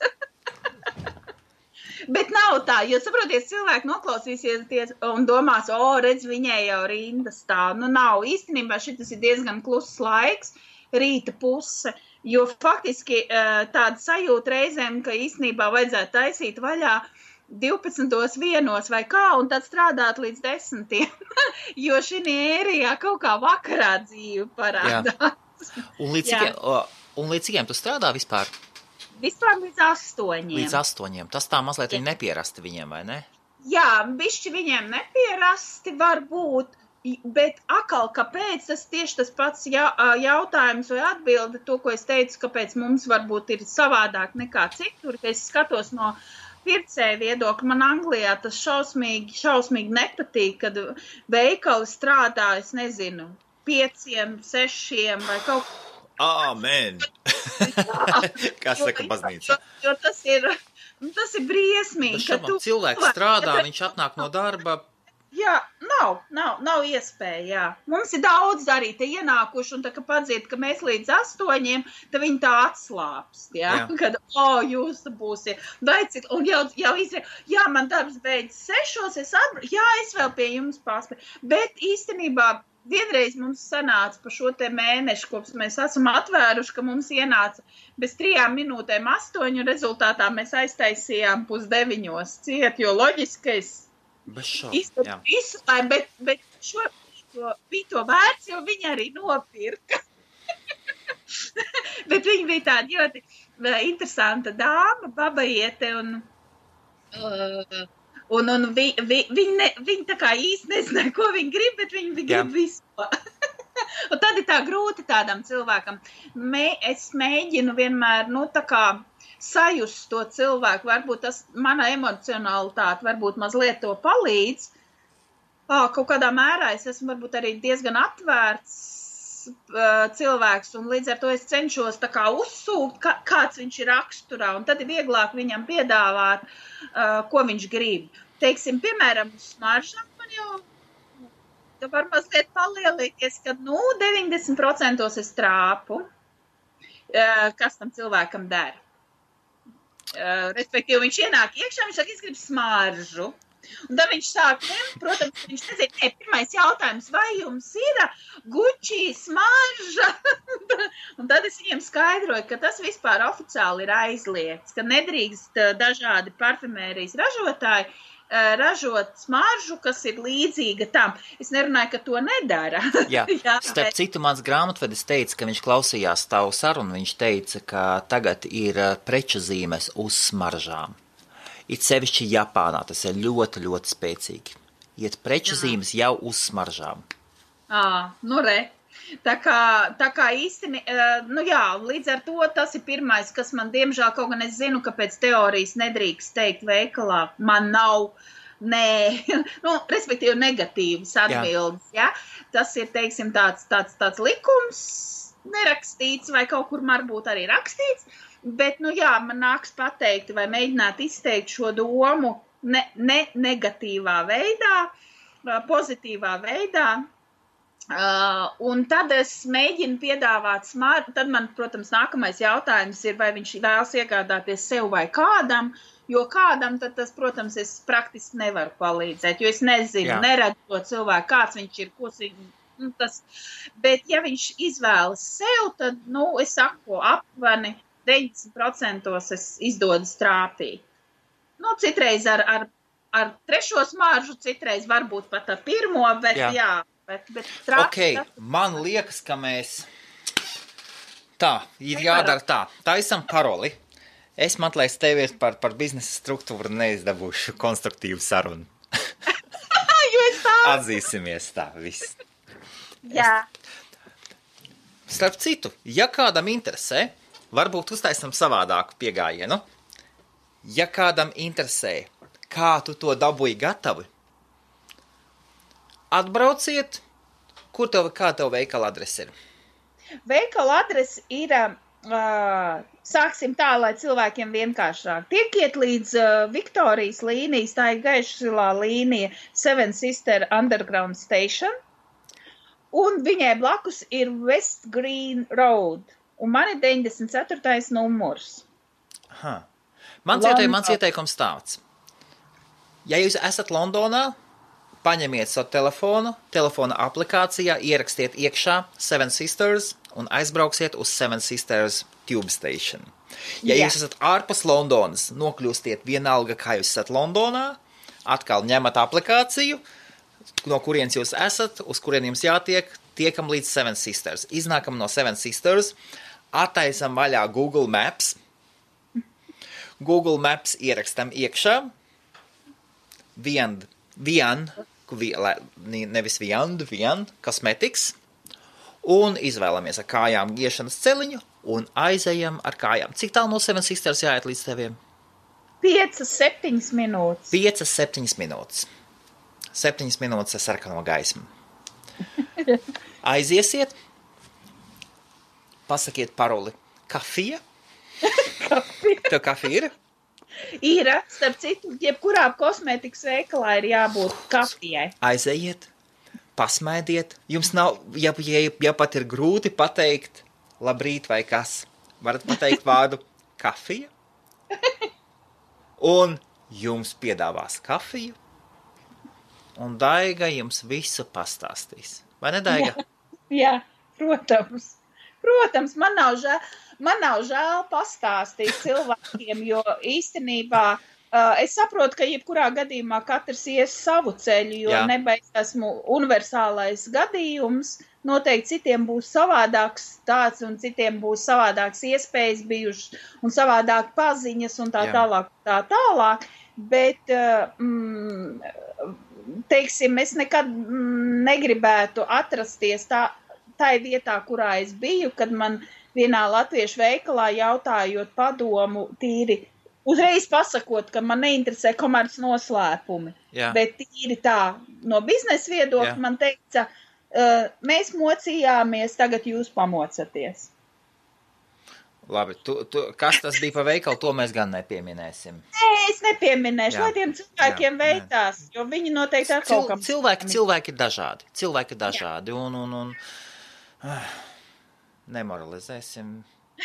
Bet nav tā, jo saproties, cilvēki noklausīsies un domās, redz, viņai jau rinda stāv. Nav, īstenībā šitas ir diezgan kluss laiks, rīta puse. Jo faktiski tāda sajūta reizēm, ka īstenībā vajadzētu taisīt vaļā 12:01 vai kā, un tad strādāt līdz 10. Jo šī ērijā kaut kā vakarā dzīve parādās. Un līdz cikiem tu strādā vispār? Vispār līdz 8. Līdz 8. Tas tā mazliet viņi nepierasti viņiem, vai ne? Jā, bišķi viņiem nepierasti var būt. Bet akal, kāpēc tas tieši tas pats jautājums vai atbilde, to, ko es teicu, kāpēc mums varbūt ir savādāk nekā citur, ka es skatos no pircēja viedokļa, man Anglijā tas šausmīgi nepatīk, kad veikali strādā, es nezinu, 5, 6 vai kaut kā. Amen! Kas saka baznīca? Jo tas ir briesmīgi. Cilvēks strādā, viņš atnāk no darba, Jā, nav iespēja, jā. Mums ir daudz arī te ienākuši, un tā, ka padzird, ka mēs līdz 8, tad viņi tā atslāpst, jā. Kad, jūs būsiet, un jau jā, man darbs beidz 6, es vēl pie jums paspēju, bet īstenībā vienreiz mums sanāca pa šo te mēnešu, kopš mēs esam atvēruši, ka mums ienāca bez 3 minūtēm 8, un rezultātā mēs aiztaisījām 8:30 ciet, jo loģiskais izslēm, bet šo bija to vērts, jo viņi arī nopirka. Bet viņa bija tāda ļoti interesanta dāma, babaiete, un viņi tā kā īsti nezināja, ko viņi grib, bet viņi grib visu. Un tad ir tā grūti tādam cilvēkam. Es mēģinu vienmēr, tā kā sajust to cilvēku, varbūt tas mana emocionalitāte, varbūt mazliet to palīdz. Kaut kādā mērā es esmu varbūt arī diezgan atvērts cilvēks, un līdz ar to es cenšos tā kā uzsūkt, kāds viņš ir raksturā, un tad ir vieglāk viņam piedāvāt, ko viņš grib. Teiksim, piemēram, uz smaržām man jau var mazliet palielīties, kad 90% es trāpu, kas tam cilvēkam dara. Respektīvi, viņš ienāk iekšā, viņš saka, es gribu smaržu. Un tad viņš sāk ņemt, protams, viņš nezina, pirmais jautājums, vai jums ir Gucci smarža? Un tad es viņiem skaidroju, ka tas vispār oficiāli ir aizliegts, ka nedrīkst dažādi parfumērijas ražotāji ražot smaržu, kas ir līdzīga tam. Es nerunāju, ka to nedara. Jā, starp citu, mans grāmatvedis teica, ka viņš klausījās tavu sarunu, viņš teica, ka tagad ir preču zīmes uz smaržām. It sevišķi Japānā, tas ir ļoti, ļoti spēcīgi. Iet preču zīmes jau uz smaržām. Tā kā īsti, līdz ar to tas ir pirmais, kas man, diemžēl, kaut gan es zinu, ka pēc teorijas nedrīkst teikt veikalā, man nav, respektīvi negatīvas atbildes, ja? Tas ir, teiksim, tāds likums nerakstīts vai kaut kur varbūt arī rakstīts, bet, man nāks pateikt vai mēģināt izteikt šo domu ne negatīvā veidā, pozitīvā veidā. Un tad es mēģinu piedāvāt smaržu, tad man, protams, nākamais jautājums ir, vai viņš vēlas iegādāties sev vai kādam, jo kādam tad tas, protams, es praktiski nevaru palīdzēt, jo es nezinu, neredzu to cilvēku, kāds viņš ir, bet ja viņš izvēlas sev, tad, es saku, aptuveni 90% es izdodas trāpīt. Citreiz ar trešo smaržu, citreiz varbūt pat ar pirmo, bet jā. Man liekas, ka mēs ir jādara tā. Taisam paroli. Es meklēju tevi par biznesa struktūru neizdabūšu konstruktīvu sarunu. Atzīsimies tā, viss. Jā. Starp citu, ja kādam interesē, varbūt uztaisam savādāku piegājienu. Ja kādam interesē, kā tu to dabūji gatavi, atbrauciet, kā tev veikala adrese ir? Veikala adrese ir, sāksim tā, lai cilvēkiem vienkāršāk. Tiekiet līdz Viktorijas līnijas, tā ir gaišsilā līnija Seven Sister Underground Station, un viņai blakus ir West Green Road, un man ir 94. numurs. Mans ieteikums tāds. Ja jūs esat Londonā, paņemiet savu telefona aplikācijā, ierakstiet iekšā Seven Sisters un aizbrauksiet uz Seven Sisters Tube Station. Ja jūs esat ārpus Londonas, nokļūstiet vienalga, kā jūs esat Londonā, atkal ņemat aplikāciju, no kurienes jūs esat, uz kurien jums jātiek, tiekam līdz Seven Sisters. Iznākam no Seven Sisters, attaisam vaļā Google Maps. Google Maps ierakstam iekšā. Vian Cosmetics, un izvēlamies ar kājām iešanas celiņu, un aizejam ar kājām. Cik tālu no Seven Sisters jāiet līdz teviem? 5-7 minūtes. 5-7 minūtes. 7 minūtes ar sarkano gaismu. Aiziesiet, pasakiet paroli kafija. Tev kafija ir? Ir, starp citu, jebkurā kosmētikas veikalā ir jābūt kafijai. Aizejiet, pasmaidiet. Jums nav, ja pat ir grūti pateikt labrīt vai kas, varat pateikt vārdu kafija, un jums piedāvās kafiju, un Daiga jums visu pastāstīs. Vai ne, Daiga? Jā, protams. Protams, man nav žēl pastāstīt cilvēkiem, jo īstenībā es saprotu, ka jebkurā gadījumā katrs ies savu ceļu, jo nebeigs esmu universālais gadījums. Noteikti citiem būs savādāks tāds un citiem būs savādāks iespējas bijušas un savādāk paziņas un tā tālāk. Bet, teiksim, es nekad negribētu atrasties tai vietā, kurā es biju, kad man vienā latviešu veikalā jautājot padomu tīri, uzreiz pasakot, ka man neinteresē komerc noslēpumi. Bet tīri tā, no biznesa viedokļa man teica, mēs mocījāmies, tagad jūs pamocaties. Labi, kas tas bija pa veikalu, to mēs gan nepieminēsim. Nē, es nepieminēšu, lai tiem cilvēkiem veicās, jo viņi noteikti ar kaut kam... Cilvēki ir dažādi. Cilvēki ir dažādi un nemoralizēsim.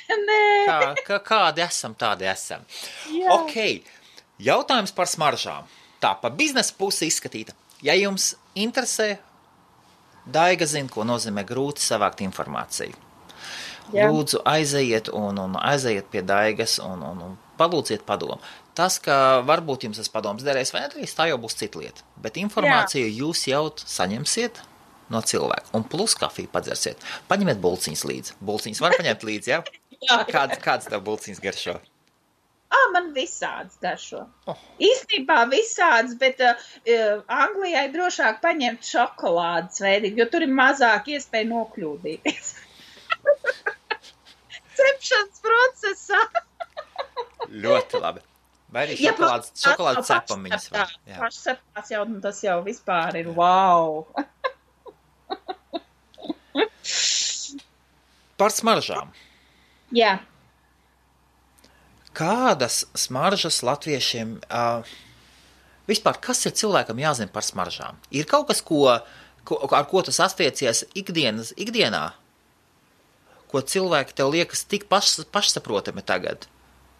Nē. Kādi esam, tādi esam. Jā. Ok, jautājums par smaržām. Tā, pa biznesa pusi izskatīta. Ja jums interesē, Daiga zina, ko nozīmē grūti savākt informāciju. Jā. Lūdzu, aizejiet un aizejiet pie Daigas un palūdziet padomu. Tas, ka varbūt jums tas padoms derēs vai nedarīs, tā jau būs cita lieta. Bet informāciju jūs jau saņemsiet no cilvēka. Un plus kafiju padzersiet. Paņemiet bulciņas līdzi. Bulciņas var paņemt līdzi, ja? Jā. Kāds tev bulciņas garšo? Man visāds garšo. Īstenībā visāds, bet Anglijai drošāk paņemt šokolādes veidīgi, jo tur ir mazāk iespēja nokļūdīties. Cepšanas procesā. Ļoti labi. Vai arī šokolādes cepamiņas var. Pašceptās jau, tas jau vispār ir wow. Par smaržām. Jā. Kādas smaržas latviešiem, vispār, kas ir cilvēkam jāzina par smaržām? Ir kaut kas, ar ko tas astiecies ikdienā, ko cilvēki tev liekas tik pašsaprotami tagad,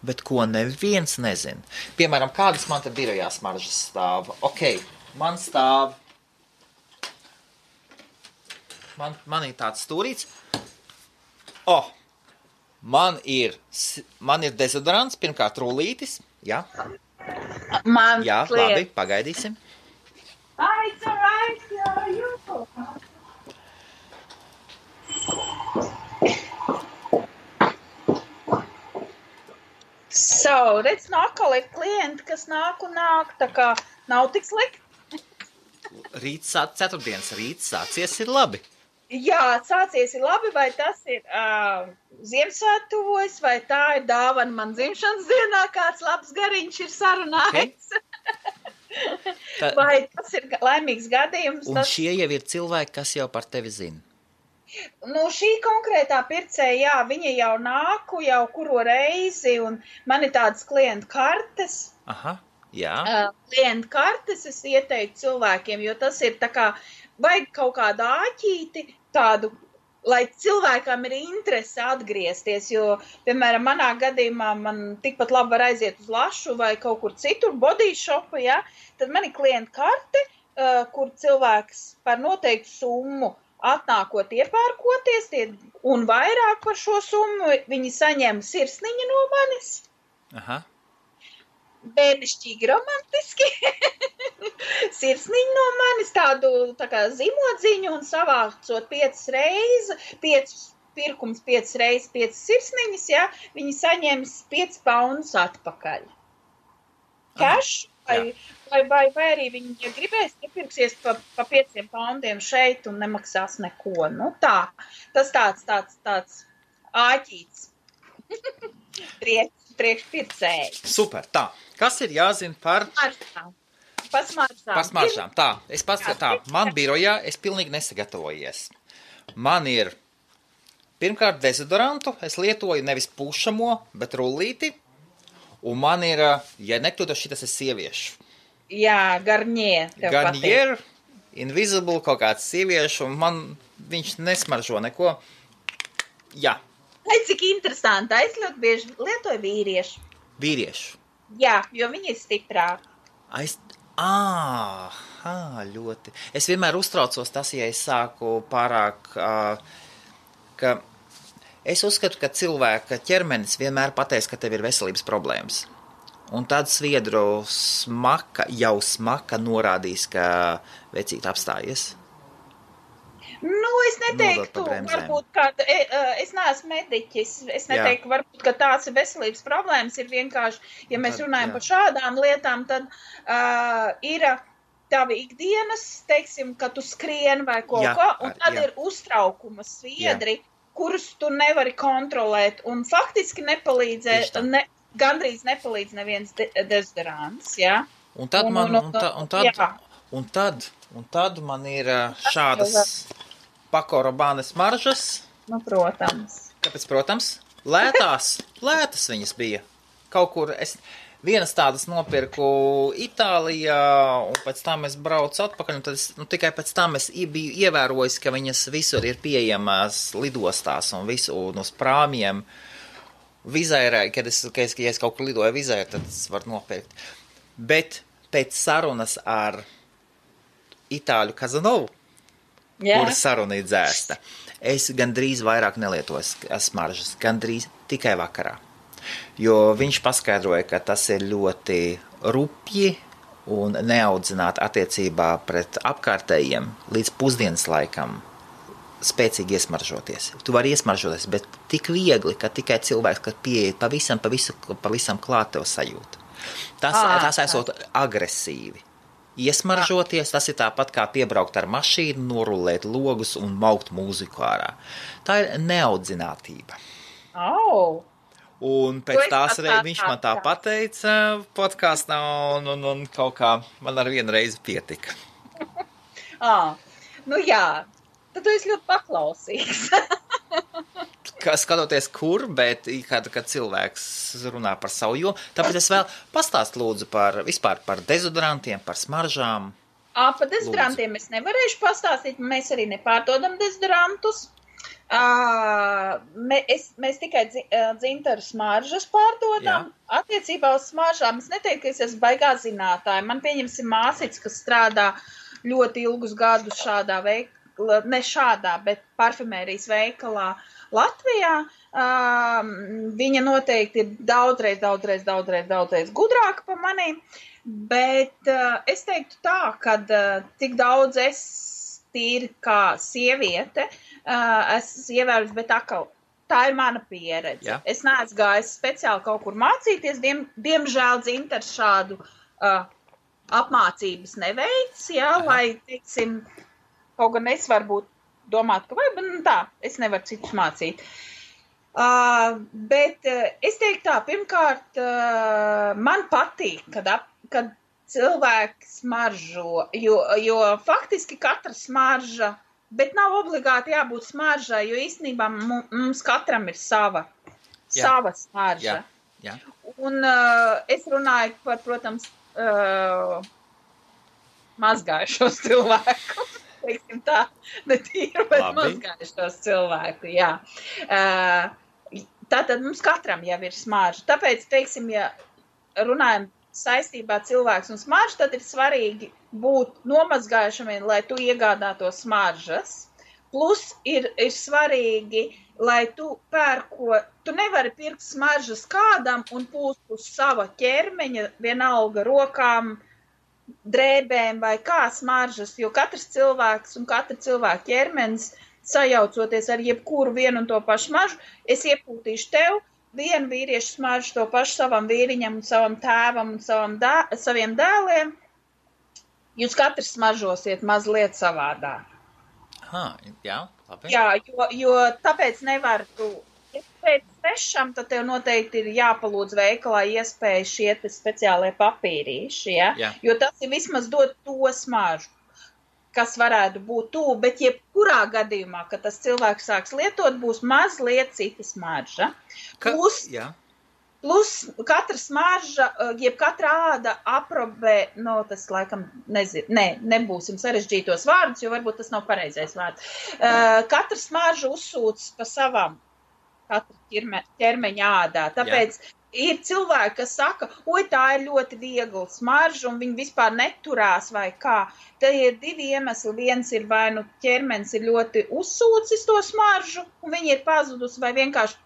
bet ko neviens nezina? Piemēram, kādas man te birojā smaržas stāv? Ok, man stāv, man ir tāds stūrīts. Man ir dezodorants, pirmkārt rullītis, jā. Jā, labi, pagaidīsim. It's alright, you. So, redz, atkal ir klienti, kas nāk, tā kā nav tik slikti. Ceturtdienas rīts sācies ir labi. Jā, sācies ir labi, vai tas ir Ziemassvētku tuvojas, vai tā ir dāvana man dzimšanas dienā, kāds labs gariņš ir sarunājis. Okay. Vai tas ir laimīgs gadījums? Un šie jau ir cilvēki, kas jau par tevi zina. Nu, šī konkrētā pircēja, jā, viņa jau nāku jau kuro reizi, un man ir tādas klientu kartes. Aha, jā. Klientu kartes es ieteiktu cilvēkiem, jo tas ir tā kā, vajag kaut kādu āķīti, tādu, lai cilvēkam ir interese atgriezties, jo, piemēram, manā gadījumā man tikpat labi var aiziet uz Lašu vai kaut kur citur, body shopu, ja, tad man ir klientu karte, kur cilvēks par noteiktu summu atnākot iepērkoties, un vairāk par šo summu viņi saņem sirsniņu no manis. Aha. Bērnišķīgi romantiski. Sirsniņu no manis, tādu tā kā zimodziņu un savācot 5 reizes 5 sirsniņas, ja, viņi saņems 5 poundus atpakaļ. Cash, vai arī viņi, ja gribēs, iepirksies pa 5 poundiem šeit un nemaksās neko. Nu tā, tas tāds āķīts. Priekšpircēji. Super, tā. Kas ir jāzina par smaržām? Tā, man birojā es pilnīgi nesagatavojies. Man ir pirmkārt dezodorantu, es lietoju nevis pušamo, bet rullīti, Un man ir, ja nekļūdos, šitas ir sieviešu. Jā, Garnier. Garnier, Invisible, kaut kāds sieviešu, un man viņš nesmaržo neko. Jā. Ai, cik interesanti. Es ļoti bieži lietoju vīriešu. Vīriešu? Jā, jo viņi ir stiprāki. Ļoti. Es vienmēr uztraucos tas, ja es sāku pārāk, ka es uzskatu, ka cilvēka ķermenis vienmēr pateiks, ka tev ir veselības problēmas. Un tad sviedru smaka norādīs, ka vecīt apstājies. Es neteiktu, varbūt, ka es neesmu mediķis, es neteiktu, varbūt, ka tās ir veselības problēmas, ir vienkārši, ja mēs runājam par šādām lietām, tad ir tavi ikdienas, teiksim, ka tu skrien vai ko, un tad ir uztraukuma sviedri, kurus tu nevari kontrolēt, un faktiski gandrīz nepalīdz neviens dezodorants, jā. Un tad man ir šādas Paco Rabanne smaržas. Protams. Kāpēc, protams? Lētas viņas bija. Kaut kur vienas tādas nopirku Itālijā, un pēc tam es braucu atpakaļ, un tad tikai pēc tam es biju ievērojis, ka viņas visur ir pieejamas lidostās un uz prāmiem. Vizērē, kad es kaut kur lidoju vizērē, tad es varu nopirkt. Bet pēc sarunas ar Itāļu Kazanovu, kura saruna ir dzēsta, es gandrīz vairāk nelietoju smaržas, gandrīz tikai vakarā. Jo viņš paskaidroja, ka tas ir ļoti rupji un neaudzināti attiecībā pret apkārtējiem līdz pusdienas laikam spēcīgi iesmaržoties. Tu vari iesmaržoties, bet tik viegli, ka tikai cilvēks, kad pieeja pavisam klāt tev sajūta. Tas esot agresīvi. Iesmaržoties, tas ir tāpat kā piebraukt ar mašīnu, norulēt logus un maukt mūziku ārā. Tā ir neaudzinātība. Un pēc tās viņš man tā pateica podkāstā, un kaut kā man ar vienu reizi pietika. Jā, tad tu esi ļoti paklausīgs. Skatoties kur, bet kad cilvēks runā par savu jomu, tāpēc es vēl pastāstu lūdzu vispār par dezodorantiem, par smaržām. Par dezodorantiem es nevarēšu pastāstīt, mēs arī nepārdodam dezodorantus. Mēs tikai dzintaru smaržas pārdodam. Attiecībā uz smaržām es neteiktu, ka es esmu baigā zinātāja. Man pieņemsim māsīts, kas strādā ļoti ilgus gadus šādā veikalā, ne šādā, bet parfumērijas veikalā Latvijā. Viņa noteikti ir daudzreiz gudrāka par manīm, bet es teiktu tā, ka tik daudz es tīri kā sieviete esmu ievērus, bet tā ir mana pieredze. Es neesmu gājis speciāli kaut kur mācīties, diemžēl dzintars šādu apmācības neveic, lai, teiksim, kaut gan es varbūt domāt, ka es nevaru citus mācīt. Bet es teiktu tā, pirmkārt, man patīk, kad cilvēki smaržo, jo faktiski katra smarža, bet nav obligāti jābūt smaržai, jo īstenībā mums katram ir sava smarža. Un es runāju par, protams, mazgājušos cilvēkus. Teiksim tā, ne tīru, bet mazgājušos cilvēku, jā. Tātad mums katram jau ir smarža. Tāpēc, teiksim, ja runājam saistībā cilvēks un smarža, tad ir svarīgi būt nomazgājušamiem, lai tu iegādātos smaržas. Plus ir svarīgi, lai tu tu nevari pirkt smaržas kādam un pūst uz sava ķermeņa, vienalga rokām, drēbēm vai kā smaržas, jo katrs cilvēks un katra cilvēka ķermenis sajaucoties ar jebkuru vienu un to pašu smaržu, es iepūtīšu tev vienu vīriešu smaržu, to pašu savam vīriņam un savam tēvam un saviem dēliem. Jūs katrs smaržosiet mazliet savādāk. Jā, labi. Jā, jo tāpēc nevar tu. Ja pēc svešam, tad tev noteikti ir jāpalūdz veikalā iespēja šie speciālie papīrīši, jo tas ir vismaz dot to smaržu, kas varētu būt tuvu, bet jebkurā gadījumā, kad tas cilvēks sāks lietot, būs mazliet cita smarža. Plus katra smarža, jeb katra āda aprobē, tas laikam, nebūsim sarežģītos vārdus, jo varbūt tas nav pareizais vārds. Katra smarža uzsūc pa savam katra ķermeņa ādā. Tāpēc ir cilvēki, kas saka, tā ir ļoti viegla smarža, un viņi vispār neturās vai kā. Te ir divi iemesli. Viens ir vai nu ķermenis ir ļoti uzsūcis to smaržu, un viņi ir pazudusi, vai vienkārši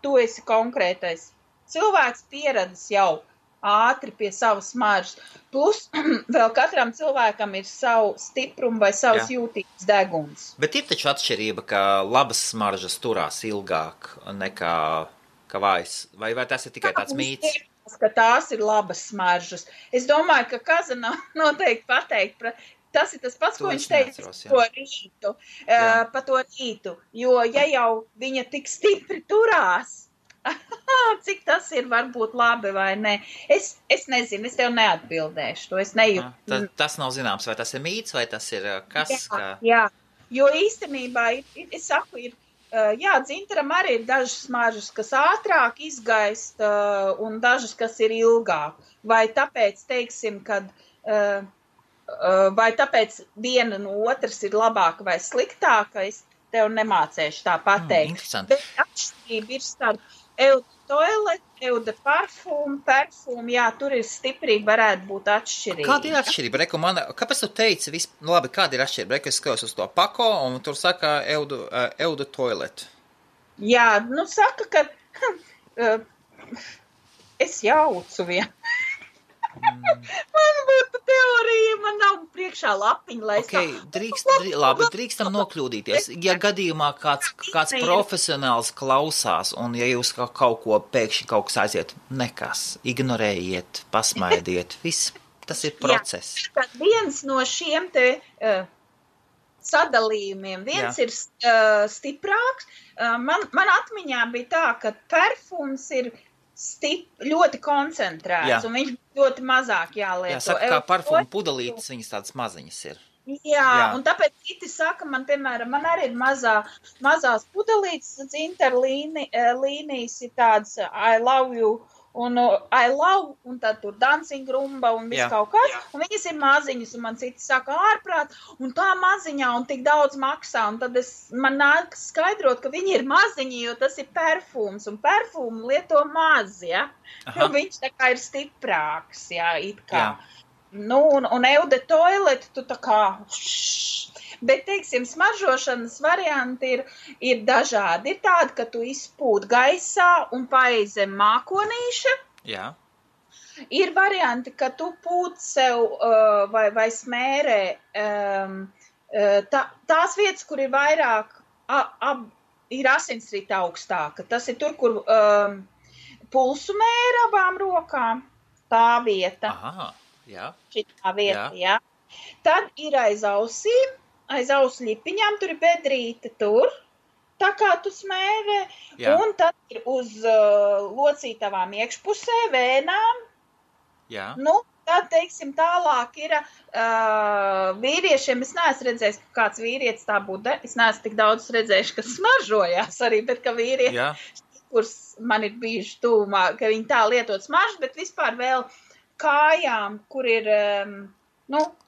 tu esi konkrētais. Cilvēks pieradis jau ātri pie savas smaržas. Plus vēl katram cilvēkam ir savu stiprumu vai savs jūtīgs deguns. Bet ir taču atšķirība, ka labas smaržas turās ilgāk nekā vājas. Vai tas ir tikai tāds mīts? Ka tās ir labas smaržas. Es domāju, ka Kazana noteikti pateikt, tas ir tas pats, ko viņš teica par to rītu. Jo ja jau viņa tik stipri turās, cik tas ir varbūt labi vai ne. Es nezinu, es tev neatbildēšu to, es nejūtu. Tas nav zināms, vai tas ir mīts, vai tas ir kas? Jā, jo īstenībā, es saku, dzintaram arī ir dažas smaržas, kas ātrāk izgaist, un dažas, kas ir ilgāk. Vai tāpēc, teiksim, kad, vai tāpēc viena no otras ir labāka vai sliktāka, es tev nemācēšu tā pateikt. Interesanti. Bet atšķirība ir starp Eau de toilette, Eau de parfum, tur ir stiprība, varētu būt atšķirība. Kāda ir atšķirība? Kāpēc tu teici, labi, kāda ir atšķirība? Es skatos uz to pako, un tur saka Eau de toilette. Jā, saka, ka es jaucu vienu. Man būtu teorija, man nav priekšā lapiņa, lai drīkstam nokļūdīties. Ja gadījumā kāds profesionāls klausās, un ja jūs kaut ko pēkšņi kaut kas aiziet, nekas, ignorējiet, pasmaidiet, viss, tas ir process. Jā, viens no šiem te sadalījumiem, viens ir stiprāks. Man atmiņā bija tā, ka perfums ir ļoti koncentrēts, un viņš ļoti mazāk jālieto. Jā, saka, kā parfuma pudelītes, viņas tādas maziņas ir. Jā, un tāpēc citi saka, man arī ir mazās pudelītes, dzintaru līnijas ir tādas I love you, un I love, un tad tur dancing rumba, un viss kaut kāds, un viņas ir maziņas, un man citi saka ārprāt, un tā maziņā, un tik daudz maksā, un tad man nāk skaidrot, ka viņi ir maziņi, jo tas ir perfums, un perfumu lieto maz, jo viņš tā kā ir stiprāks, it kā. Un Eau de toilette, tu tā kā... Bet, teiksim, smaržošanas varianti ir dažādi. Ir tādi, ka tu izpūt gaisā un paej zem mākonīša. Jā. Ir varianti, ka tu pūt sev vai smērē tās vietas, kur ir vairāk, ir asinsrita augstāka. Tas ir tur, kur pulsu mēra abām rokām. Tā vieta. Aha, jā. Šitā vieta, jā. Tad ir aiz ausīm. Aiz ausu ļipiņām, tur ir bedrīte tur, tā kā tu smērē, un tad ir uz locītavām iekšpusē, vēnām. Jā. Tad, teiksim, tālāk ir vīriešiem, es neesmu redzējis, ka kāds vīrietis tā būtu, es neesmu tik daudz redzējuši, kas smaržojās arī, bet ka vīrieši, kurus man ir bijuši tūmā, ka viņi tā lietot smaržu, bet vispār vēl kājām, kur ir...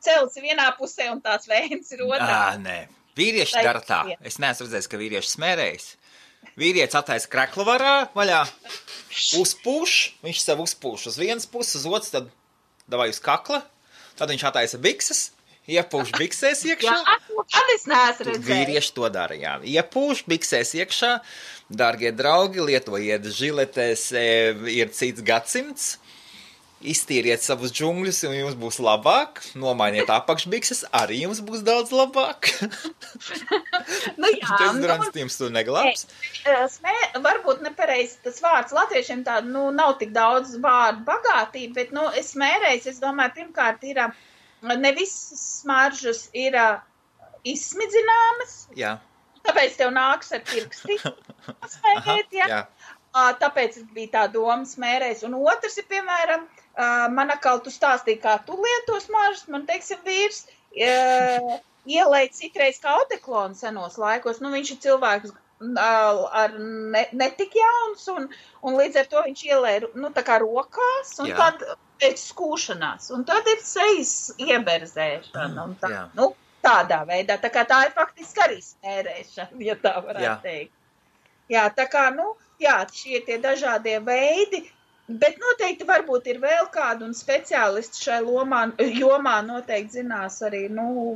celts vienā pusē un tās vēns ir otrā. Nē, vīrieši dara tā. Es neesmu redzējis, ka vīrieši smērējas. Vīrietis attaisa kreklu vaļā, uzpūš, viņš sev uzpūš uz vienas puses, uz otras, tad davai uz kakla, tad viņš attaisa bikses, iepūš biksēs iekšā. Tad es neesmu redzējis. Vīrieši to dara, jā. Iepūš biksēs iekšā, dārgie draugi, lietojiet žiletēs, ir cits gadsimts. Iztīriet savus džungļus, un jums būs labāk. Nomainiet apakšbikses, arī jums būs daudz labāk. Dezodorants tu neglābs. Varbūt nepareizi tas vārds latviešiem tādu, nav tik daudz vārdu bagātība, bet, es smērēju, es domāju, pirmkārt ir, ne visas smaržas ir izsmidzināmas. Jā. Tāpēc tev nāks ar pirksti smērēt, jā. Tāpēc bija tā doma smērēs. Un otrs ir, piemēram, man atkal tu stāstīji, kā tu lieto smaržas, man, teiksim, vīrs ielēja citreiz kā odeklonu senos laikos. Viņš ir cilvēks ar netik jauns, un līdz ar to viņš ielēja, tā kā rokās, un tad pēc skūšanās, un tad ir sejas ieberzēšana, un tā, tādā veidā, tā kā tā ir faktiski arī smērēšana, ja tā varētu teikt. Jā, tā kā, šie tie dažādie veidi, bet noteikti varbūt ir vēl kādu un speciālisti šai jomā noteikti zinās arī,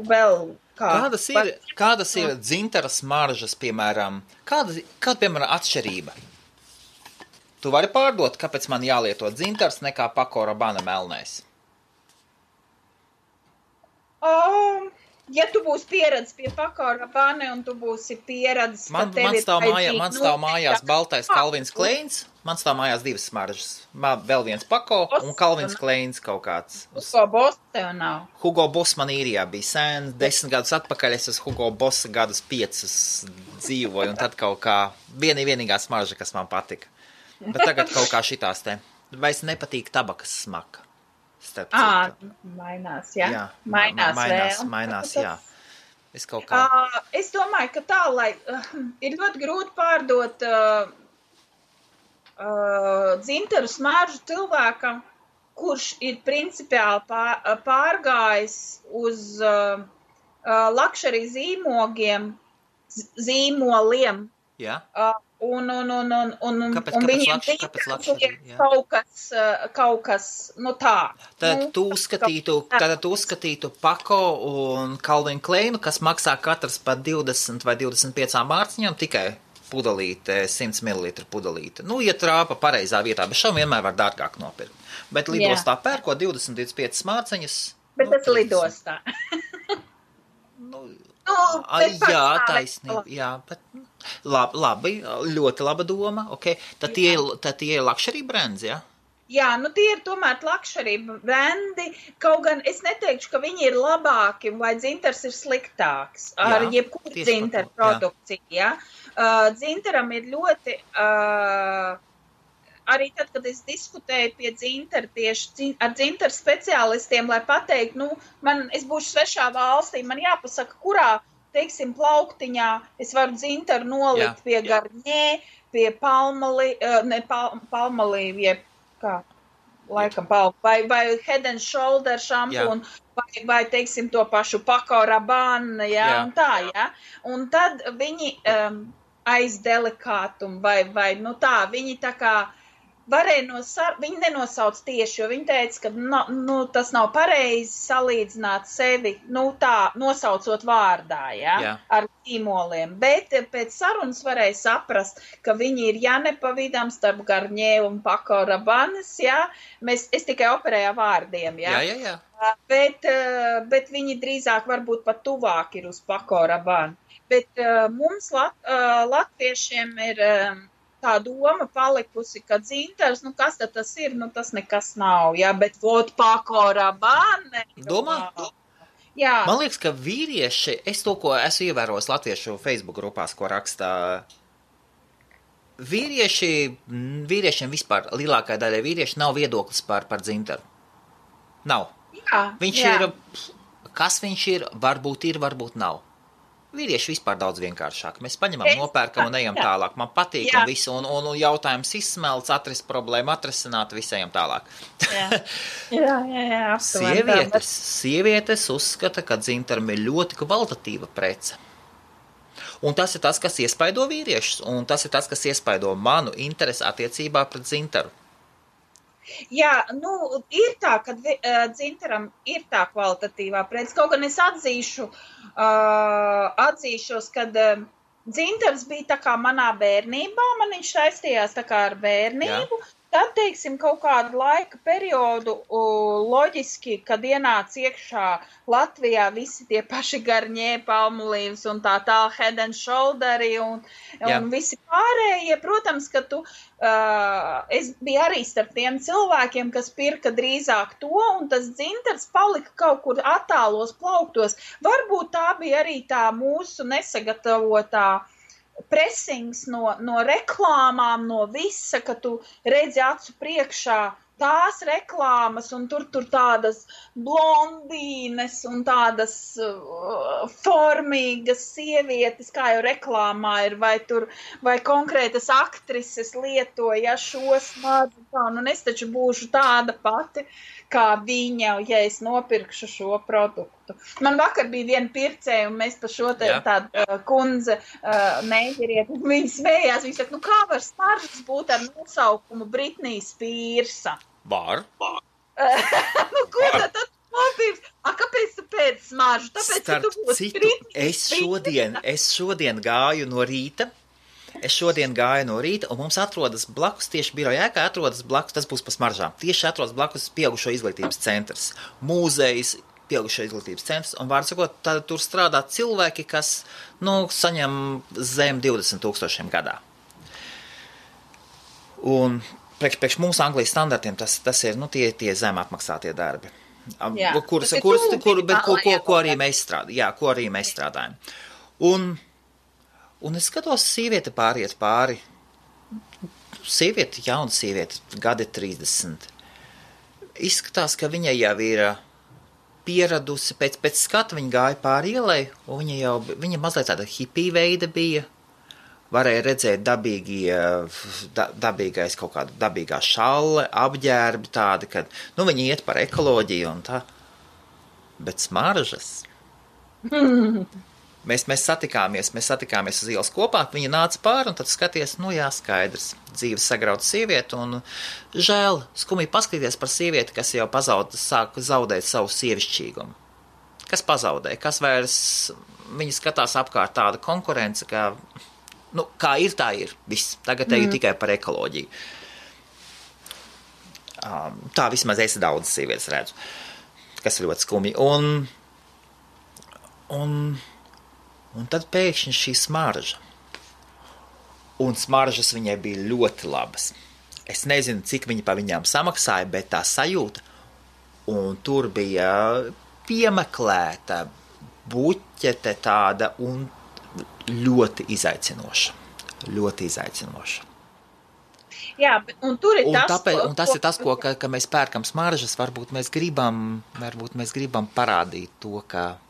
vēl Kādas ir dzintara smaržas, piemēram, kāda, piemēram, atšķirība? Tu vari pārdot, kāpēc man jālieto dzintars nekā Paco Rabanne melnais? Ja tu būsi pieredzis pie Paco Rabanne un tu būsi pieredzis, man stāv mājās baltais Calvins Kleins, man stāv mājās divas smaržas. Vēl viens Paco un Calvins Kleins kaut kāds. Hugo Boss tev nav? Hugo Boss man īrijā bija sen, 10 gadus atpakaļ es uz Hugo Boss gadus 5 dzīvoju, un tad kaut kā vienīgā smarža, kas man patika. Bet tagad kaut kā šitās te. Vairs nepatīk tabakas smaka. Mainās, jā. Mainās, jā. Es kaut kā... Es domāju, ka tā, lai ir ļoti grūti pārdot dzintaru smaržu cilvēkam, kurš ir principiāli pārgājis uz luxury zīmoliem. Jā. Un viņiem kaut kas, tā. Tad tu uzskatītu Paco un Calvin Kleinu, kas maksā katrs par 20 vai 25 mārciņām, tikai pudelīte, 100 ml pudelīte. Ja trāpa pareizā vietā, bet šam vienmēr var dārgāk nopirkt. Bet lidostā pērko 20-25 mārciņas. Bet tas lidostā. Jā, taisnība, jā, bet labi, ļoti laba doma, tad tie ir luxury brands, jā? Jā, tie ir tomēr luxury brandi, kaut gan es neteikšu, ka viņi ir labāki vai dzintars ir sliktāks ar jebkuru dzintaru produkciju, jā. Dzintaram ir ļoti... Arī tad, kad es diskutēju pie dzintara tieši ar dzintaru speciālistiem, lai pateiktu, es būšu svešā valstī, man jāpasaka, kurā, teiksim, plauktiņā es varu dzintaru nolikt pie Garnier, pie Palmolive, vai Head and Shoulder šampūnu, vai, teiksim, to pašu Paco Rabanne, un tā, un tad viņi aiz delikātumu, vai, tā, viņi tā kā, viņi nenosauc tieši, jo viņi teica, ka tas nav pareizi salīdzināt sevi, tā, nosaucot vārdā, ar zīmoliem. Bet pēc sarunas varēja saprast, ka viņi ir nepavidām starp Garnier un Paco Rabannes, es tikai operēju vārdiem, Jā. Bet viņi drīzāk varbūt pat tuvāk ir uz Paco Rabanne. Bet mums latviešiem ir... tā doma palikusi, ka dzintars, kas tad tas ir, tas nekas nav, bet Paco Rabanne. Domā? Jā. Man liekas, ka vīrieši, es to, ko esmu ievērojis latviešu Facebook grupās, ko rakstā, vīriešiem vispār, lielākā daļa vīrieši nav viedoklis par dzintaru. Nav. Viņš ir, kas viņš ir, varbūt nav. Vīrieši vispār daudz vienkāršāk. Mēs paņemam, nopērkam un ejam tālāk. Man patīk un visu, un jautājums izsmelts, atrast problēmu, atrasināt, visi ejam tālāk. Jā. Sievietes uzskata, ka dzintaram ir ļoti kvalitatīva prece. Un tas ir tas, kas iespaido vīriešus, un tas ir tas, kas iespaido manu interesi attiecībā pret dzintaru. Jā, ir tā, ka dzintaram ir tā kvalitatīvā prece. Kaut gan es atzīšos, kad dzintars bija tā kā manā bērnībā, man viņš saistījās tā kā ar bērnību. Tad, teiksim, kaut kādu laika periodu loģiski, kad ienāca iekšā Latvijā visi tie paši Garnier, Palmolives un tā Head and Shoulderi un visi pārējie, protams, ka es biju arī starp tiem cilvēkiem, kas pirka drīzāk to, un tas dzintars palika kaut kur attālos plauktos. Varbūt tā bija arī tā mūsu nesagatavotā presings no reklāmām, no visa, ka tu redzi acu priekšā tās reklāmas, un tur tādas blondīnes un tādas formīgas sievietes, kā jau reklāmā ir, vai konkrētas aktrises lietoja šo smadzu, un es taču būšu tāda pati, kā viņa, ja es nopirkšu šo produktu. Man vakar bija viena pircēja, un mēs pa šo tādu kundze neģeriet, viņa smējās, viņa saka, kā var smaržas būt ar nosaukumu Britney Spearsa? Var. Ko tad nopirks? Kāpēc tu pēc smaržu? Tāpēc, ka tu būsi Britney Spearsa. Es šodien gāju no rīta, un mums atrodas blakus, tieši biroja ēkā atrodas blakus, tas būs pa smaržām, tieši atrodas blakus pieaugušo izglītības centrs, mūzejs, pieaugušo izglītības centrs, un vārdu sakot, tur strādā cilvēki, kas, saņem zem 20,000 gadā. Un priekš mūsu Anglijas standartiem tas ir, tie zem apmaksātie darbi. Ko arī mēs strādājam. Un es skatos, sieviete pāriet pāri. Jauna sieviete, gadi 30. Izskatās, ka viņa jau ir pieradusi, pēc skata viņa gāja pāri ielai, un viņa mazliet tāda hipija veida bija. Varēja redzēt dabīgais kaut kāda dabīgā šalle, apģērbi tādi, kad, viņi iet par ekoloģiju un tā. Bet smaržas. Mēs satikāmies uz ielas kopā, viņa nāca pāri, un tad skaties, skaidrs, dzīves sagrauta sieviete, un žēl, skumji paskatīties par sievieti, kas jau sāk zaudēt savu sievišķīgumu. Kas pazaudēja, kas vairs, viņa skatās apkārt tāda konkurence, kā ir, tā ir, viss, tagad teju tikai par ekoloģiju. Tā vismaz es daudz sievietes redzu, kas ir ļoti skumji, un tad pēkšņi šī smarža. Un smaržas viņai bija ļoti labas. Es nezinu, cik viņa pa viņām samaksāja, bet tā sajūta. Un tur bija piemeklēta buķete tāda un ļoti izaicinoša. Ļoti izaicinoša. Jā, un tur ir tas ir tas, ka mēs pērkam smaržas, varbūt mēs gribam parādīt to, ka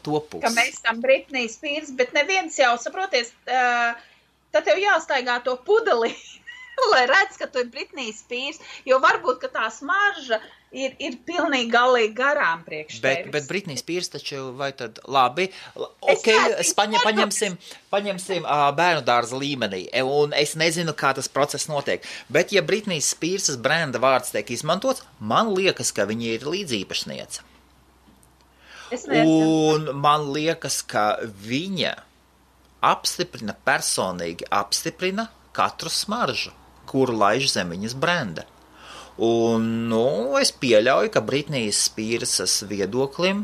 ka mēs esam Britney Spears, bet neviens jau, saproties, tad tev jāstaigā to pudeli, lai redz, ka tu ir Britney Spears, jo varbūt, ka tā smarža ir pilnīgi galīgi garām priekš tevis. Bet Britney Spears taču, vai tad labi, paņemsim bērnu dārza līmenī, un es nezinu, kā tas process notiek, bet ja Britney Spearsas brenda vārds tiek izmantots, man liekas, ka viņa ir līdzīpašniece. Un man liekas, ka viņa personīgi apstiprina katru smaržu, kuru laiž zem viņas brenda. Un, es pieļauju, ka Britnijas Spearsas viedoklim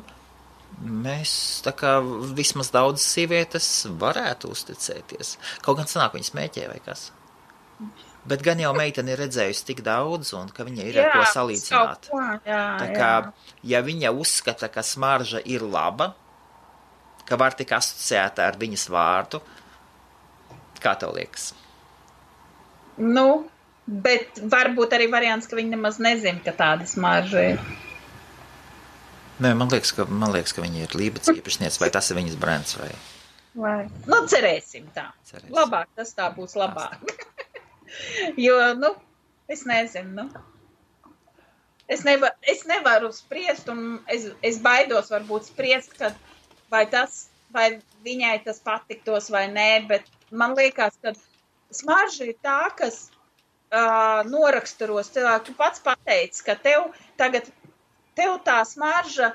mēs, tā kā vismaz daudz sievietes varētu uzticēties. Kaut gan sanāk viņa smēķē vai kas. Bet gan jau meitene ir redzējusi tik daudz, un ka viņa ir ar ko salīdzināt. Tā kā, ja viņa uzskata, ka smarža ir laba, ka var tik asociēta ar viņas vārdu, kā tev liekas? Bet varbūt arī variants, ka viņa nemaz nezina, ka tāda smarža ir. Nē, man liekas, ka viņa ir Lībets īpašniece, vai tas ir viņas brands, vai? Cerēsim tā. Labāk, tas tā būs labāk. Jo, es nezinu, Es nevaru spriest, un es baidos varbūt spriest, kad vai viņai tas patiktos vai nē, bet man liekas, ka smarža ir tā, kas noraksturos cilvēku. Tu pats pateici, ka tev tā smarža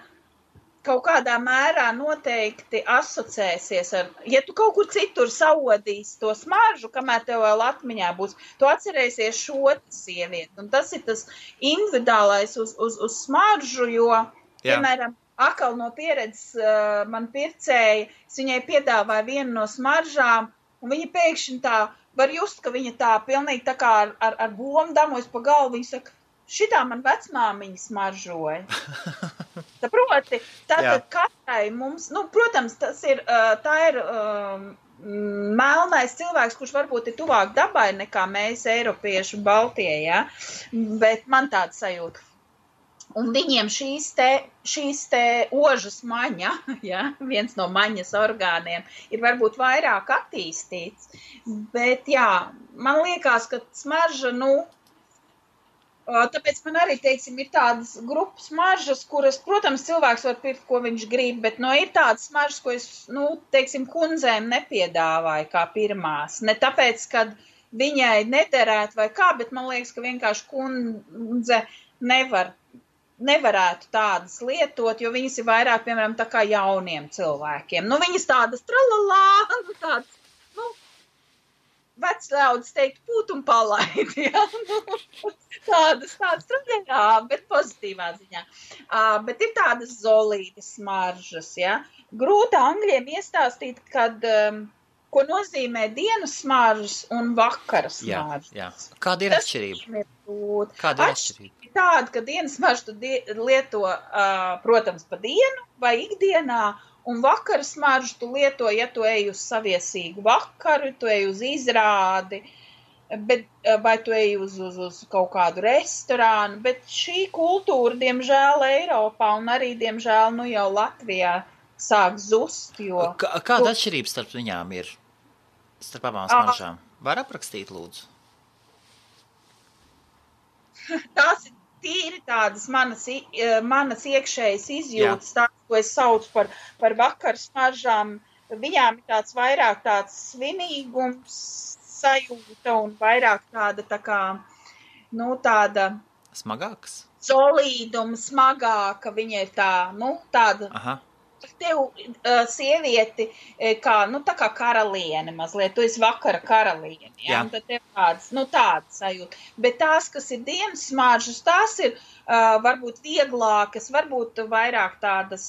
kaut kādā mērā noteikti asociēsies ar, ja tu kaut kur citur saodīsi to smaržu, kamēr tev vēl atmiņā būs, tu atcerēsies šo sievieti. Un tas ir tas individuālais uz smaržu, jo, piemēram, akal no pieredzes man pircēja, es viņai piedāvāju vienu no smaržām, un viņa pēkšņi tā, var just, ka viņa tā pilnīgi tā kā ar bomu damojas pa galvu, viņa saka, šitā man vecmāmiņa smaržoja. Saproti, tātad katrai mums, protams, tā ir melnais cilvēks, kurš varbūt ir tuvāk dabai nekā mēs, Eiropieši, Baltie, ja? Bet man tāda sajūta. Un viņiem šīs te ožas maņa, ja, viens no maņas orgāniem, ir varbūt vairāk attīstīts, bet jā, man liekas, ka smarža, tāpēc man arī, teiksim, ir tādas grupas smaržas, kuras, protams, cilvēks var pirkt, ko viņš grib, bet, ir tādas smaržas, ko es, teiksim, kundzēm nepiedāvāju kā pirmās. Ne tāpēc, kad viņai nederētu vai kā, bet man liekas, ka vienkārši kundze nevarētu tādas lietot, jo viņas ir vairāk, piemēram, tā kā jauniem cilvēkiem. Viņas tādas tralalā, tādas, vecļaudis teikt, pūt un palaidi, ja? Tādas traģējā, bet pozitīvā ziņā. Bet ir tādas zolītas smaržas, ja? Grūti angļiem iestāstīt, kad, ko nozīmē dienas smaržas un vakara smaržas. Jā. Kāda ir atšķirība? Kāda ir atšķirība? Tāda, ka dienas smaržu tu lieto, protams, pa dienu vai ikdienā, un vakara smaržu tu lieto, ja tu ej uz saviesīgu vakaru, tu ej uz izrādi, vai tu ej uz kaut kādu restorānu, bet šī kultūra, diemžēl, Eiropā un arī, diemžēl, jau Latvijā sāk zust, jo... Kāda atšķirība starp viņām ir? Starp abām smaržām? Var aprakstīt, lūdzu? Tās ir tīri tādas manas iekšējas izjūtas, tās, ko es saucu par vakaru smaržām. Viņām ir tāds vairāk tāds svinīgums sajūta un vairāk tāda tā kā, tāda... Smagāks? Solīduma, smagāka, viņa ir tāda... Aha. Tev sievieti, tā kā karaliene mazliet, tu esi vakara karaliene, ja? Un tad tev tādas sajūta. Bet tās, kas ir dienas smaržas, tās ir varbūt vieglākas, varbūt vairāk tādas,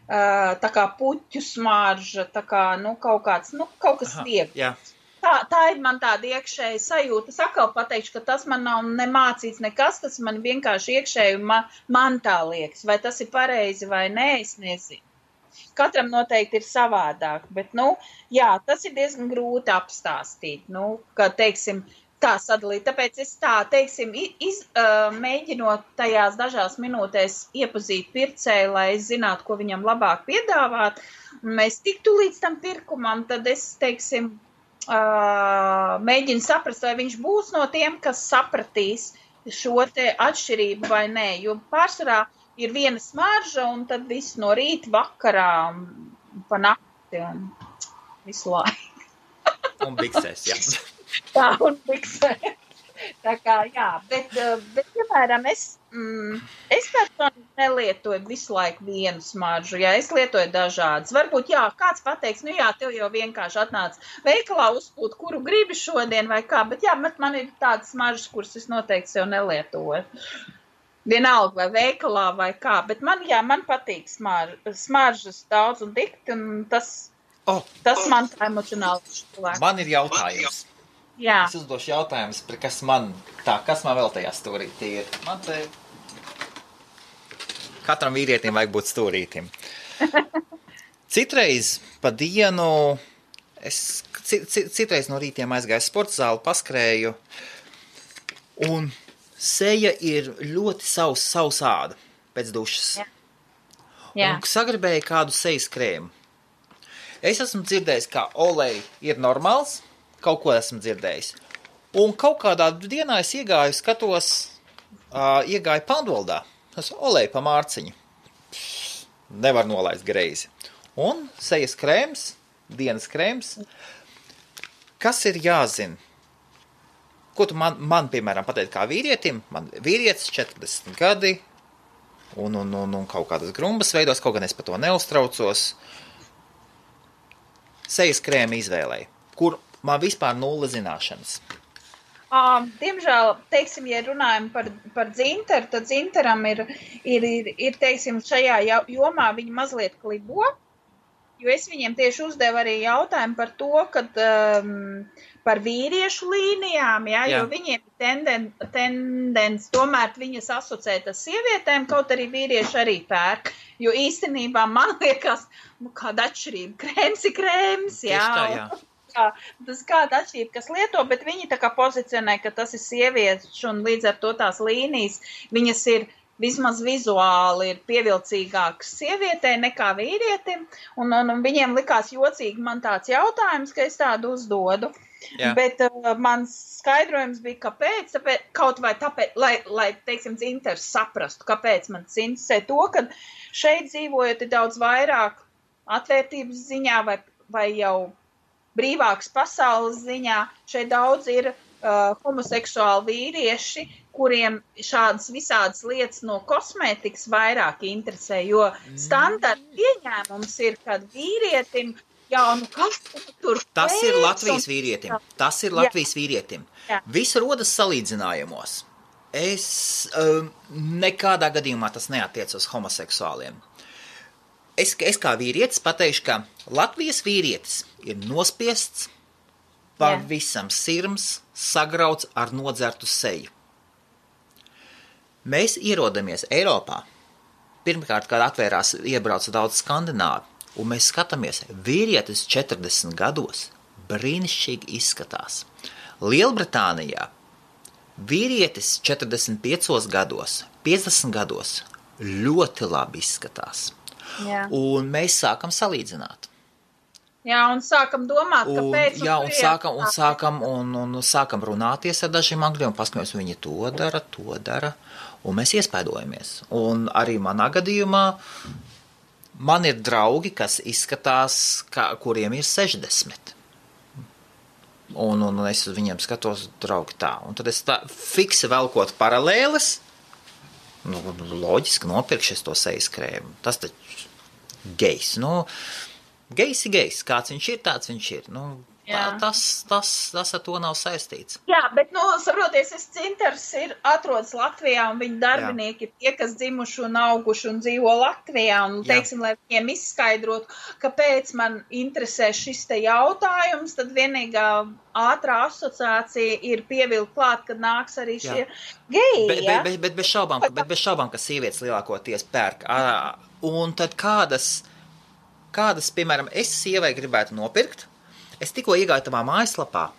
tā kā puķu smarža, tā kā, kaut kas viegls. Jā. Tā ir man tāda iekšēja sajūta. Es atkal pateikšu, ka tas man nav nemācīts nekas, tas man vienkārši iekšēji man tā liekas. Vai tas ir pareizi vai nē, es nezinu. Katram noteikti ir savādāk, bet, tas ir diezgan grūti apstāstīt, ka, teiksim, tā sadalīt. Tāpēc es mēģinot tajās dažās minūtēs iepazīt pircēju, lai es zinātu, ko viņam labāk piedāvāt, un mēs tiktu līdz tam pirkumam, tad es, teiksim, mēģinu saprast, vai viņš būs no tiem, kas sapratīs šo te atšķirību vai nē, jo pārsvarā ir viena smarža un tad viss no rīta vakarā pa nakti un visu laiku. Un biksēs, jā. Tā, un biksēs. Tā kā, jā, bet piemēram, es personīgi nelietoju visu laiku vienu smaržu, jā, es lietoju dažādas. Varbūt, jā, kāds pateiks, tev jau vienkārši atnāca veikalā uzpūt, kuru gribi šodien vai kā, bet jā, man ir tādas smaržas, kuras es noteikti sev nelietoju. Vienalga vai veikalā vai kā, bet man patīk smaržas daudz un dikti, un tas man tā emocionāli cilvēku. Man ir jautājums. Jā. Es uzdošu jautājumus, kas man vēl tajā stūrītī ir. Man te katram vīrietim vajag būt stūrītim. Citreiz pa dienu, citreiz no rītiem aizgāju sporta zāli, paskrēju, un seja ir ļoti sausāda pēc dušas. Jā. Un sagribēju kādu sejas krēmu. Es esmu dzirdējis, ka olej ir normāls, kaut ko esmu dzirdējis. Un kaut kādā dienā es iegāju Pandoldā. Es olēju pa mārciņu. Nevar nolaist greizi. Un sejas krēms, dienas krēms. Kas ir jāzina? Ko tu man piemēram, pateikt kā vīrietim? Man vīrietis 40 gadi un kaut kādas grumbas veidos, kaut gan es par to neuztraucos. Sejas krēma izvēlēju, kur man vispār nulle zināšanas. Diemžēl, teiksim, ja runājam par dzinteru, tad dzinteram ir, teiksim, šajā jomā viņi mazliet klibo. jo es viņiem tieši uzdevu arī jautājumu par to, kad par vīriešu līnijām, jo viņiem tendence tomēr viņas asociēt ar sievietēm, kaut arī vīrieši arī pērk, jo īstenībā man liekas, kāda atšķirība, krēms ir krēms, tas kāda atšķirība, kas lieto, bet viņi tā kā pozicionē, ka tas ir sievietes un līdz ar to tās līnijas, viņas ir vismaz vizuāli ir pievilcīgāks sievietei nekā vīrietim, un viņiem likās jocīgi man tāds jautājums, ka es tādu uzdodu. Jā. Bet mans skaidrojums bija, kāpēc, kaut vai tāpēc, lai teiksim, Dzinters saprastu, kāpēc man tas interesē to, ka šeit dzīvojot ir daudz vairāk atvērtības ziņā vai jau brīvāks pasaules ziņā, šeit daudz ir homoseksuāli vīrieši, kuriem šādas visādas lietas no kosmētikas vairāk interesē, jo standarta pieņēmums ir, kad vīrietim kas tur Tas ir Latvijas vīrietim. Tas ir Latvijas vīrietim. Viss rodas salīdzinājumos. Nekādā gadījumā tas neatiec uz homoseksuāliem. Es kā vīrietis pateikšu, ka Latvijas vīrietis ir nospiests, pavisam sirms, sagrauts ar nodzertu seju. Mēs ierodamies Eiropā. Pirmkārt, kad atvērās, iebrauca daudz skandināvi, un mēs skatāmies, vīrietis 40 gados brīnišķīgi izskatās. Lielbritānijā vīrietis 45 gados, 50 gados ļoti labi izskatās. Jā. Un mēs sākam salīdzināt. Jā, un sākam domāt, kāpēc. Un sākam runāties ar dažiem angļiem, paskatīties, viņi to dara, un mēs iespaidojamies. Un arī manā gadījumā man ir draugi, kas izskatās, kuriem ir 60. Un es uz viņiem skatos, draugi tā. Un tad es tā fiksi velkot paralēles, loģiski nopirkšies to sejas krēmu. Tas taču gejs, Gejs ir gejs, kāds viņš ir, tāds viņš ir. Tas ar to nav saistīts. Jā, bet, saproties, Dzinters atrodas Latvijā, un viņa darbinieki ir tie, kas dzimuši un auguši un dzīvo Latvijā, un, teiksim, lai viņiem izskaidrotu, kāpēc man interesē šis te jautājums, tad vienīgā ātrā asociācija ir pievilkt klāt, kad nāks arī šie geji, Bet bez šaubām, ka sievietes lielākoties pērk. Un tad kādas, piemēram, es sievai gribētu nopirkt. Es tikko iegāju tavā mājaslapā.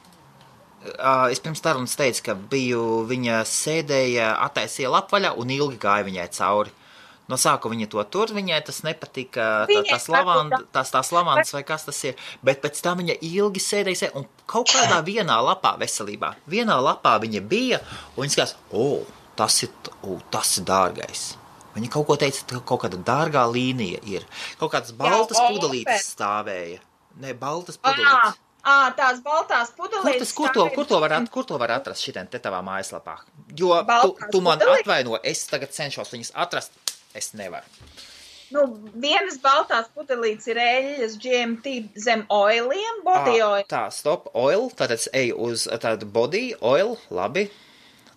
Es pirms tarunas teicu, ka viņa sēdēja, attaisīja lapvaļā un ilgi gāja viņai cauri. No sākuma viņa to tur, viņai tas nepatika, tās lavandas vai kas tas ir. Bet pēc tam viņa ilgi sēdēja un kaut kādā vienā lapā veselībā. Vienā lapā viņa bija un viņa skatās, tas ir dārgais. Viņa kaut ko teica, ka kaut kāda dārgā līnija ir. Kaut kādas baltas pudelītes stāvēja. Ne, baltas pudelītes. Tās baltās pudelītes. Kur to var atrast šitien te tavā mājaslapā? Jo tu man atvaino, es tagad cenšos viņas atrast, es nevaru. Vienas baltās pudelītes ir eļļas GMT zem oiliem, body oil. Tā, stop, oil, tātad es eju uz tādu body oil, labi.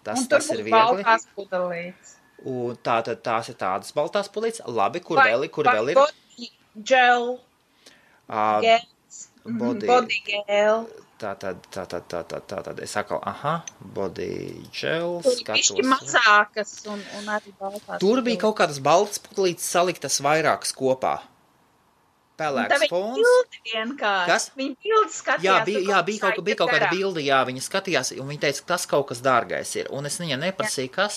Tas ir viegli. Un tur būs baltās pudelītes. Un tātad tās ir tādas baltās pudelītes. Labi, kur vēl ir? Body gel. Body gel. Tātad es atkal, body gel. Tur ir mazākas un arī baltās. Tur bija kaut kādas baltas pudelītes saliktas vairākas kopā. Pelēks fons. Viņa bildi vienkārši. Kas? Viņa bildi skatījās. Bija kaut kāda bildi, viņa skatījās, un viņa teica, ka tas kaut kas dārgais ir. Un es viņai neprasīju, kas.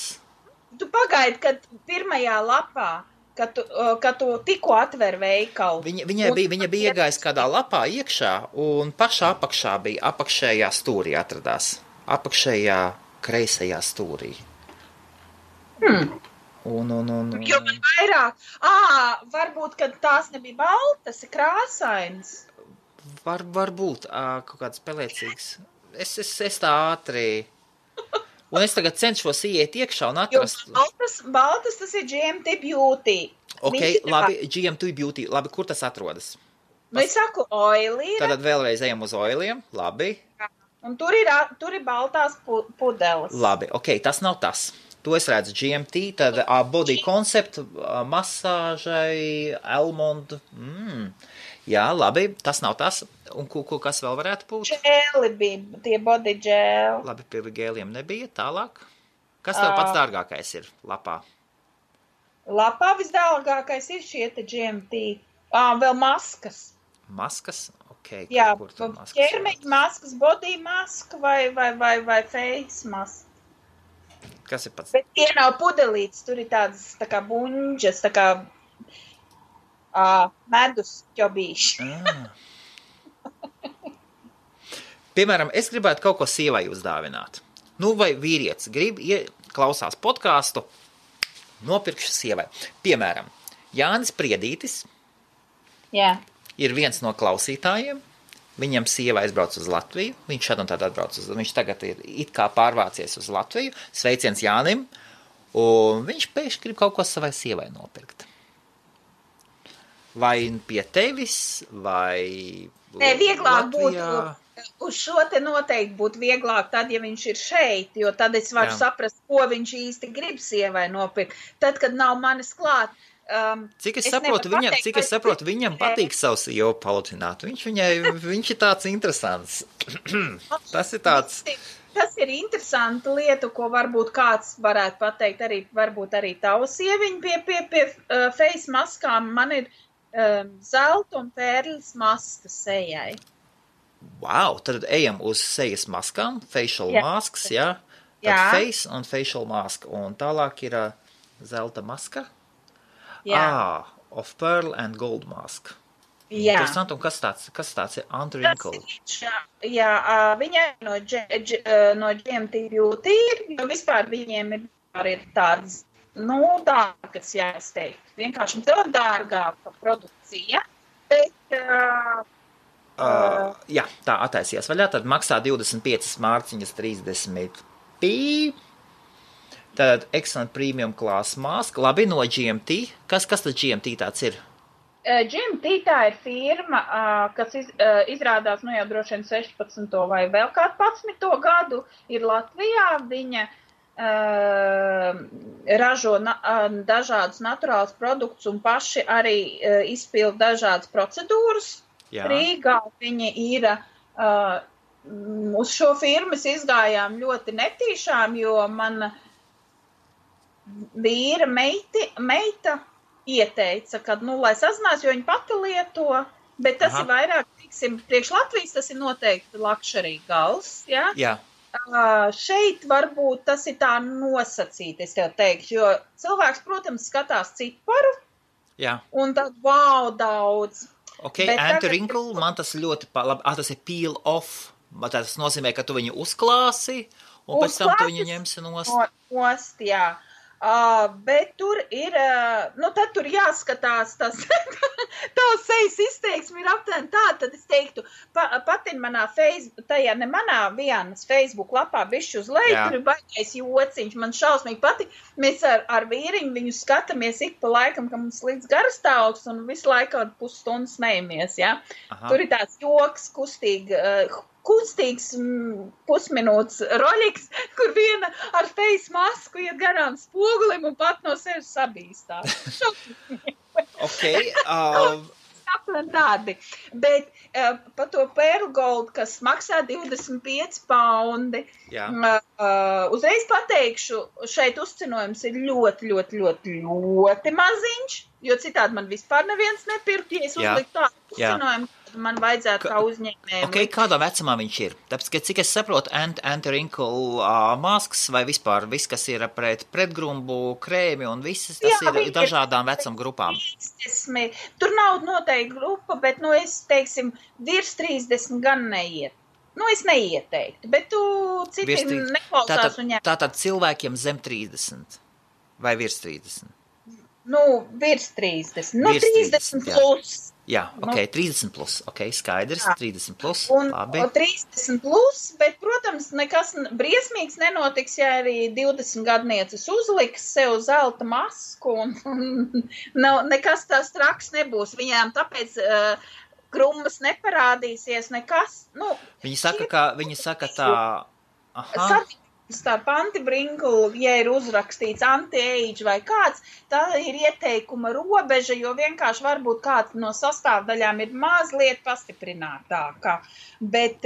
Tu pagaidi, kad pirmajā lapā, kad tu tikko atver veikalu. Viņa bija iegājis kādā lapā iekšā, un pašā apakšā bija, apakšējā stūrī atradās. Apakšējā kreisajā stūrī. Jo man vairāk, varbūt, kad tās nebija baltas, ir krāsainas. Varbūt, kaut kāds pelēcīgs. Es tā ātri... Un es tagad cenšos iet iekšā un atrast... Jo baltas tas ir GMT Beauty. Ok, labi, GMT Beauty. Labi, kur tas atrodas? Es saku oilī. Tad vēlreiz ejam uz oiliem. Labi. Un tur ir baltās pudeles. Labi, ok, tas nav tas. To es redzu GMT, tad body concept, masāžai, almond. Jā, labi, tas nav tas. Un kas vēl varētu būt? Džēli bija, tie body džēli. Labi, pie gēliem nebija, tālāk. Kas tev pats dārgākais ir lapā? Lapā visdārgākais ir šie te GMT. Vēl maskas. Maskas? Ok. Jā, ķermeņa maskas, body maska vai face maska. Kas ir pats? Bet tie nav pudelītes, tur ir tādas tā kā buņģas, tā kā medus ķobīši. Piemēram, es gribētu kaut ko sievai uzdāvināt. Nu, vai vīrietis grib, klausās podcastu, nopirkšu sievai. Piemēram, Jānis Priedītis ir viens no klausītājiem. Viņam sieva aizbrauc uz Latviju. Viņš šad un tad atbrauc viņš tagad ir it kā pārvācies uz Latviju. Sveiciens Jānim. Un viņš pēkšņi grib kaut ko savai sievai nopirkt. Vai pie tevis, vai Nē, vieglāk Latvijā? Būtu. Uz šo te noteikti būtu vieglāk tad, ja viņš ir šeit, jo tad es varu saprast, ko viņš īsti grib sievai nopirkt. Tad, kad nav manis klāt. Cik es saprotu, viņam patīk savu sievu paludināt. Viņš ir tāds interesants. Tas ir tāds. Tas ir interesanta lieta, ko varbūt kāds varētu pateikt, varbūt arī tava sieviņa pie face maskām. Man ir zelta un pērlis maska sejai. Wow, tad ejam uz sejas maskām, facial masks, jā? Tad face un facial mask, un tālāk ir zelta maska. Of pearl and gold mask. Jā. Interesanti, un kas tāds ir anti-wrinkle? Jā, viņai no GMT Beauty ir, jo vispār viņiem ir tādas, dārgas, jā, es teiktu. Vienkārši dārgāka produkcija, bet... Jā, tā attaisījās vaļā, tad maksā 25 mārciņas 30 pī. Tad excellent premium class mask. Labi, no GMT. Kas tad GMT tāds ir? GMT tā ir firma, kas izrādās jau droši vien 16. vai vēl kādu 11. gadu ir Latvijā. Viņa ražo dažādus naturālus produktus un paši arī izpilda dažādas procedūras. Jā. Rīgā viņi ir, uz šo firmas izgājām ļoti netīšām, jo man vīra meita ieteica, ka, lai sazinās, jo viņa pati lieto, bet tas ir vairāk, priekš Latvijas tas ir noteikti luxury gals, ja? Jā. Šeit varbūt tas ir tā nosacīti, es tev teikšu, jo cilvēks, protams, skatās ciparu, un tad, daudz. Ok, anti-wrinkle, man tas ļoti labi, tas ir peel off, tas nozīmē, ka tu viņu uzklāsi, un pēc tam tu viņu ņemsi nost. Jā. Bet tur ir, tad tur jāskatās, tās sejas izteiksmi ir aptuveni tā, tad es teiktu, patin manā vienas Facebook lapā bišķi uz leju, tur ir baigais jociņš, man šausmīgi patīk, mēs ar vīriņu viņu skatāmies ik pa laikam, ka mums līdz garastāvoklis un visu laiku pusstundu smejamies, ja? Tur ir tāds joks, kustīgs pusminūtes roļiks, kur viena ar face masku iet garām spogulim un pat no sevis sabīstās. Ok. Tādi. Bet pa to Pearl Gold, kas maksā 25 paundi, uzreiz pateikšu, šeit uzcenojums ir ļoti, ļoti, ļoti, ļoti maziņš, jo citādi man vispār neviens nepirkt, ja es uzliktu tādu uzcenojumu. Man vajadzētu kā uzņēmējiem. Ok, kādā vecumā viņš ir? Tāpēc, ka cik es saprotu, anti-wrinkle masks vai vispār viss, kas ir pretgrumbu, krēmi un viss, tas ir dažādām vecuma grupām. Tur nav noteikti grupa, bet, es teiksim, virs 30 gan neiet. Es neieteiktu, bet tu citi neklausās un ņem. Tātad cilvēkiem zem 30 vai virs 30? Virs 30. 30 plus. Jā, ok, 30 plus, ok, skaidrs, 30 plus, labi. 30 plus, bet, protams, nekas briesmīgs nenotiks, ja arī 20 gadnieces uzliks sev zelta masku, un nekas tās traks nebūs. Viņām tāpēc krummas neparādīsies, nekas, Viņi saka tā, starp antibrinkulu, ja ir uzrakstīts anti-age vai kāds, tā ir ieteikuma robeža, jo vienkārši varbūt kāds no sastāvdaļām ir mazliet pastiprinātākā. Bet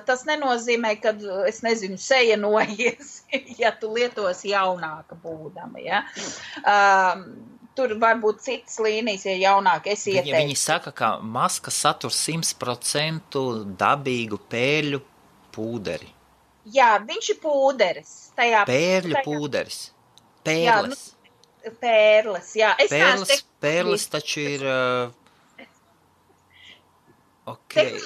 tas nenozīmē, ka, es nezinu, seja noies, ja tu lietos jaunāka būdama, ja. Tur var būt citas līnijas, ja jaunāk es ieteiktu. Viņi saka, ka maska satur 100% dabīgu pērļu pūderi. Jā, viņš ir pūderis. Pērļu pūderis. Pērles. Jā, pērles, jā. Pērles taču ir... Okay.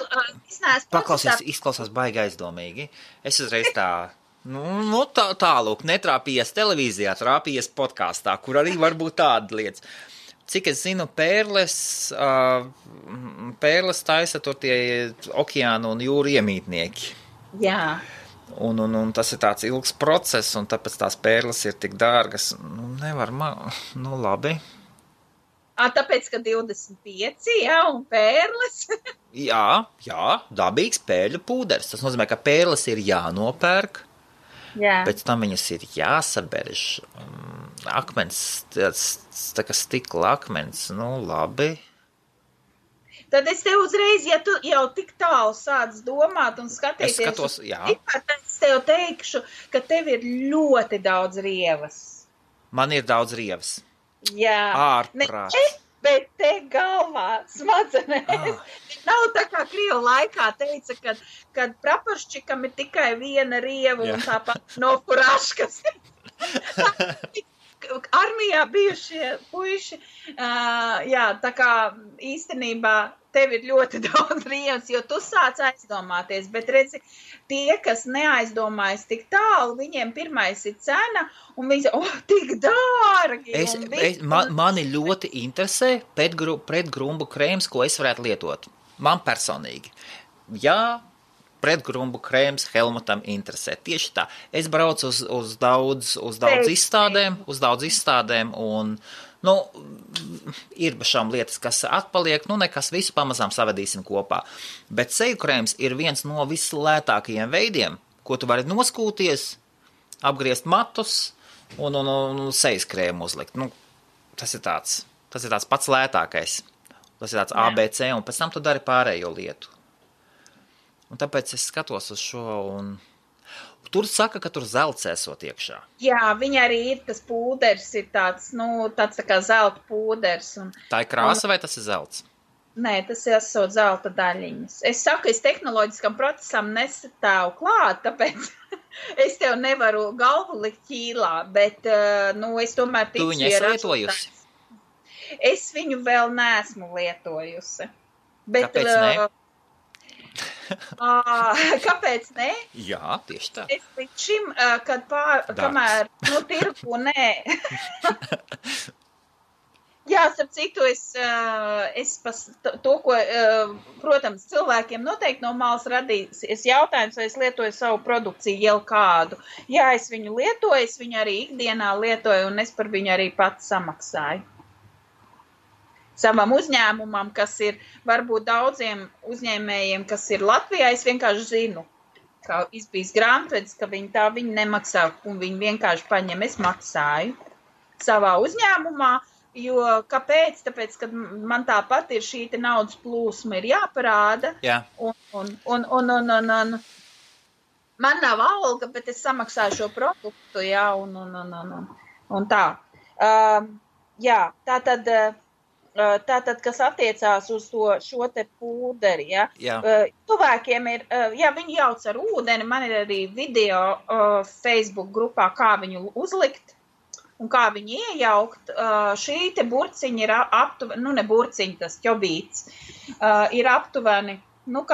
Paklausies, izklausās baigi aizdomīgi. Es uzreiz tā... Nu tālūk, netrāpījies televīzijā, trāpījies podkāstā, kur arī var būt tāda lietas. Cik es zinu, pērles taisa tur tie okeānu un jūru iemītnieki. Jā. Un tas ir tāds ilgs process, un tāpēc tās pērles ir tik dārgas. Nevar labi. Tāpēc, ka 25, jā, un pērles? jā, dabīgs pērļu pūderis. Tas nozīmē, ka pērles ir jānopērk. Jā. Pēc tam viņas ir jāsaberž. Akmens, tā kā stikla akmens, labi. Tad es tev uzreiz, ja tu jau tik tālu sāc domāt un skatīties, es skatos, jā. Es tev teikšu, ka tev ir ļoti daudz rievas. Man ir daudz rievas. Jā. Ārprāts. Bet te galvā smadzenēs. Nav tā kā Krievu laikā teica, kad praporščikam ir tikai viena rieva un tāpat no furaškas. Armijā bijušie puiši, tā kā īstenībā tev ir ļoti daudz rievas, jo tu sāc aizdomāties, bet redzi, tie, kas neaizdomājas tik tālu, viņiem pirmais ir cena, un viņi tik dārgi. Mani ļoti interesē pretgrumbu krēms, ko es varētu lietot. Man personīgi. Jā, pretgrumbu krēms Helmutam interesē. Tieši tā. Es braucu uz daudz izstādēm, un ir šām lietas, kas atpaliek, nekas visu pamazām savadīsim kopā. Bet seju krēms ir viens no vislētākajiem veidiem, ko tu vari noskūties, apgriezt matus un sejas krēmu uzlikt. Tas ir tāds pats lētākais. Tas ir tāds ABC, un pēc tam tu dari pārējo lietu. Un tāpēc es skatos uz šo, un tur saka, ka tur zelts esot iekšā. Jā, viņa arī ir, tas pūders ir tāds tā kā zelta pūders. Tā ir krāsa vai tas ir zelts? Nē, tas ir esot zelta daļiņas. Es saku, es tehnoloģiskam procesam nestāvu klāt, tāpēc es tev nevaru galvu likt ķīlā, bet, es tomēr ticu. Tu viņu esi lietojusi? Es viņu vēl neesmu lietojusi. Bet, kāpēc ne? Kāpēc ne? Jā, tieši tā. Es līdz šim, kamēr, tirgu, nē. Jā, starp citu, to, ko, protams, cilvēkiem noteikti no malas radīs, jautājums, vai es lietoju savu produkciju jau kādu. Jā, es viņu lietoju, es viņu arī ikdienā lietoju, un es par viņu arī pats samaksāju. Savam uzņēmumam, kas ir varbūt daudziem uzņēmējiem, kas ir Latvijā, es vienkārši zinu, ka izbijis grāmatvedis, ka viņi nemaksā, un viņi vienkārši paņem, es maksāju savā uzņēmumā, jo kāpēc? Tāpēc, ka man tāpat ir šī naudas plūsma ir jāparāda, jā. Un man nav alga, bet es samaksāju šo produktu, jā, un tā. Jā, Tātad, kas attiecās uz šo te pūderi, ja? Cilvēkiem ir, viņi jauc ar ūdeni, man ir arī video Facebook grupā, kā viņu uzlikt un kā viņu iejaukt. Šī te burciņa ir aptuveni, ne burciņa, tas ķobīts, ir aptuveni,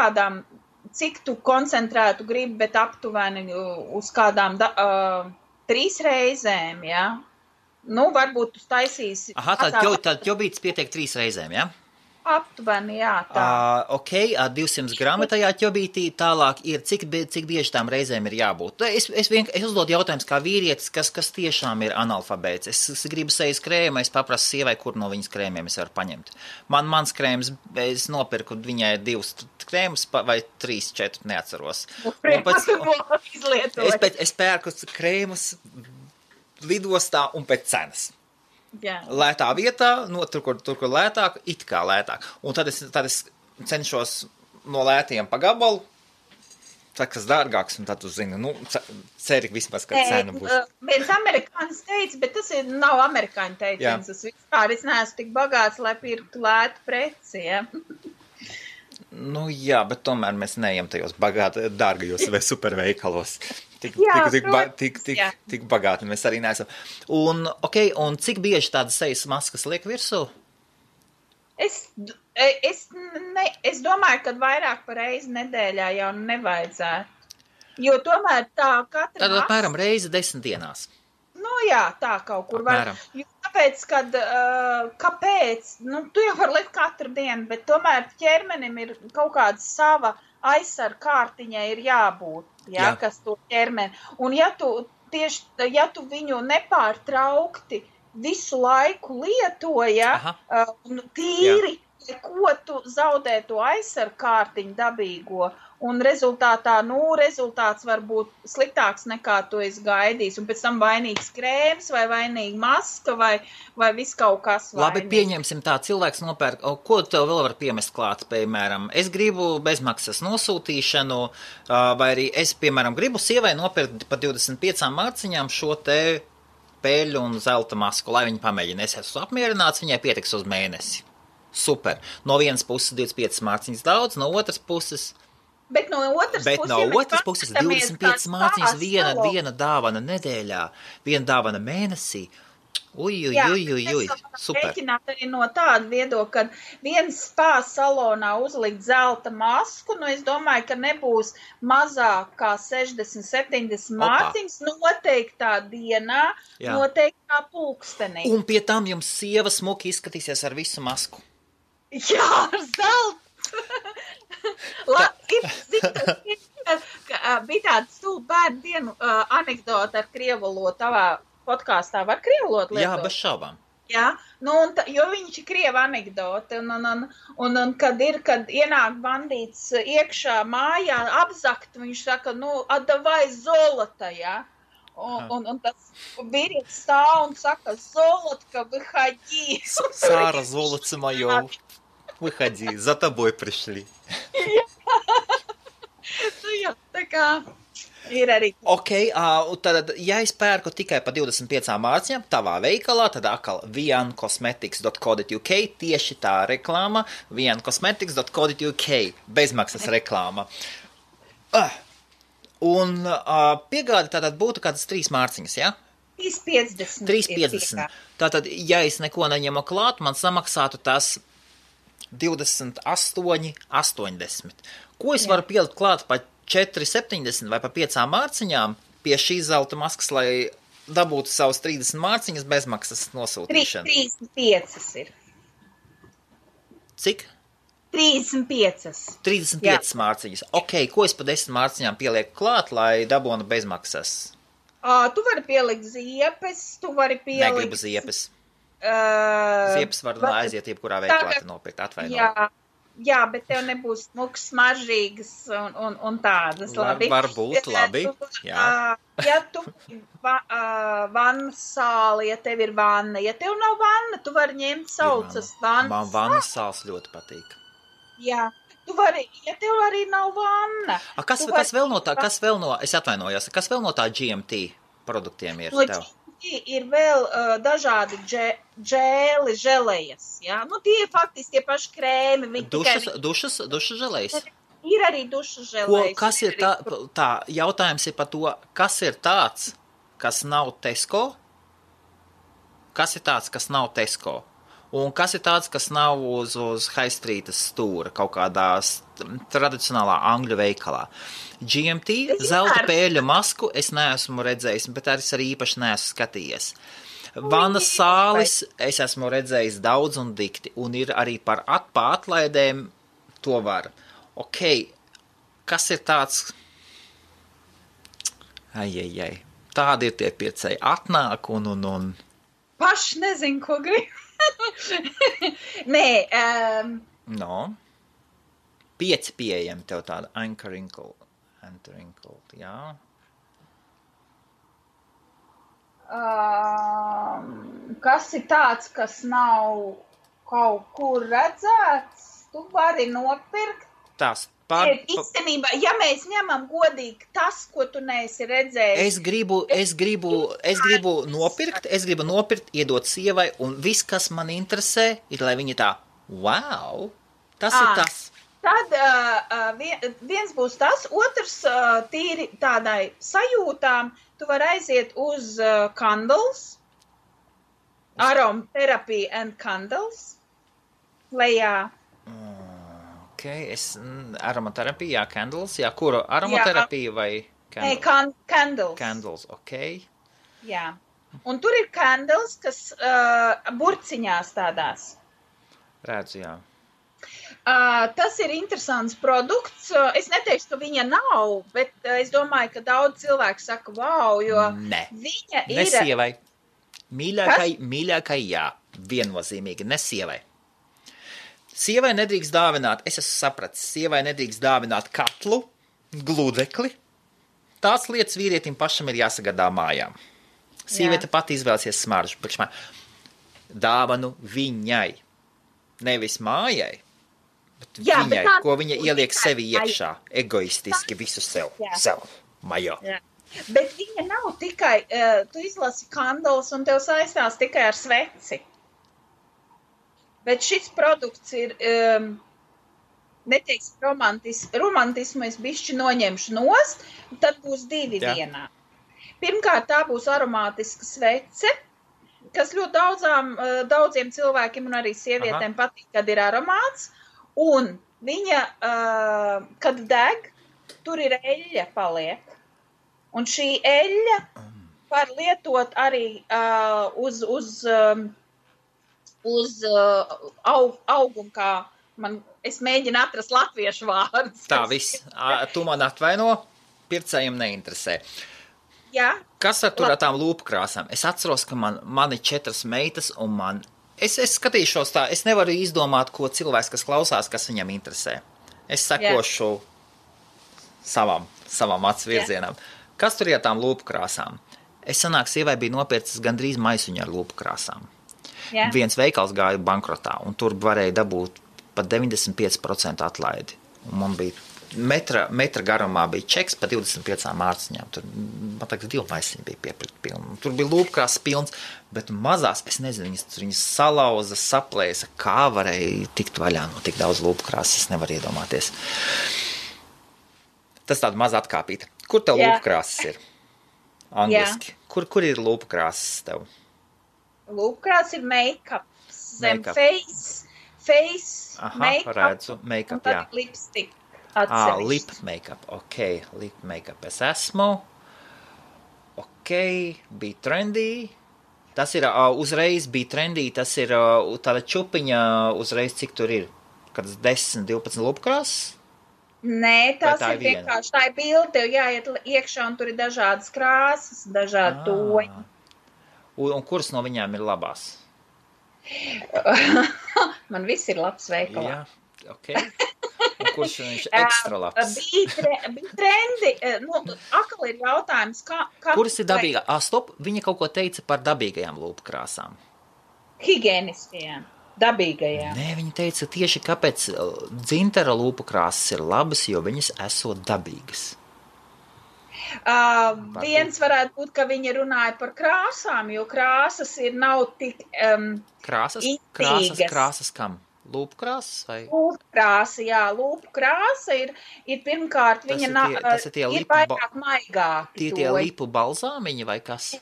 kādām, cik tu koncentrētu gribi, bet aptuveni uz kādām 3 reizēm, ja? Varbūt tu taisīsi... Tad ķobīts pietiek 3 reizēm, ja? Aptuveni, jā, tā. Ok, 200 gramu tajā ķobītī, tālāk ir, cik bieži tām reizēm ir jābūt. Es uzdodu jautājumus kā vīrietis, kas tiešām ir analfabēts. Es gribu sejas krēmu, es paprasu sievai, kur no viņas krēmiem es varu paņemt. Mans krēms, es nopirku viņai 2 krēmus vai 3, 4, neatceros. Es pērku krēmus lidostā un pēc cenas. Jā. Lētā vietā, tur, kur lētāk, it kā lētāk. Un tad es cenšos no lētiem pa gabalu, kas dārgāks, un tad tu zini, ceri vismaz, ka cena būs. Viens amerikānis teica, bet tas nav amerikāņu teiciens. Es vispār neesmu tik bagāts, lai pirktu lētu preci, ja? Jā, bet tomēr mēs neejam tajos dārgajos vai superveikalos. Tik bagāti mēs arī neesam. Un cik bieži tādas sejas maskas liek virsū? Es domāju, ka vairāk par reizi nedēļā jau nevajadzētu. Jo tomēr tā katra Tad apmēram reizi 10 dienās. Jā, tā kaut kur var. Tāpēc, kāpēc? Tu jau var likt katru dienu, bet tomēr ķermenim ir kaut kāda sava aizsarga kārtiņai ir jābūt, kas to ķermeni. Un ja tu viņu nepārtraukti visu laiku lietoja, tīri, ko tu zaudē to aizsarga kārtiņu dabīgo, un rezultāts var būt sliktāks nekā tu esi gaidījis, un pēc tam vainīgs krēms, vai vainīga maska, vai viss kaut kas vainīgs. Labi, pieņemsim tā, cilvēks nopērk, ko tev vēl var piemest klāt, piemēram, es gribu bezmaksas nosūtīšanu, vai arī es, piemēram, gribu sievai nopirkt pa 25 mārciņām šo te peļu un zelta masku, lai viņa pamēģina. Es esmu apmierināts, viņai pietiks uz mēnesi. Super. No vienas puses 25 mārciņas daudz, no otras puses... Bet no otras puses 25 mārciņas viena dāvana nedēļā, viena dāvana mēnesī. Super. Rēķināt arī no tāda viedokļa, ka viens spā salonā uzlikt zelta masku, es domāju, ka nebūs mazāk kā 60-70 mārciņas noteiktā dienā, noteiktā pulkstenī. Un pie tam jums sieva smuki izskatīsies ar visu masku. Jā, ar zeltu! Bija tāda stulba bērnu dienu anekdota ar krievolotu tavā podkāstā. Var krievolotu lietot? Jā, bez šaubām. Jā, jo viņš ir krieva anekdota, un kad ienāk bandīts iekšā mājā apzakt, viņš saka, atdavai zolota, jā. Un tas vīrietis stāv un saka, zolotka, выходи. Сара, золотце моё. Выходи, за тобой пришли. Jā, tā kā ir arī. Tad, ja es pērku tikai pa 25 mārciņām tavā veikalā, tad atkal viancosmetics.co.uk, tieši tā reklāma, viancosmetics.co.uk, bezmaksas reklāma. Un piegāde tātad būtu kādas 3 mārciņas, ja? 3,50. 3,50. Tātad, ja es neko neņemu klāt, man samaksātu tas 28,80. Ko es varu pielikt klāt pa 4,70 vai pa 5 mārciņām pie šīs zelta maskas, lai dabūtu savus 30 mārciņas bezmaksas nosūtīšanu? 35 ir. Cik? 35. 35 mārciņas. Ko es pa 10 mārciņām pielieku klāt, lai dabūtu bezmaksas? Tu vari pielikt ziepes, Negribu ziepes. Ziepes var aiziet jebkurā veiklā nopirkt, atvainot. Jā, bet tev nebūs smuks, smaržīgas un tādas. Labi. Varbūt, labi. Jā. Ja tu vannas sāli, ja tev ir vanna, ja tev nav vanna, tu vari ņemt saucas vannas. Man vannas sāls ļoti patīk. Jā. Tu vari, ja tev arī nav vanna. Kas vēl no, es atvainojos, kas vēl no tā GMT produktiem ir tev? Ir vēl dažādi želejas, jā? Tie faktiski tie paši krēmi. Dušas želejas? Ir arī dušas želejas. Kas ir tā, jautājums ir par to, kas ir tāds, kas nav Tesco? Kas ir tāds, kas nav Tesco? Un kas ir tāds, kas nav uz High Streetas stūra, kaut kādā tradicionālā angļu veikalā? GMT, zelta pēļu masku es neesmu redzējis, bet arī īpaši neesmu skatījies. Vanas sālis es esmu redzējis daudz un dikti, un ir arī par atlaidēm to var. Ok, kas ir tāds? Ai. Tādi ir tie pircēji. Atnāk un... Paši nezinu, ko grib. Nē. No. 5 pieejami tev tāda Anchor-Inkle, jā. Kas ir tāds, kas nav kaut kur redzēts, tu vari nopirkt. Tas Īstenībā, ja mēs ņemam godīgi tas, ko tu neesi redzējis. Es gribu nopirkt, iedot sievai, un viss, kas man interesē, ir, lai viņa tā, wow, tas ir tas. Tad viens būs tas, otrs tīri tādai sajūtām, tu vari aiziet uz Candles, Aromatherapy and Candles, lejā. Aromaterapija, Candles, jā, kuru aromaterapija vai Candles? Candles. Candles, ok. Jā, un tur ir Candles, kas burciņās tādās. Redzu, jā. Tas ir interesants produkts. Es neteikšu, ka viņa nav, bet es domāju, ka daudz cilvēku saka, wow, jo viņa ir... Ne sievai. Mīļākai, jā, viennozīmīgi, ne sievai. Sievai nedrīkst dāvināt, es esmu sapratis, sievai nedrīkst dāvināt katlu, gludekli. Tās lietas vīrietim pašam ir jāsagādā mājām. Sieviete pati izvēlsies smaržu. Dāvanu viņai. Nevis mājai, bet viņai, ko viņa ieliek sevi iekšā. Egoistiski visu sev. Majo. Jā. Bet viņa nav tikai, tu izlasi Candles un tev saistās tikai ar sveci. Bet šis produkts ir, neteiks romantismu, es bišķi noņemšu nost, tad būs 2 vienā. Pirmkārt, tā būs aromātiska svece, kas ļoti daudziem cilvēkiem un arī sievietēm patīk, kad ir aromāts, un viņa, kad deg, tur ir eļļa paliek. Un šī eļļa var lietot arī uz augumu, kā es mēģinu atrast latviešu vārdus. Tā viss. Tu man atvaino, pircējiem neinteresē. Jā. Kas ar tur ar tām lūpkrāsām? Es atceros, ka man ir 4 meitas, un es skatīšos tā, es nevaru izdomāt, ko cilvēks, kas klausās, kas viņam interesē. Es sekošu savam acu virzienam. Kas tur ir ar tām lūpkrāsām? Es sanāk, sievai bija nopircis gandrīz maisuņu ar lūpkrāsām. Jā. Viens veikals gāja bankrotā, un tur varēja dabūt pat 95% atlaidi. Un man bija metra garumā bija čeks pa 25 mārciņām. Tur, man tagad 2 maisiņi bija piepirkt pilni. Tur bija lūpkrās pilns, bet mazās, es nezinu, viņas salauza, saplēsa, kā varēja tikt vaļā no tik daudz lūpkrās, es nevaru iedomāties. Tas tāda maza atkāpīta. Kur tev lūpkrāsas ir? Angliski. Kur ir lūpkrāsas tev? Lūpkrās ir make-up, zem face make-up, redzu, make-up, un tad lipstick atsevišķi. Lip make-up, ok, lip make-up es esmu, ok, bija trendy, tas ir uzreiz bija trendy, tas ir tāda čupiņa uzreiz, cik tur ir, kad 10, 12 lūpkrāsas? Nē, tas ir vienkārši, tā ir bilde, tev jāiet iekšā un tur ir dažādas krāsas, dažādi toņi. Un kuras no viņām ir labās? Man viss ir labs veikalā. Jā, ok. Un kurš viņš ekstra labs? Bija trendi. Akal ir jautājums, kā... Kuras ir dabīgā? Stop, viņa kaut ko teica par dabīgajām lūpkrāsām. Higieniskajām, dabīgajām. Nē, viņa teica tieši, kāpēc dzintara lūpkrāsas ir labas, jo viņas esot dabīgas. Viens varētu būt, ka viņi runāja par krāsām, jo krāsas nav tik Krāsas kam? Lūpkrāsas vai? Lūpkrāsa, jā. Lūpkrāsa ir pirmkārt, viņa ir vairāk maigāki. Tie lipu balzāmiņi vai kas?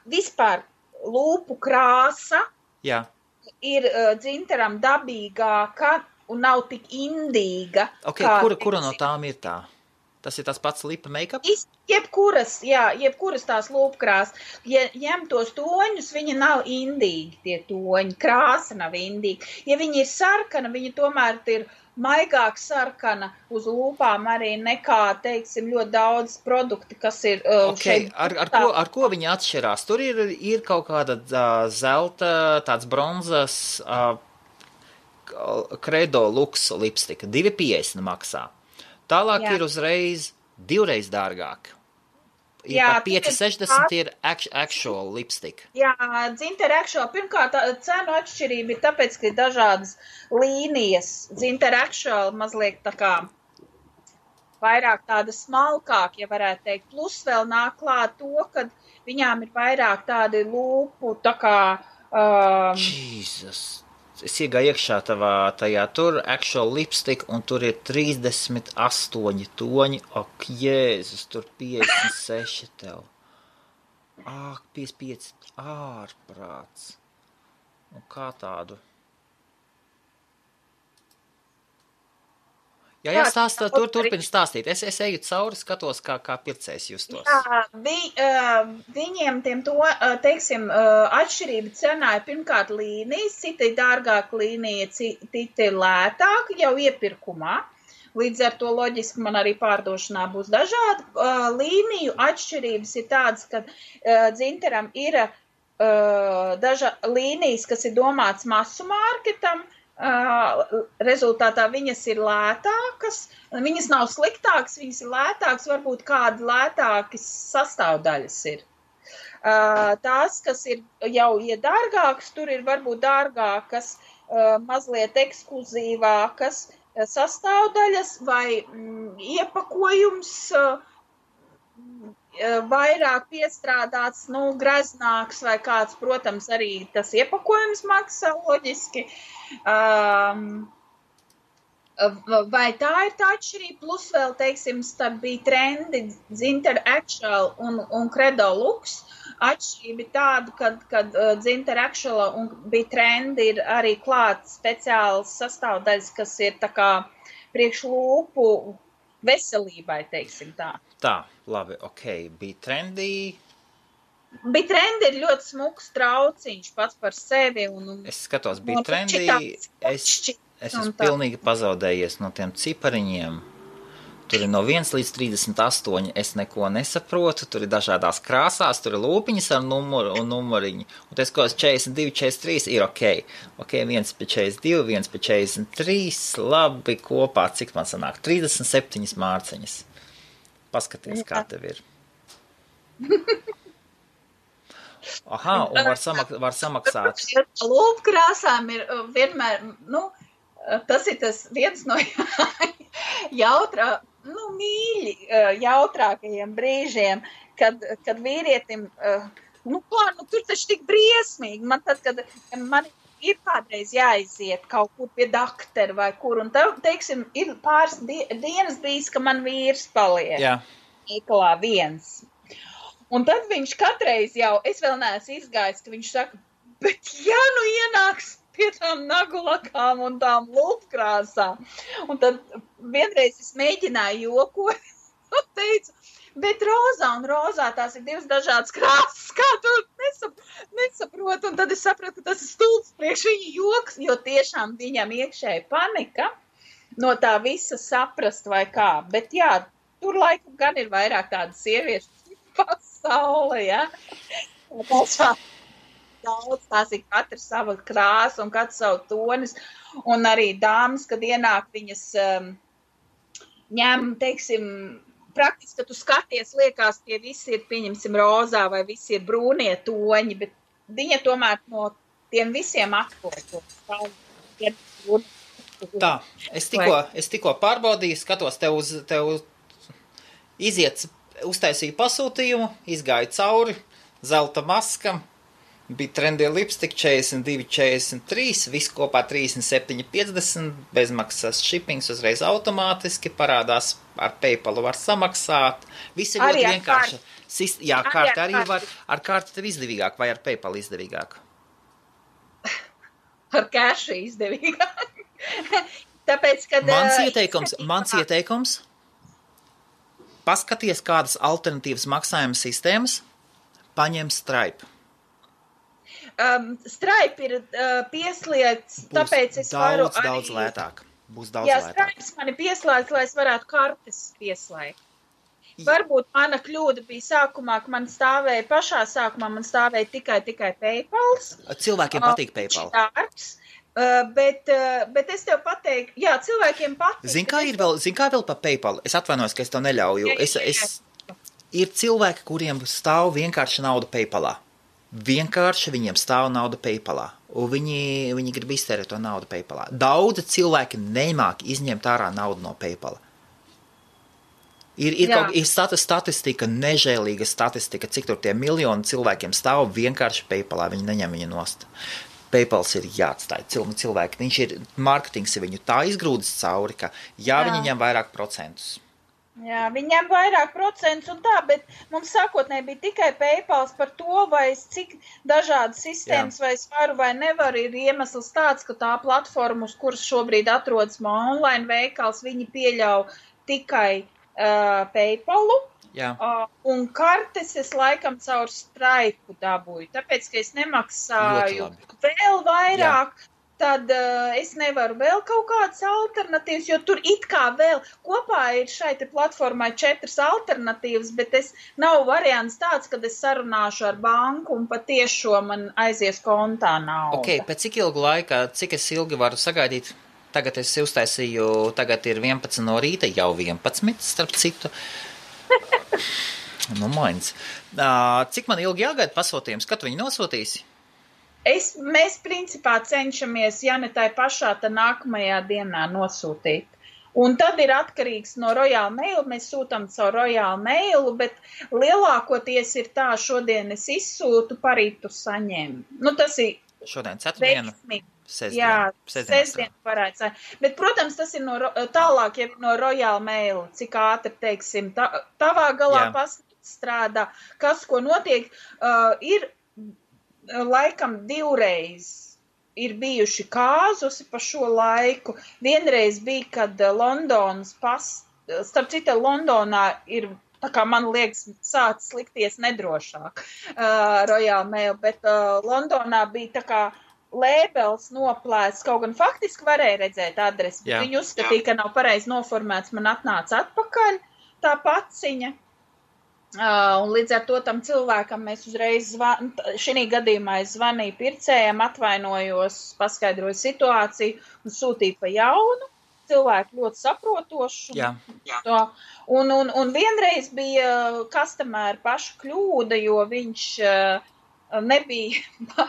Vispār lūpu krāsa ir dzintaram dabīgāka un nav tik indīga. Ok, kura no tām ir tā? Tas ir tas pats lipa make-up? Jebkuras tās lūpkrās. Ja ņem tos toņus, viņi nav indīgi, tie toņi. Krāsa nav indīga. Ja viņi ir sarkana, viņi tomēr ir maigāk sarkana uz lūpām arī nekā, teiksim, ļoti daudz produkti, kas ir šeit. Ar ko viņi atšķirās? Tur ir kaut kāda zelta, tāds bronzas Credo Lux lipstika. 2,50 maksā. Tālāk ir uzreiz 2 dārgāk. Par 5,60 ir actual lipstick. Jā, Zinter Actual. Pirmkārt, cenu atšķirība ir tāpēc, ka ir dažādas līnijas. Zinter Actual mazliet tā kā vairāk tāda smalkāk, ja varētu teikt. Plus vēl nāk klāt to, ka viņām ir vairāk tādi lūpu, tā kā... Jesus! Es iegāju iekšā tajā tur actual lipstick, un tur ir 38 toņi. Ak, Jēzus, tur 56 tev. Ak, 55 ārprāts. Un kā tādu? Jā, stāstā, turpini stāstīt. Es eju cauri, skatos, kā pircējs justos. Jā, viņiem tiem to, teiksim, atšķirība cenā ir pirmkārt līnijas, citi dārgāk līnija, citi lētāk jau iepirkumā. Līdz ar to loģiski man arī pārdošanā būs dažādi. Līniju atšķirības ir tādas, ka Zinteram ir līnijas, kas ir domāts masu mārketam. Rezultātā viņas ir lētākas, viņas nav sliktākas, viņas ir lētākas, varbūt kādi lētākas sastāvdaļas ir. Tās, kas ir jau dārgākas, tur ir varbūt dārgākas, mazliet ekskluzīvākas sastāvdaļas vai iepakojums vairāk piestrādāts, greznāks vai kāds, protams, arī tas iepakojums maksā loģiski. Vai tā ir tā atšķirība? Plus vēl, teiksim, starp bija trendi Zinter Actual un Credo Lux. Atšķirība ir tāda, kad Zinter Actual un bija trendi, ir arī klāt speciāls sastāvdaļas, kas ir tā kā priekšlūpu veselībai, teiksim tā. Tā, labi, ok, bija trendy. Bija trendi ir ļoti smuks trauciņš pats par sevi. Es skatos, bija trendi, es esmu pilnīgi pazaudējies no tiem cipariņiem. Tur ir no 1 līdz 38, es neko nesaprotu, tur ir dažādās krāsās, tur ir lūpiņas ar numuru un numuriņu. Un tas, ko 42, 43 ir ok. Ok, 1 pie 42, 1 pie 43, labi, kopā, cik man sanāk? 37 mārciņas. Paskaties, kā tev ir. Aha, un var samaksāt. Lūpkrāsām ir vienmēr, tas ir tas viens no mīļi jautrākajiem brīžiem, kad vīrietim, tur taču tik briesmīgi. Man tad, kad man ir kādreiz jāiziet kaut kur pie daktera vai kur, un teiksim, ir pāris dienas bijis, ka man vīrs paliek. Jā. Iklā viens. Un tad viņš katreiz jau, es vēl neesmu izgājis, ka viņš saka, bet ja ienāks pie tām nagulakām un tām lūpkrāsām. Un tad vienreiz es mēģināju jokot un teicu, bet rozā tās ir divas dažādas krāsas, kā tu nesaproti. Un tad es sapratu, ka tas ir stulbs priekš viņa joks, jo tiešām viņam iekšēji panika no tā visa saprast vai kā. Bet jā, tur laikam gan ir vairāk tādas sieviešu pasaule, ja? Daudz, tās ir katra sava krāsa un katra savu tonis. Un arī dāmas, kad ienāk, viņas ņem, teiksim, praktiski, ka tu skaties, liekas, tie visi ir, pieņemsim, rozā vai visi ir brūnie toņi, bet viņa tomēr no tiem visiem atkotos. Tā, es tikko pārbaudīju, skatos tev uztaisīju pasūtījumu, izgāju cauri, zelta maskam, bija trendy lipstick 42, 43, viss kopā 37,50, bezmaksas shippings uzreiz automātiski, parādās ar PayPalu var samaksāt, viss ir ļoti vienkārši. Jā, kārta arī var, ar kārtu tev izdevīgāk vai ar PayPal izdevīgāk? Ar cash izdevīgāk. Tāpēc, kad... Mans ieteikums, paskaties, kādas alternatīvas maksājuma sistēmas paņem Stripe. Stripe ir pieslēgts, tāpēc es varu arī... Daudz lētāk. Būs daudz lētāk. Stripe mani pieslēgts, lai es varētu kartes pieslēgt. Varbūt mana kļūda bija sākumā, ka man stāvēja pašā sākumā, man stāvēja tikai PayPals. Cilvēkiem patīk PayPal. Bet es tev pateiktu, jā, cilvēkiem patīk. Zin kā vēl par PayPal? Es atvainojos, ka es to neļauju. Ir cilvēki, kuriem stāv vienkārši nauda PayPalā. Vienkārši viņiem stāv nauda PayPalā. Un viņi grib iztērēt to naudu PayPalā. Daudzi cilvēki nemāk izņemt ārā naudu no PayPala. Ir statistika, nežēlīga statistika, cik tur tie miljoni cilvēkiem stāv vienkārši PayPalā, viņi neņem viņu nost. PayPals ir jāatstāj cilvēki, viņš ir, marketings ir viņu tā izgrūdis cauri, ka viņi ņem vairāk procentus. Jā, viņam vairāk procentus un tā, bet mums sākotnēji bija tikai PayPals par to, vai cik dažādas sistēmas vai es varu vai nevaru, ir iemesls tāds, ka tā platforma, uz kuras šobrīd atrodas online veikals, viņi pieļauj tikai PayPalu. Jā. Un kartes es laikam caur Stripe dabūju, tāpēc, ka es nemaksāju vēl vairāk, tad es nevaru vēl kaut kādas alternatīvas, jo tur it kā vēl kopā ir šai te platformai 4 alternatīvas, bet nav variants tāds, kad es sarunāšu ar banku un patiešo man aizies kontā nauda. Ok, pēc cik ilgu laika, cik es ilgi varu sagaidīt? Tagad es uztaisīju, tagad ir 11 no rīta, jau 11, starp citu. Mains. Cik man ilgi jāgaida pasūtījums? Kad viņi nosūtīsi? Mēs principā cenšamies, ja ne tai pašā, tad nākamajā dienā nosūtīt. Un tad ir atkarīgs no Royal Mail, mēs sūtam caur Royal Mailu, bet lielākoties ir tā, šodien es izsūtu, parīt tu saņem. Tas ir šodien ceturtdienu? Sestdien varētu būt. Bet, protams, tas ir tālāk jau no Royal Mail, cik ātri, teiksim, tavā galā strādā, kas, ko notiek, ir laikam 2 reizes ir bijuši kāzusi pa šo laiku. Vienreiz bija, kad starp citu, Londonā ir, tā kā man liekas, sācis likties nedrošāk Royal Mail, bet Londonā bija tā kā lēbels noplēsts, kaut gan faktiski varēja redzēt adresi, bet viņi uzskatīja, ka nav pareizi noformēts, man atnāca atpakaļ tā paciņa. Un līdz ar to tam cilvēkam mēs uzreiz šī gadījumā es zvanīju pircējiem, atvainojos, paskaidroju situāciju un sūtīju pa jaunu. Cilvēki ļoti saprotoši. Un vienreiz bija customer paša kļūda, jo viņš nebija,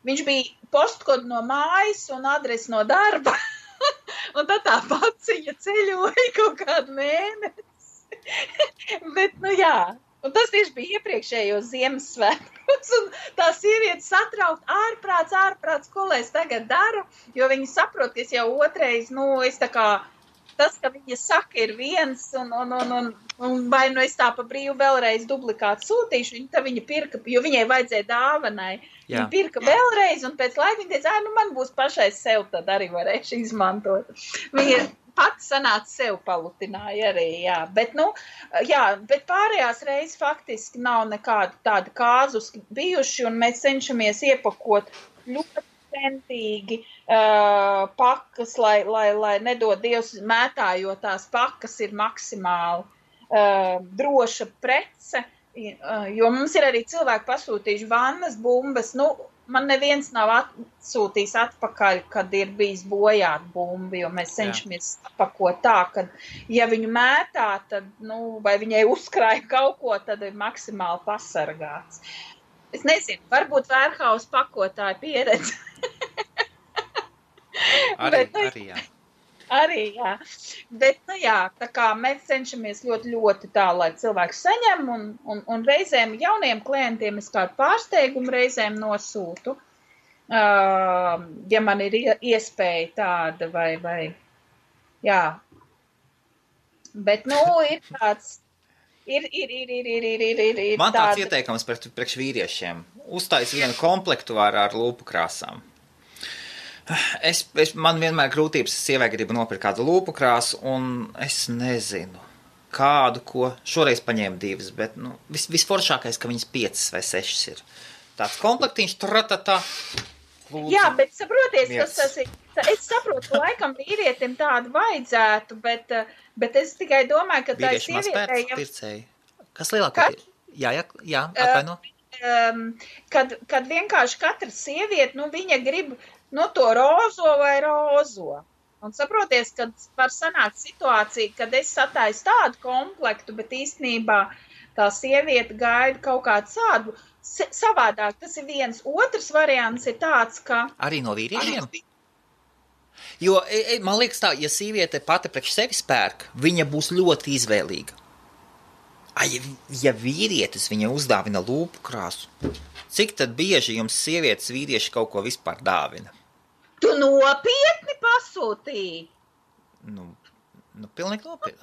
viņš bija postkodu no mājas un adresi no darba. Un tad tā paciņa ceļoja kaut kādu mēnesi. Bet, un tas tieši bija iepriekšējos Ziemassvētkos, un tā sieviete satraukt ārprāts, ko lai es tagad daru, jo viņi saprot, ka es jau otrais, es tā kā, tas, ka viņa saka, ir viens, un vai es tā pa brīvu vēlreiz duplikātu sūtīšu, viņa pirka, jo viņai vajadzēja dāvanai, viņa pirka vēlreiz, un pēc laika viņa teica, man būs pašai sev, tad arī varēšu izmantot. Viņa pati sanāca sev palutināja arī, bet, bet pārējās reizes faktiski nav nekāda tāda kāzus bijuši, un mēs cenšamies iepakot ļoti centīgi pakas, lai nedod Dievs mētājot tās pakas ir maksimāli droša prece, jo mums ir arī cilvēki pasūtījuši vannas, bumbas, man neviens nav atsūtījis atpakaļ, kad ir bijis bojāt bumbi, jo mēs cenšamies apakot tā, ka, ja viņu mētā, tad, vai viņai uzkrāja kaut ko, tad ir maksimāli pasargāts. Es nezinu, varbūt Vērhaus pakotāja pieredze. Arī, jā. Bet, tā kā mēs cenšamies ļoti, ļoti tā, lai cilvēks saņem, un reizēm jauniem klientiem es kādu pārsteigumu reizēm nosūtu, ja man ir iespēja tāda, vai, jā. Bet, ir tāds, ir man tāds ieteikums priekš vīriešiem. Uztais vienu komplektu ar lūpu krāsām. Man vienmēr grūtības, sievai gribu nopirkt kādu lūpu krāsu, un es nezinu. kādu, ko šoreiz paņēma 2, bet, visforšākais, ka viņas 5 vai 6 ir. Tāds komplektiņš, tratatā. Lūdzu. Jā, bet saproties, tas ir, es saprotu, laikam vīrietim tādu vajadzētu, bet es tikai domāju, ka tā ir sievietē. Pircēji. Kas lielākā ir? Jā, atvaino. Kad vienkārši katra sieviete, viņa grib, to rozo vai rozo. Un saproties, kad var sanākt situācija, kad es sataisu tādu komplektu, bet īstenībā tā sieviete gaida kaut kādu tādu savādāk. Tas ir viens. Otrs variants ir tāds, ka... Arī no vīriešiem? Jo, man liekas tā, ja sieviete pati priekš sevis pērk, viņa būs ļoti izvēlīga. Ja vīrietis viņa uzdāvina lūpu krāsu, cik tad bieži jums sievietes vīrieši kaut ko vispār dāvina? Tu nopietni pasūtīji? Pilnīgi nopietni.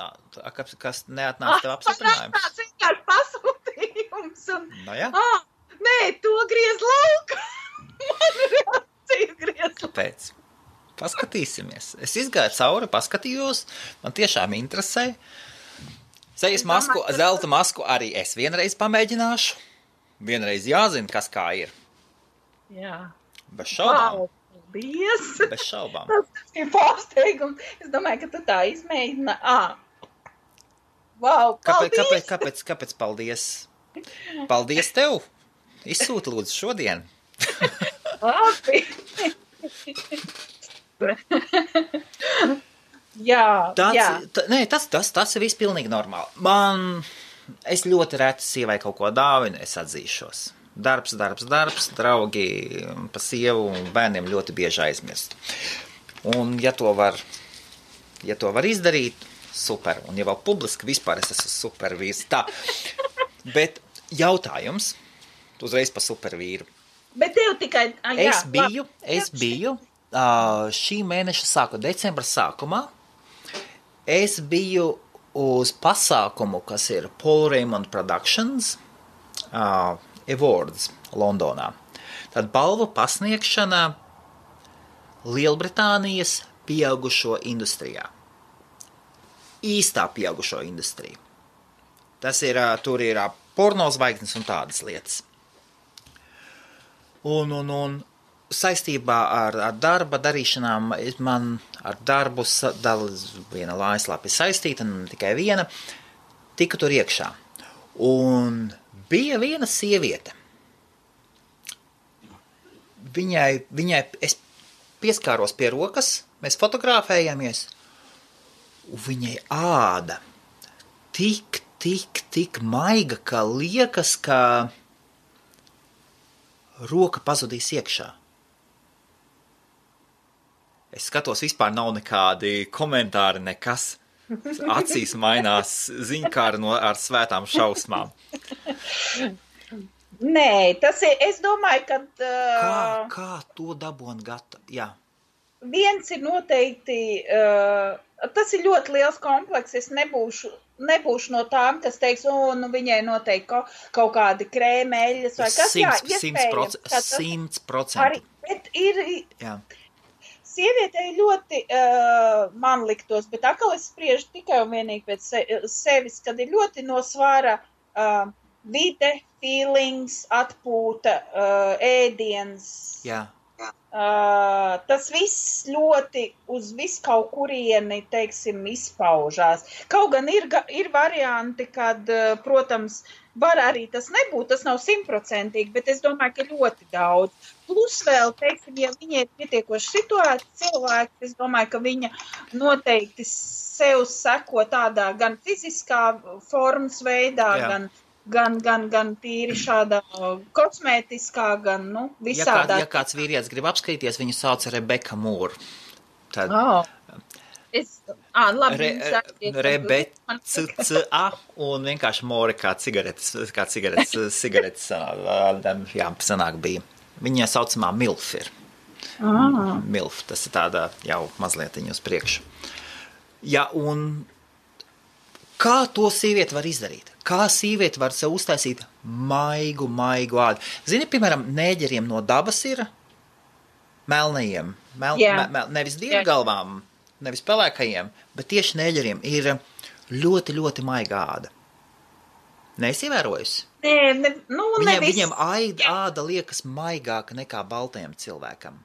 Kas neatnāca tev apstiprinājums? Tas vienkārši pasūtījums. Jā. Nē, to griez lauka. Man reakcija griez lauka. Kāpēc? Paskatīsimies. Es izgāju cauri, paskatījos. Man tiešām interesē. Sejas masku, zelta masku arī es vienreiz pamēģināšu. Vienreiz jāzina, kas kā ir. Jā. Bez šaubām. Wow, paldies. Bez šaubām. Tas ir pārsteigums. Es domāju, ka tu tā izmēģina. Wow, paldies. Kāpēc paldies? Paldies tev. Izsūti lūdzu šodien. Labi. Jā. Tas ir viss pilnīgi normāli. Es ļoti reti sievai kaut ko dāvinu, es atzīšos. Darbs, draugi pa sievu un bērniem ļoti bieži aizmirst. Un ja to var izdarīt, super. Un ja vēl publiski vispār es esmu supervīrs. Tā. Bet jautājums, uzreiz pa supervīru. Bet tev tikai... Es biju šī mēneša decembra sākumā. Es biju uz pasākumu, kas ir Paul Raymond Productions Awards Londonā. Tad balvu pasniegšana Lielbritānijas pieaugušo industrijā. Īstā pieaugušo industrija. Tas ir, tur ir porno zvaigznes un tādas lietas. Un saistībā ar darba darīšanām man ar darbu viena mājaslapa ir saistīta, ne tikai viena, tika tur iekšā. Un bija viena sieviete. Viņai es pieskāros pie rokas, mēs fotografējamies, un viņai āda tik maiga, ka liekas, ka roka pazudīs iekšā. Es skatos, vispār nav nekādi komentāri, nekas. Acīs mainās ziņkāri ar svētām šausmām. Nē, tas ir, es domāju, ka... Kā to dabon gatavu? Jā. Viens ir noteikti, tas ir ļoti liels kompleks, es nebūšu no tām, kas teiks, viņai noteikti kaut kādi krēmeļas vai kas, 100%. Arī, bet ir, jā. Sievietei ļoti, man liktos, bet atkal es spriežu tikai un vienīgi pēc sevis, kad ir ļoti no svara vide, feelings, atpūta, ēdiens. Jā. Tas viss ļoti uz visu kaut kurieni, teiksim, izpaužās. Kaut gan ir varianti, kad, protams, var arī tas nebūt, tas nav 100%, bet es domāju, ka ļoti daudz. Plus vēl, teiksim, ja viņa ir pietiekoši situēta cilvēks, es domāju, ka viņa noteikti sev seko tādā gan fiziskā formas veidā, gan tīri šādā kosmētiskā, gan, visādā. Ja kāds vīrietis grib apskatīties, viņu sauc Rebeka Mūra. Tad... Rebeka un vienkārši Mūra kā cigaretes sanāk bija. Viņa saucamā MILF ir. MILF, tas ir tāda jau mazlietiņu uz priekšu. Ja, un kā to sievieti var izdarīt? Kā sievieti var sev uztaisīt maigu ādu? Zini, piemēram, nēģeriem no dabas ir melnajiem, nevis dievgalvām, nevis pelēkajiem, bet tieši nēģeriem ir Ļoti, ļoti maiga āda. Neesi ievērojusi? Viņiem āda liekas maigāka nekā baltajam cilvēkam.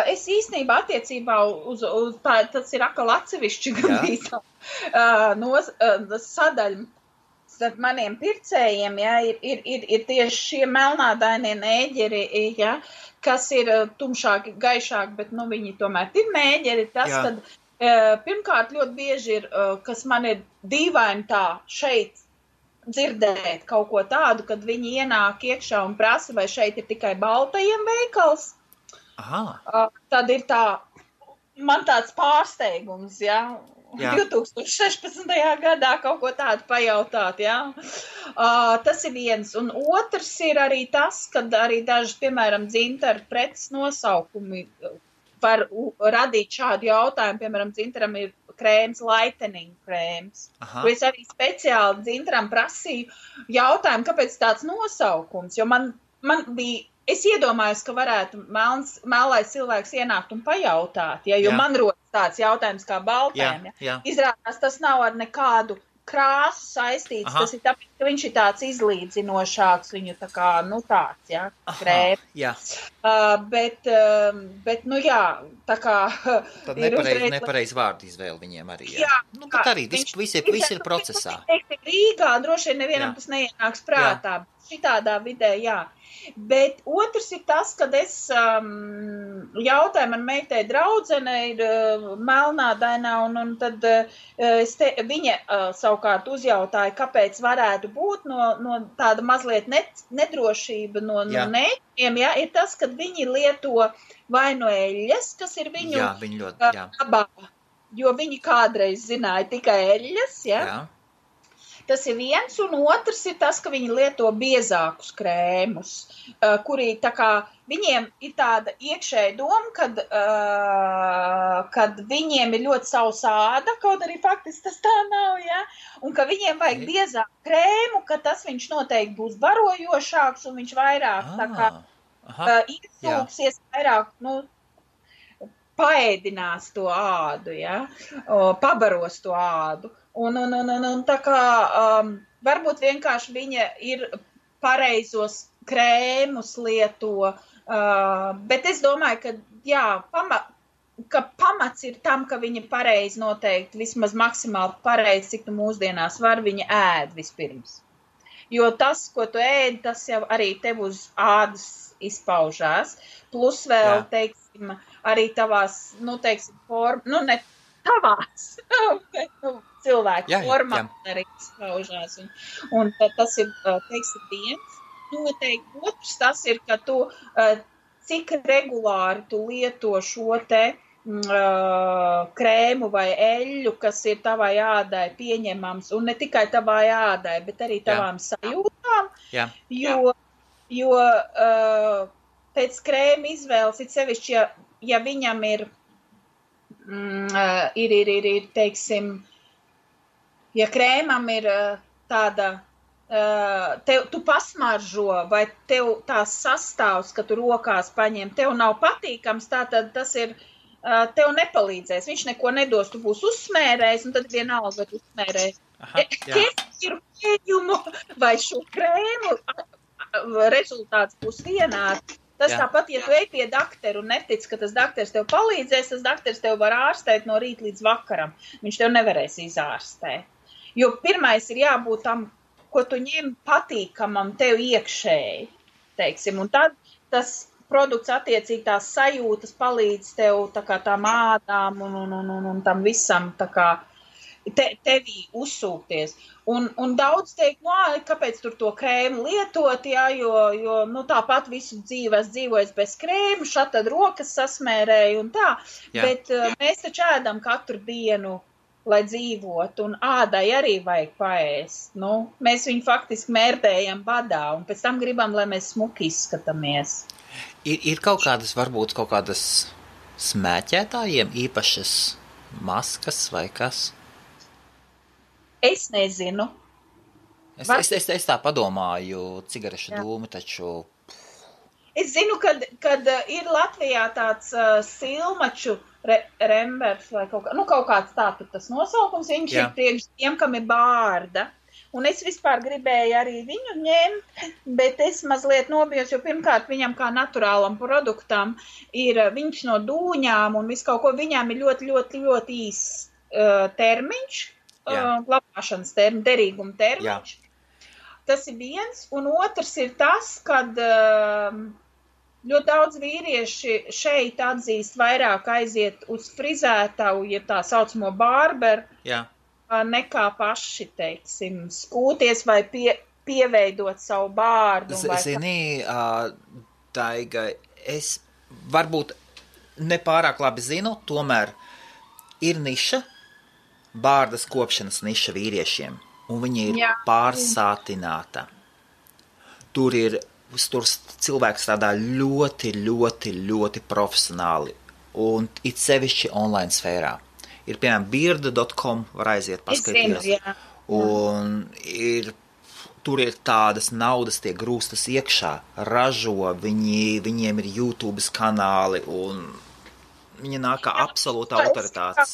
Es īstenībā attiecībā uz tas ir atkal atsevišķi gandrīz sadaļa starp maniem pircējiem, ir tieši šie melnādainie nēģeri, kas ir tumšāki, gaišāki, bet, viņi tomēr ir nēģeri. Tas, kad pirmkārt ļoti bieži ir, kas man ir dīvaini tā šeit dzirdēt kaut ko tādu, kad viņi ienāk iekšā un prasa, vai šeit ir tikai baltajiem veikals. Tad ir man tāds pārsteigums, 2016. gadā kaut ko tādu pajautāt, Tas ir viens. Un otrs ir arī tas, kad arī daži, piemēram, dzintaru preces nosaukumi var radīt šādu jautājumu. Piemēram, dzintaram ir krēms, lightening krēms. Es arī speciāli dzintaram prasīju jautājumu, kāpēc tāds nosaukums, jo man bija, es iedomājos, ka varētu melnais cilvēks ienākt un pajautāt, jo man rodas tāds jautājums kā baltēm. Izrādās, tas nav ar nekādu krāsu saistīts, tas ir tāpēc, ka viņš ir tāds izlīdzinošāks, viņu tā kā, tāds, krēms. Bet, tā kā... Tad nepareiz vārdu izvēle viņiem arī, bet arī visi ir procesā. Rīgā droši vien nevienam tas neienāks prātā, šitādā vidē, Bet otrs ir tas, kad es jautāju, man meitai draudzene ir melnādainā, un tad viņa savukārt uzjautāja, kāpēc varētu būt no tāda mazliet nedrošība no nēģiem, ir tas, kad viņi lieto vai no eļļas, kas ir viņu abā, jo viņi kādreiz zināja tikai eļļas, Tas ir viens, un otrs ir tas, ka viņi lieto biezākus krēmus, kuri tā kā viņiem ir tāda iekšēja doma, kad viņiem ir ļoti sausa āda, kaut arī faktiski tas tā nav, un ka viņiem vajag biezāku krēmu, ka tas viņš noteikti būs barojošāks, un viņš vairāk tā kā iesūksies vairāk, paēdinās to ādu, pabaros to ādu. Un tā kā varbūt vienkārši viņa ir pareizos krēmus lieto, bet es domāju, ka pamats ir tam, ka viņa pareizi noteikti, vismaz maksimāli pareizi, cik tu mūsdienās var, viņa ēd vispirms. Jo tas, ko tu ēd, tas jau arī tev uz ādas izpaužās, plus vēl, teiksim, arī tavās, ne tavās, bet, cilvēku formā arī izpaužās. Un tas ir, teiksim, viens. Noteikti otrs tas ir, ka tu, cik regulāri tu lieto šo te krēmu vai eļļu, kas ir tavai ādai pieņemams, un ne tikai tavai ādai, bet arī tavām sajūtām, jo pēc krēma izvēles, it sevišķi, ja viņam ir, teiksim, ja krēmam ir tāda, tu pasmaržo, vai tev tās sastāvs, ka tu rokās paņem, tev nav patīkams, tātad tas ir, tev nepalīdzēs, viņš neko nedos, tu būs uzsmērējis, un tad vienalga, vai tu uzsmērēji kefiru pieņumu vai šo krēmu, rezultāts būs vienāds. Tas tāpat, ja tu ej pie dakteru un netic, ka tas dakters tev palīdzēs, tas dakters tev var ārstēt no rīta līdz vakaram. Viņš tev nevarēs izārstēt. Jo pirmais ir jābūt tam, ko tu ņem patīkamam tev iekšēji, teiksim. Un tad tas produkts attiecīgi tās sajūtas palīdz tev tā kā tām ādām un tam visam tā kā tevī uzsūkties. Un daudz teikt, kāpēc tur to krēmu lietot, jo tāpat visu dzīvojis bez krēmu, šad tad rokas sasmērēju un tā, bet mēs taču ēdam katru dienu, lai dzīvot, un ādai arī vajag paēst. Mēs viņu faktiski mērdējam badā, un pēc tam gribam, lai mēs smuki izskatāmies. Ir varbūt kaut kādas smēķētājiem īpašas maskas vai kas? Es nezinu. Es tā padomāju, cigarešu dūmi taču... Es zinu, kad ir Latvijā tāds silmaču rembers vai kaut kāds tāds tas nosaukums, viņš ir priekš tiem, kam ir bārda. Un es vispār gribēju arī viņu ņemt, bet es mazliet nobijos, jo pirmkārt viņam kā naturālam produktam ir viņš no dūņām un visu kaut ko, viņām ir ļoti, ļoti, ļoti īsts termiņš, glabāšanas derīguma termiņš. Jā. Tas ir viens, un otrs ir tas, kad ļoti daudz vīrieši šeit atzīst vairāk aiziet uz frizētavu, ja tā saucamo barberu, nekā paši, teiksim, skūties vai pieveidot savu bārdu. Zini, Daiga, es varbūt nepārāk labi zinu, tomēr ir niša, bārdas kopšanas niša vīriešiem. Un viņa ir pārsātināta. Tur cilvēks strādā ļoti, ļoti, ļoti profesionāli. Un it sevišķi online sfērā. Ir, piemēram, beard.com, var aiziet paskatīties. Un tur ir tādas naudas, tie grūstas iekšā, ražo, viņiem ir YouTube kanāli, un viņi nāk kā absolūta autoritātes.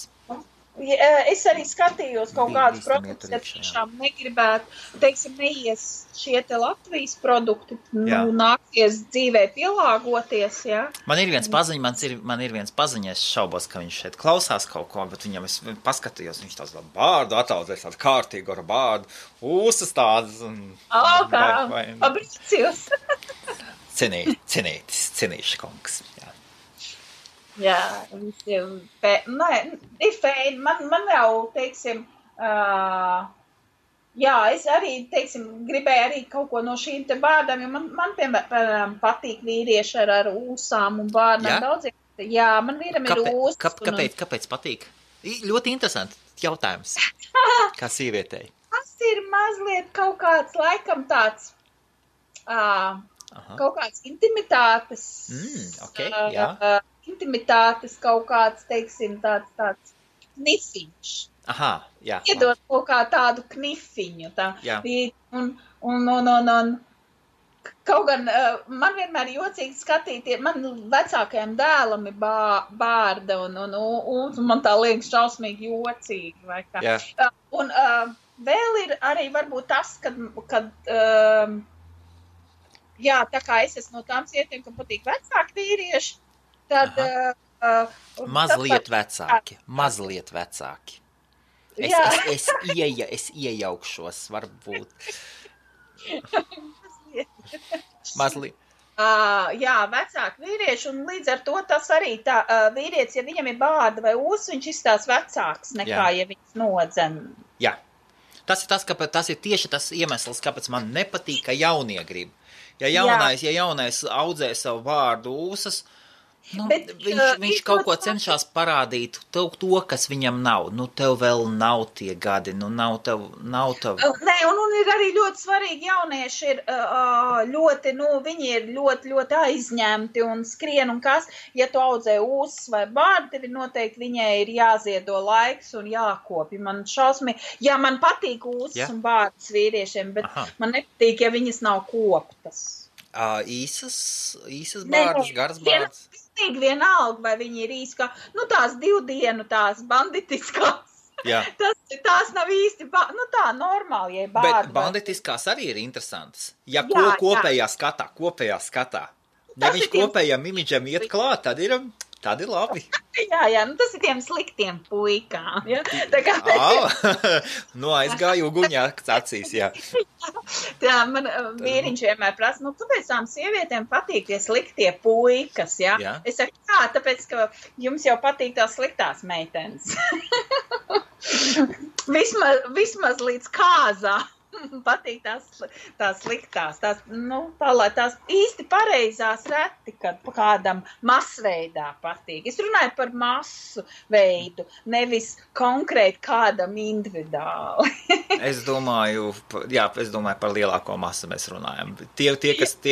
Es arī skatījos kaut kādus produktus, ja tiešām negribētu, teiksim, neies šie te Latvijas produkti, nāksies dzīvē pielāgoties, jā. Man ir viens paziņa, es šaubos, ka viņš šeit klausās kaut ko, bet viņam es paskatījos, viņš tāds bārdu ataudzēs, tādu kārtīgu ar bārdu, ūsas tādas. Pabrīcijos. Cenīši kungs, jā. Jā, visiem ir fēni. Man jau, teiksim, es arī, teiksim, gribēju arī kaut ko no šīm te bārdām, jo man piemēram, patīk vīrieši ar ūsām un bārdām daudziem. Jā, man vīram ir ūsas. Kāpēc patīk? Ļoti interesanti jautājums, kā sīvietei. Tas ir mazliet kaut kāds, laikam tāds, kaut kāds intimitātes. Intimitātes kaut kāds, teiksim, tāds knifiņš. Iedot kaut kā tādu knifiņu. Un kaut gan man vienmēr jocīgi skatīties, man vecākajam dēlam ir bārda, un man tā liekas šausmīgi jocīgi. Vai kā. Un vēl ir arī varbūt tas, kad tā kā es esmu no tām sievietēm, kam patīk vecāki vīrieši, tad mazliet vecāki. Es iejaukšos, varbūt. Mazliet. Vecāki vīrieši, un līdz ar to tas arī tā vīrietis, ja viņam ir bārda vai ūs, viņš izstās vecāks nekā, ja viņš nodzen. Jā. Tas ir tieši tas iemesls, kāpēc man nepatīk, ka jaunie grib. Ja jaunais audzē savu bārdu ūsas, viņš kaut ko cenšas parādīt, to, kas viņam nav. Tev vēl nav tie gadi, nav tev. Nē, un ir arī ļoti svarīgi, jaunieši ir ļoti, viņi ir ļoti, ļoti aizņemti un skrien un kas. Ja tu audzē ūsas vai bārdu, tev noteikti viņai ir jāziedo laiks un jākopja. Man man patīk ūsas un bārdas vīriešiem, bet man nepatīk, ja viņas nav koptas. Īsas bārdas, garas bārdas. Vienalga, vai viņi ir īsti kā, tās 2 dienu, tās banditiskās. Tās nav īsti, tā normāli, ja bārda. Bet banditiskās arī ir interesantas. Ja kopējā skatā. Ja viņš kopējam imidžam iet klāt, tad ir labi. Tas ir tiem sliktiem puikām. Ja? Aizgāju uguņāks acīs, jā. Man vīriņš vienmēr prasa, kāpēc tām sievietēm patīk tie sliktie puikas, ja? Es saku, tāpēc, ka jums jau patīk tās sliktās meitenes. vismaz līdz kāzā. Patīk tās sliktās, lai tās īsti pareizās reti, kad kādam masveidā patīk. Es runāju par masu veidu, nevis konkrēti kādam individuāli. Es domāju par lielāko masu mēs runājam. Tie,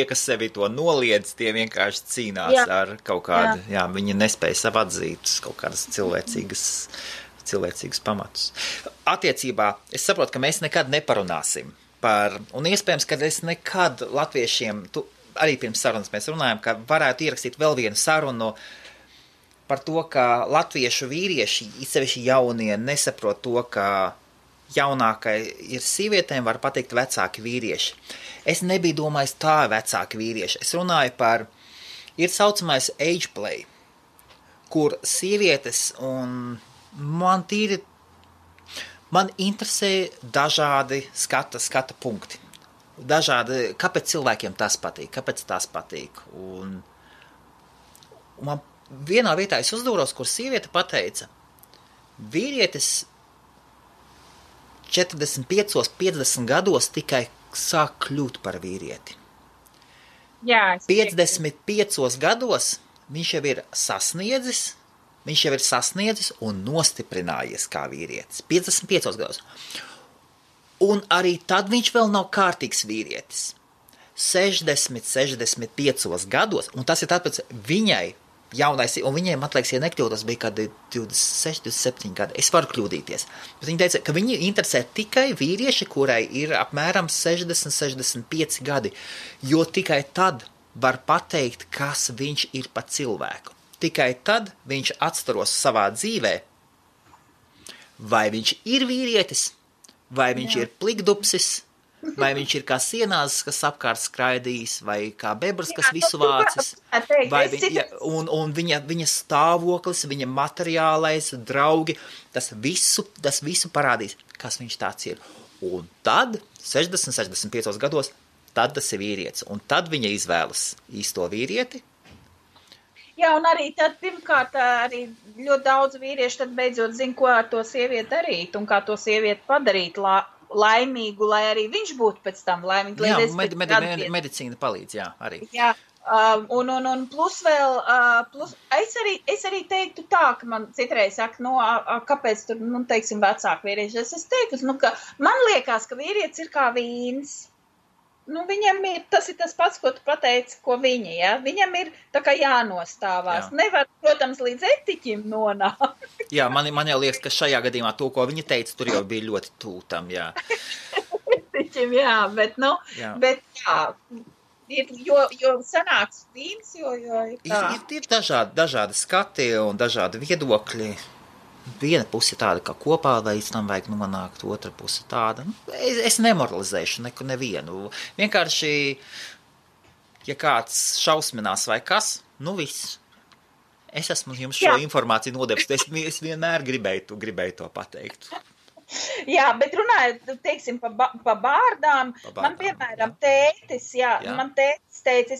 kas sevi to noliedz, tie vienkārši cīnās ar kaut kādu, viņi nespēja sev atzīt kaut kādas cilvēcīgus pamatus. Attiecībā, es saprotu, ka mēs nekad neparunāsim par, un iespējams, ka es nekad latviešiem, arī pirms sarunas mēs runājam, ka varētu ierakstīt vēl vienu sarunu par to, ka latviešu vīrieši, īpaši jaunie, nesaprot to, ka jaunākai ir sievietēm, var pateikt vecāki vīrieši. Es nebiju domājis tā vecāki vīrieši. Es runāju par, ir saucamais age play, kur sievietes un man interesē dažādi skata punkti. Dažādi, kāpēc cilvēkiem tas patīk. Un man vienā vietā es uzdūros, kur sieviete pateica, vīrietis 45, 50 gados tikai sāk kļūt par vīrieti. Jā, 55 gados viņš jau ir sasniedzis un nostiprinājies kā vīrietis. 55 gados. Un arī tad viņš vēl nav kārtīgs vīrietis. 60, 65 gados, un tas ir tāpēc viņai jaunais, un viņiem, man liekas, ja nekļūdos, bija kādi 26, 27 gadi. Es varu kļūdīties. Bet viņi teica, ka viņi interesē tikai vīrieši, kurai ir apmēram 60, 65 gadi, jo tikai tad var pateikt, kas viņš ir pa cilvēku. Tikai tad viņš atstaros savā dzīvē, vai viņš ir vīrietis, vai viņš ir plikdupsis, vai viņš ir kā sienās, kas apkārt skraidīs, vai kā bebrs, kas visu vācis, vai un viņa stāvoklis, viņa materiālais, draugi, tas visu parādīs, kas viņš tāds ir. Un tad, 60, 65 gados, tad tas ir vīrietis, un tad viņa izvēlas īsto vīrieti. Jā, un arī tad, pirmkārt, arī ļoti daudz vīrieši tad beidzot zina, ko ar to sievieti darīt, un kā to sievieti padarīt laimīgu, lai arī viņš būtu pēc tam laimīgi. Jā, medicīna palīdz, jā, arī. Jā, un plus vēl, es arī teiktu tā, ka man citreiz saka, kāpēc tur, teiksim, vecāki vīrieši. Es teiktu, ka man liekas, ka vīrietis ir kā vīns. Viņam ir, tas ir tas pats, ko tu pateici, ko viņi, ja? Viņam ir tā kā jānostāvās. Jā. Nevar, protams, līdz etiķim nonākt. Jā, man jau liekas, ka šajā gadījumā to, ko viņa teica, tur jau bija ļoti tūtam, jā. Etiķim, jā, bet jo sanāks vīns, jo ir tā. Ir dažādi skati un dažādi viedokļi. Viena puse tāda, ka kopā līdz tam vajag nonākt, otra puse tāda. Es nemoralizēšu nevienu. Vienkārši, ja kāds šausminās vai kas, viss. Es esmu jums šo informāciju nodevis, es vienmēr gribēju to pateikt. Jā, bet runājot, teiksim, pa bārdām, man, piemēram, tētis, man tētis teica,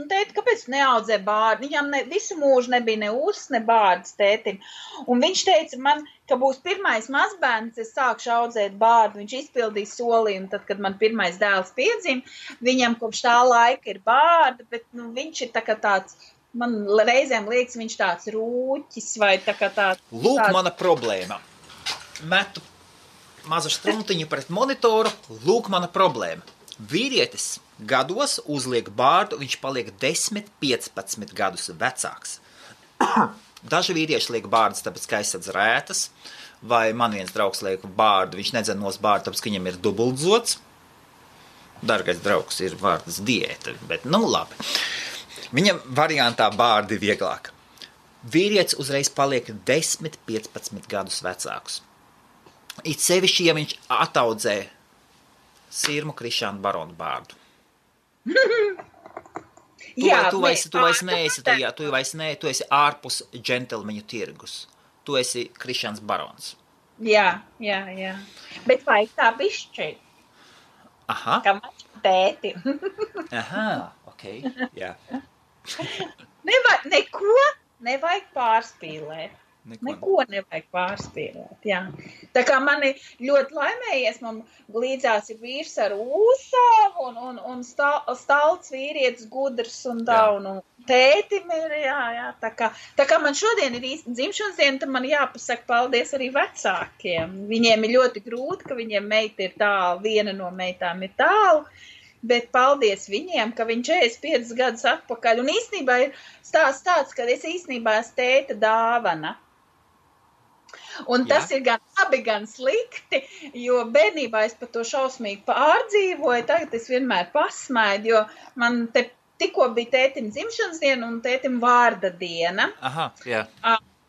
tēti, kāpēc neaudzē bārdu? Viņam visu mūžu nebija ne ūsas, ne bārdas tētim. Un viņš teica man, ka būs pirmais mazbērns, es sākšu audzēt bārdu. Viņš izpildīja solījumu, tad, kad man pirmais dēls piedzima, viņam kopš tā laika ir bārda, bet viņš ir tā kā tāds, man reizēm liekas, viņš tāds rūķis vai tā kā tāds. Lūk, mana problēma. Metu mazu struntiņu pret monitoru, lūk mana problēma. Vīrietis gados uzliek bārdu, viņš paliek 10, 15 gadus vecāks. Daži vīrieši liek bārdas, tāpēc, ka aizsadz rētas, vai man viens draugs liek bārdu, viņš nedzen nos bārdu, tāpēc, ka viņam ir dubultzots. Dargais draugs ir vārdas diēta, bet labi. Viņam variantā bārdi vieglāk. Vīrietis uzreiz paliek 10, 15 gadus vecāks. It sevišķi, ja viņš ataudzē Sirmu Krišānu Baronu bārdu. Tu esi ārpus džentelmeņu tirgus. Tu esi Krišāns Barons. Jā. Bet vajag tā bišķi. Aha. Kā man tēti. Aha, ok, jā. Neko nevajag pārspīlēt. Neko nevajag pārspīlēt, jā. Tā kā mani ļoti laimējies, man līdzās ir vīrs ar ūsām un stalts vīrietis gudrs un tā, un tētim ir, jā. Tā kā man šodien ir īsti dzimšanas diena, tad man jāpasaka paldies arī vecākiem. Viņiem ir ļoti grūti, ka viņiem meita ir tālu, viena no meitām ir tālu, bet paldies viņiem, ka viņi 45 gadus atpakaļ. Un īstenībā ir stāsts tāds, ka es īstenībā esmu tēta dāvana. Un tas ir gan labi, gan slikti, jo bērnībā es par to šausmīgi pārdzīvoju, tagad es vienmēr pasmaidu, jo man te tikko bija tētim dzimšanas diena un tētim vārda diena. Aha, jā.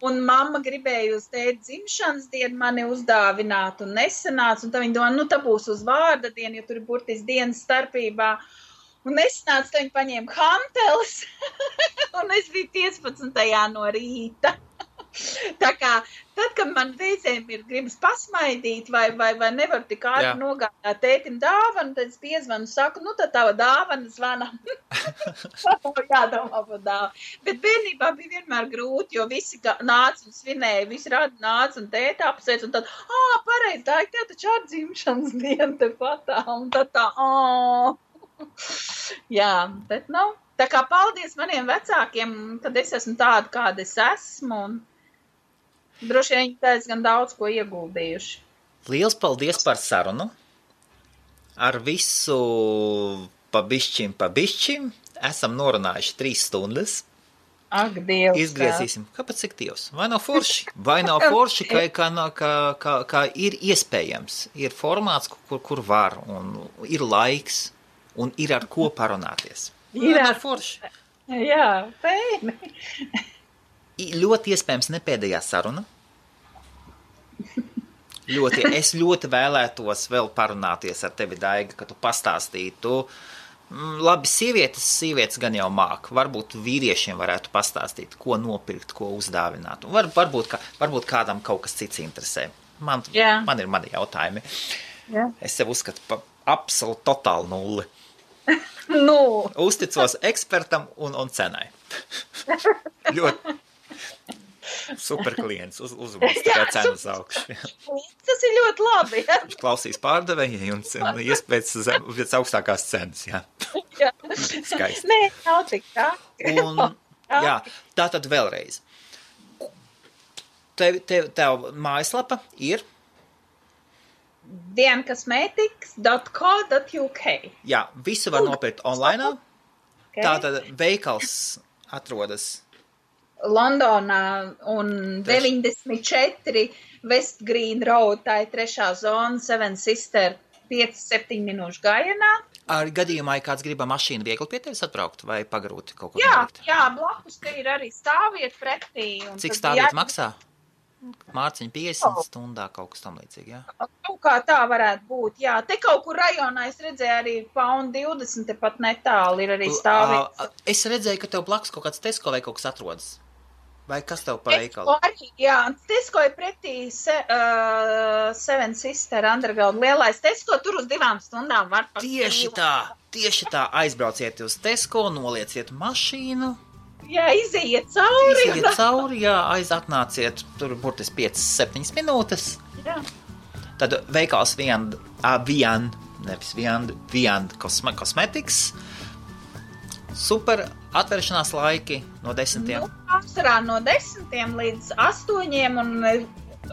Un mamma gribēja uz tēti dzimšanas dienu mani uzdāvināt un nesanāca, un tā viņa domā, tā būs uz vārda dienu, jo tur ir burtiski dienas starpībā. Un nesanāca, tā viņa paņēma hanteles, un es biju 15. no rīta. Tā kā, tad, kad man reizēm ir gribas pasmaidīt vai nevar tik ātri nogādāt tētim dāvanu, tad es piezvanu un saku, tad tava dāvana zvana. Jādomā par dāvanu. Bet bērnībā bija vienmēr grūti, jo visi nāca un svinēja, visi radi nāca un tēta apsveic, un tad, pareizi, tā ir tev taču ar dzimšanas dienu te patā, un tad tā, Jā, bet tā kā paldies maniem vecākiem, kad es esmu tāda, kāda es esmu, un droši vien viņi diezgan daudz ko ieguldījuši. Liels paldies par sarunu. Ar visu pa bišķim. Esam norunājuši 3 stundas. Ak, Dievs. Izgriezīsim. Kāpēc cik Dievs? Vai nav forši? Vai nav forši, kā ir iespējams. Ir formāts, kur var, un ir laiks, un ir ar ko parunāties. Ir ar forši. Jā, pēni. Ļoti iespējams ne pēdējā saruna. Es ļoti vēlētos vēl parunāties ar tevi, Daiga, ka tu pastāstītu. Labi, sievietes gan jau māk. Varbūt vīriešiem varētu pastāstīt, ko nopirkt, ko uzdāvināt. Varbūt kādam kaut kas cits interesē. Man ir mani jautājumi. Jā. Es sev uzskatu par absolūti totālu nulli. Uzticos ekspertam un cenai. Ļoti super klients, uzmanīgs tikai cenas augšu. Tas ir ļoti labi. Viņš klausīs pārdevēji un iespēc augstākās cenas, jā. Skaisti. Nē, nav tik tā. Tātad vēlreiz. Tev mājaslapa ir? dienkosmetics.co.uk. Jā, visu var nopirkt online. Okay. Tātad veikals atrodas Londonā un 94 West Green Road, tā ir 3. zona, Seven Sister, 5-7 minūšu gājienā. Ar gadījumā, ja kāds gribam mašīnu viegli pie tevis atbraukt vai pagrūti kaut ko nolikt? Jā, blakus te ir arī stāvvieta pretī. Cik stāvvieta maksā? Mārciņa 50 stundā kaut kas tam līdzīgi, jā? Kaut kā tā varētu būt, jā. Te kaut kur rajonā es redzēju arī £1.20, te pat netāli ir arī stāvvieta. Es redzēju, ka tev blakus kaut kāds Tesco vai kaut kas atrodas. Vai kas tev pa veikalu? Tesco arī, jā. Tesco ir pretī Seven Sister Underground lielais Tesco, tur uz 2 stundām var par Tieši tā, aizbrauciet uz Tesco, nolieciet mašīnu. Jā, iziet cauri. Atnāciet, tur burtiski 5-7 minūtes. Jā. Tad veikals Viand Cosmetics. Super atvēršanās laiki no 10. Pārsvarā no 10 līdz 8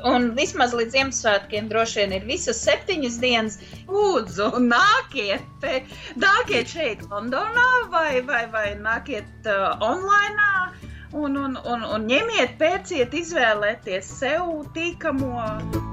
un vismaz līdz Ziemassvētkiem droši vien ir visas 7 dienas. Lūdzu, nākiet šeit Londonā vai nākiet online un ņemiet, pērciet, izvēlēties sev tīkamo.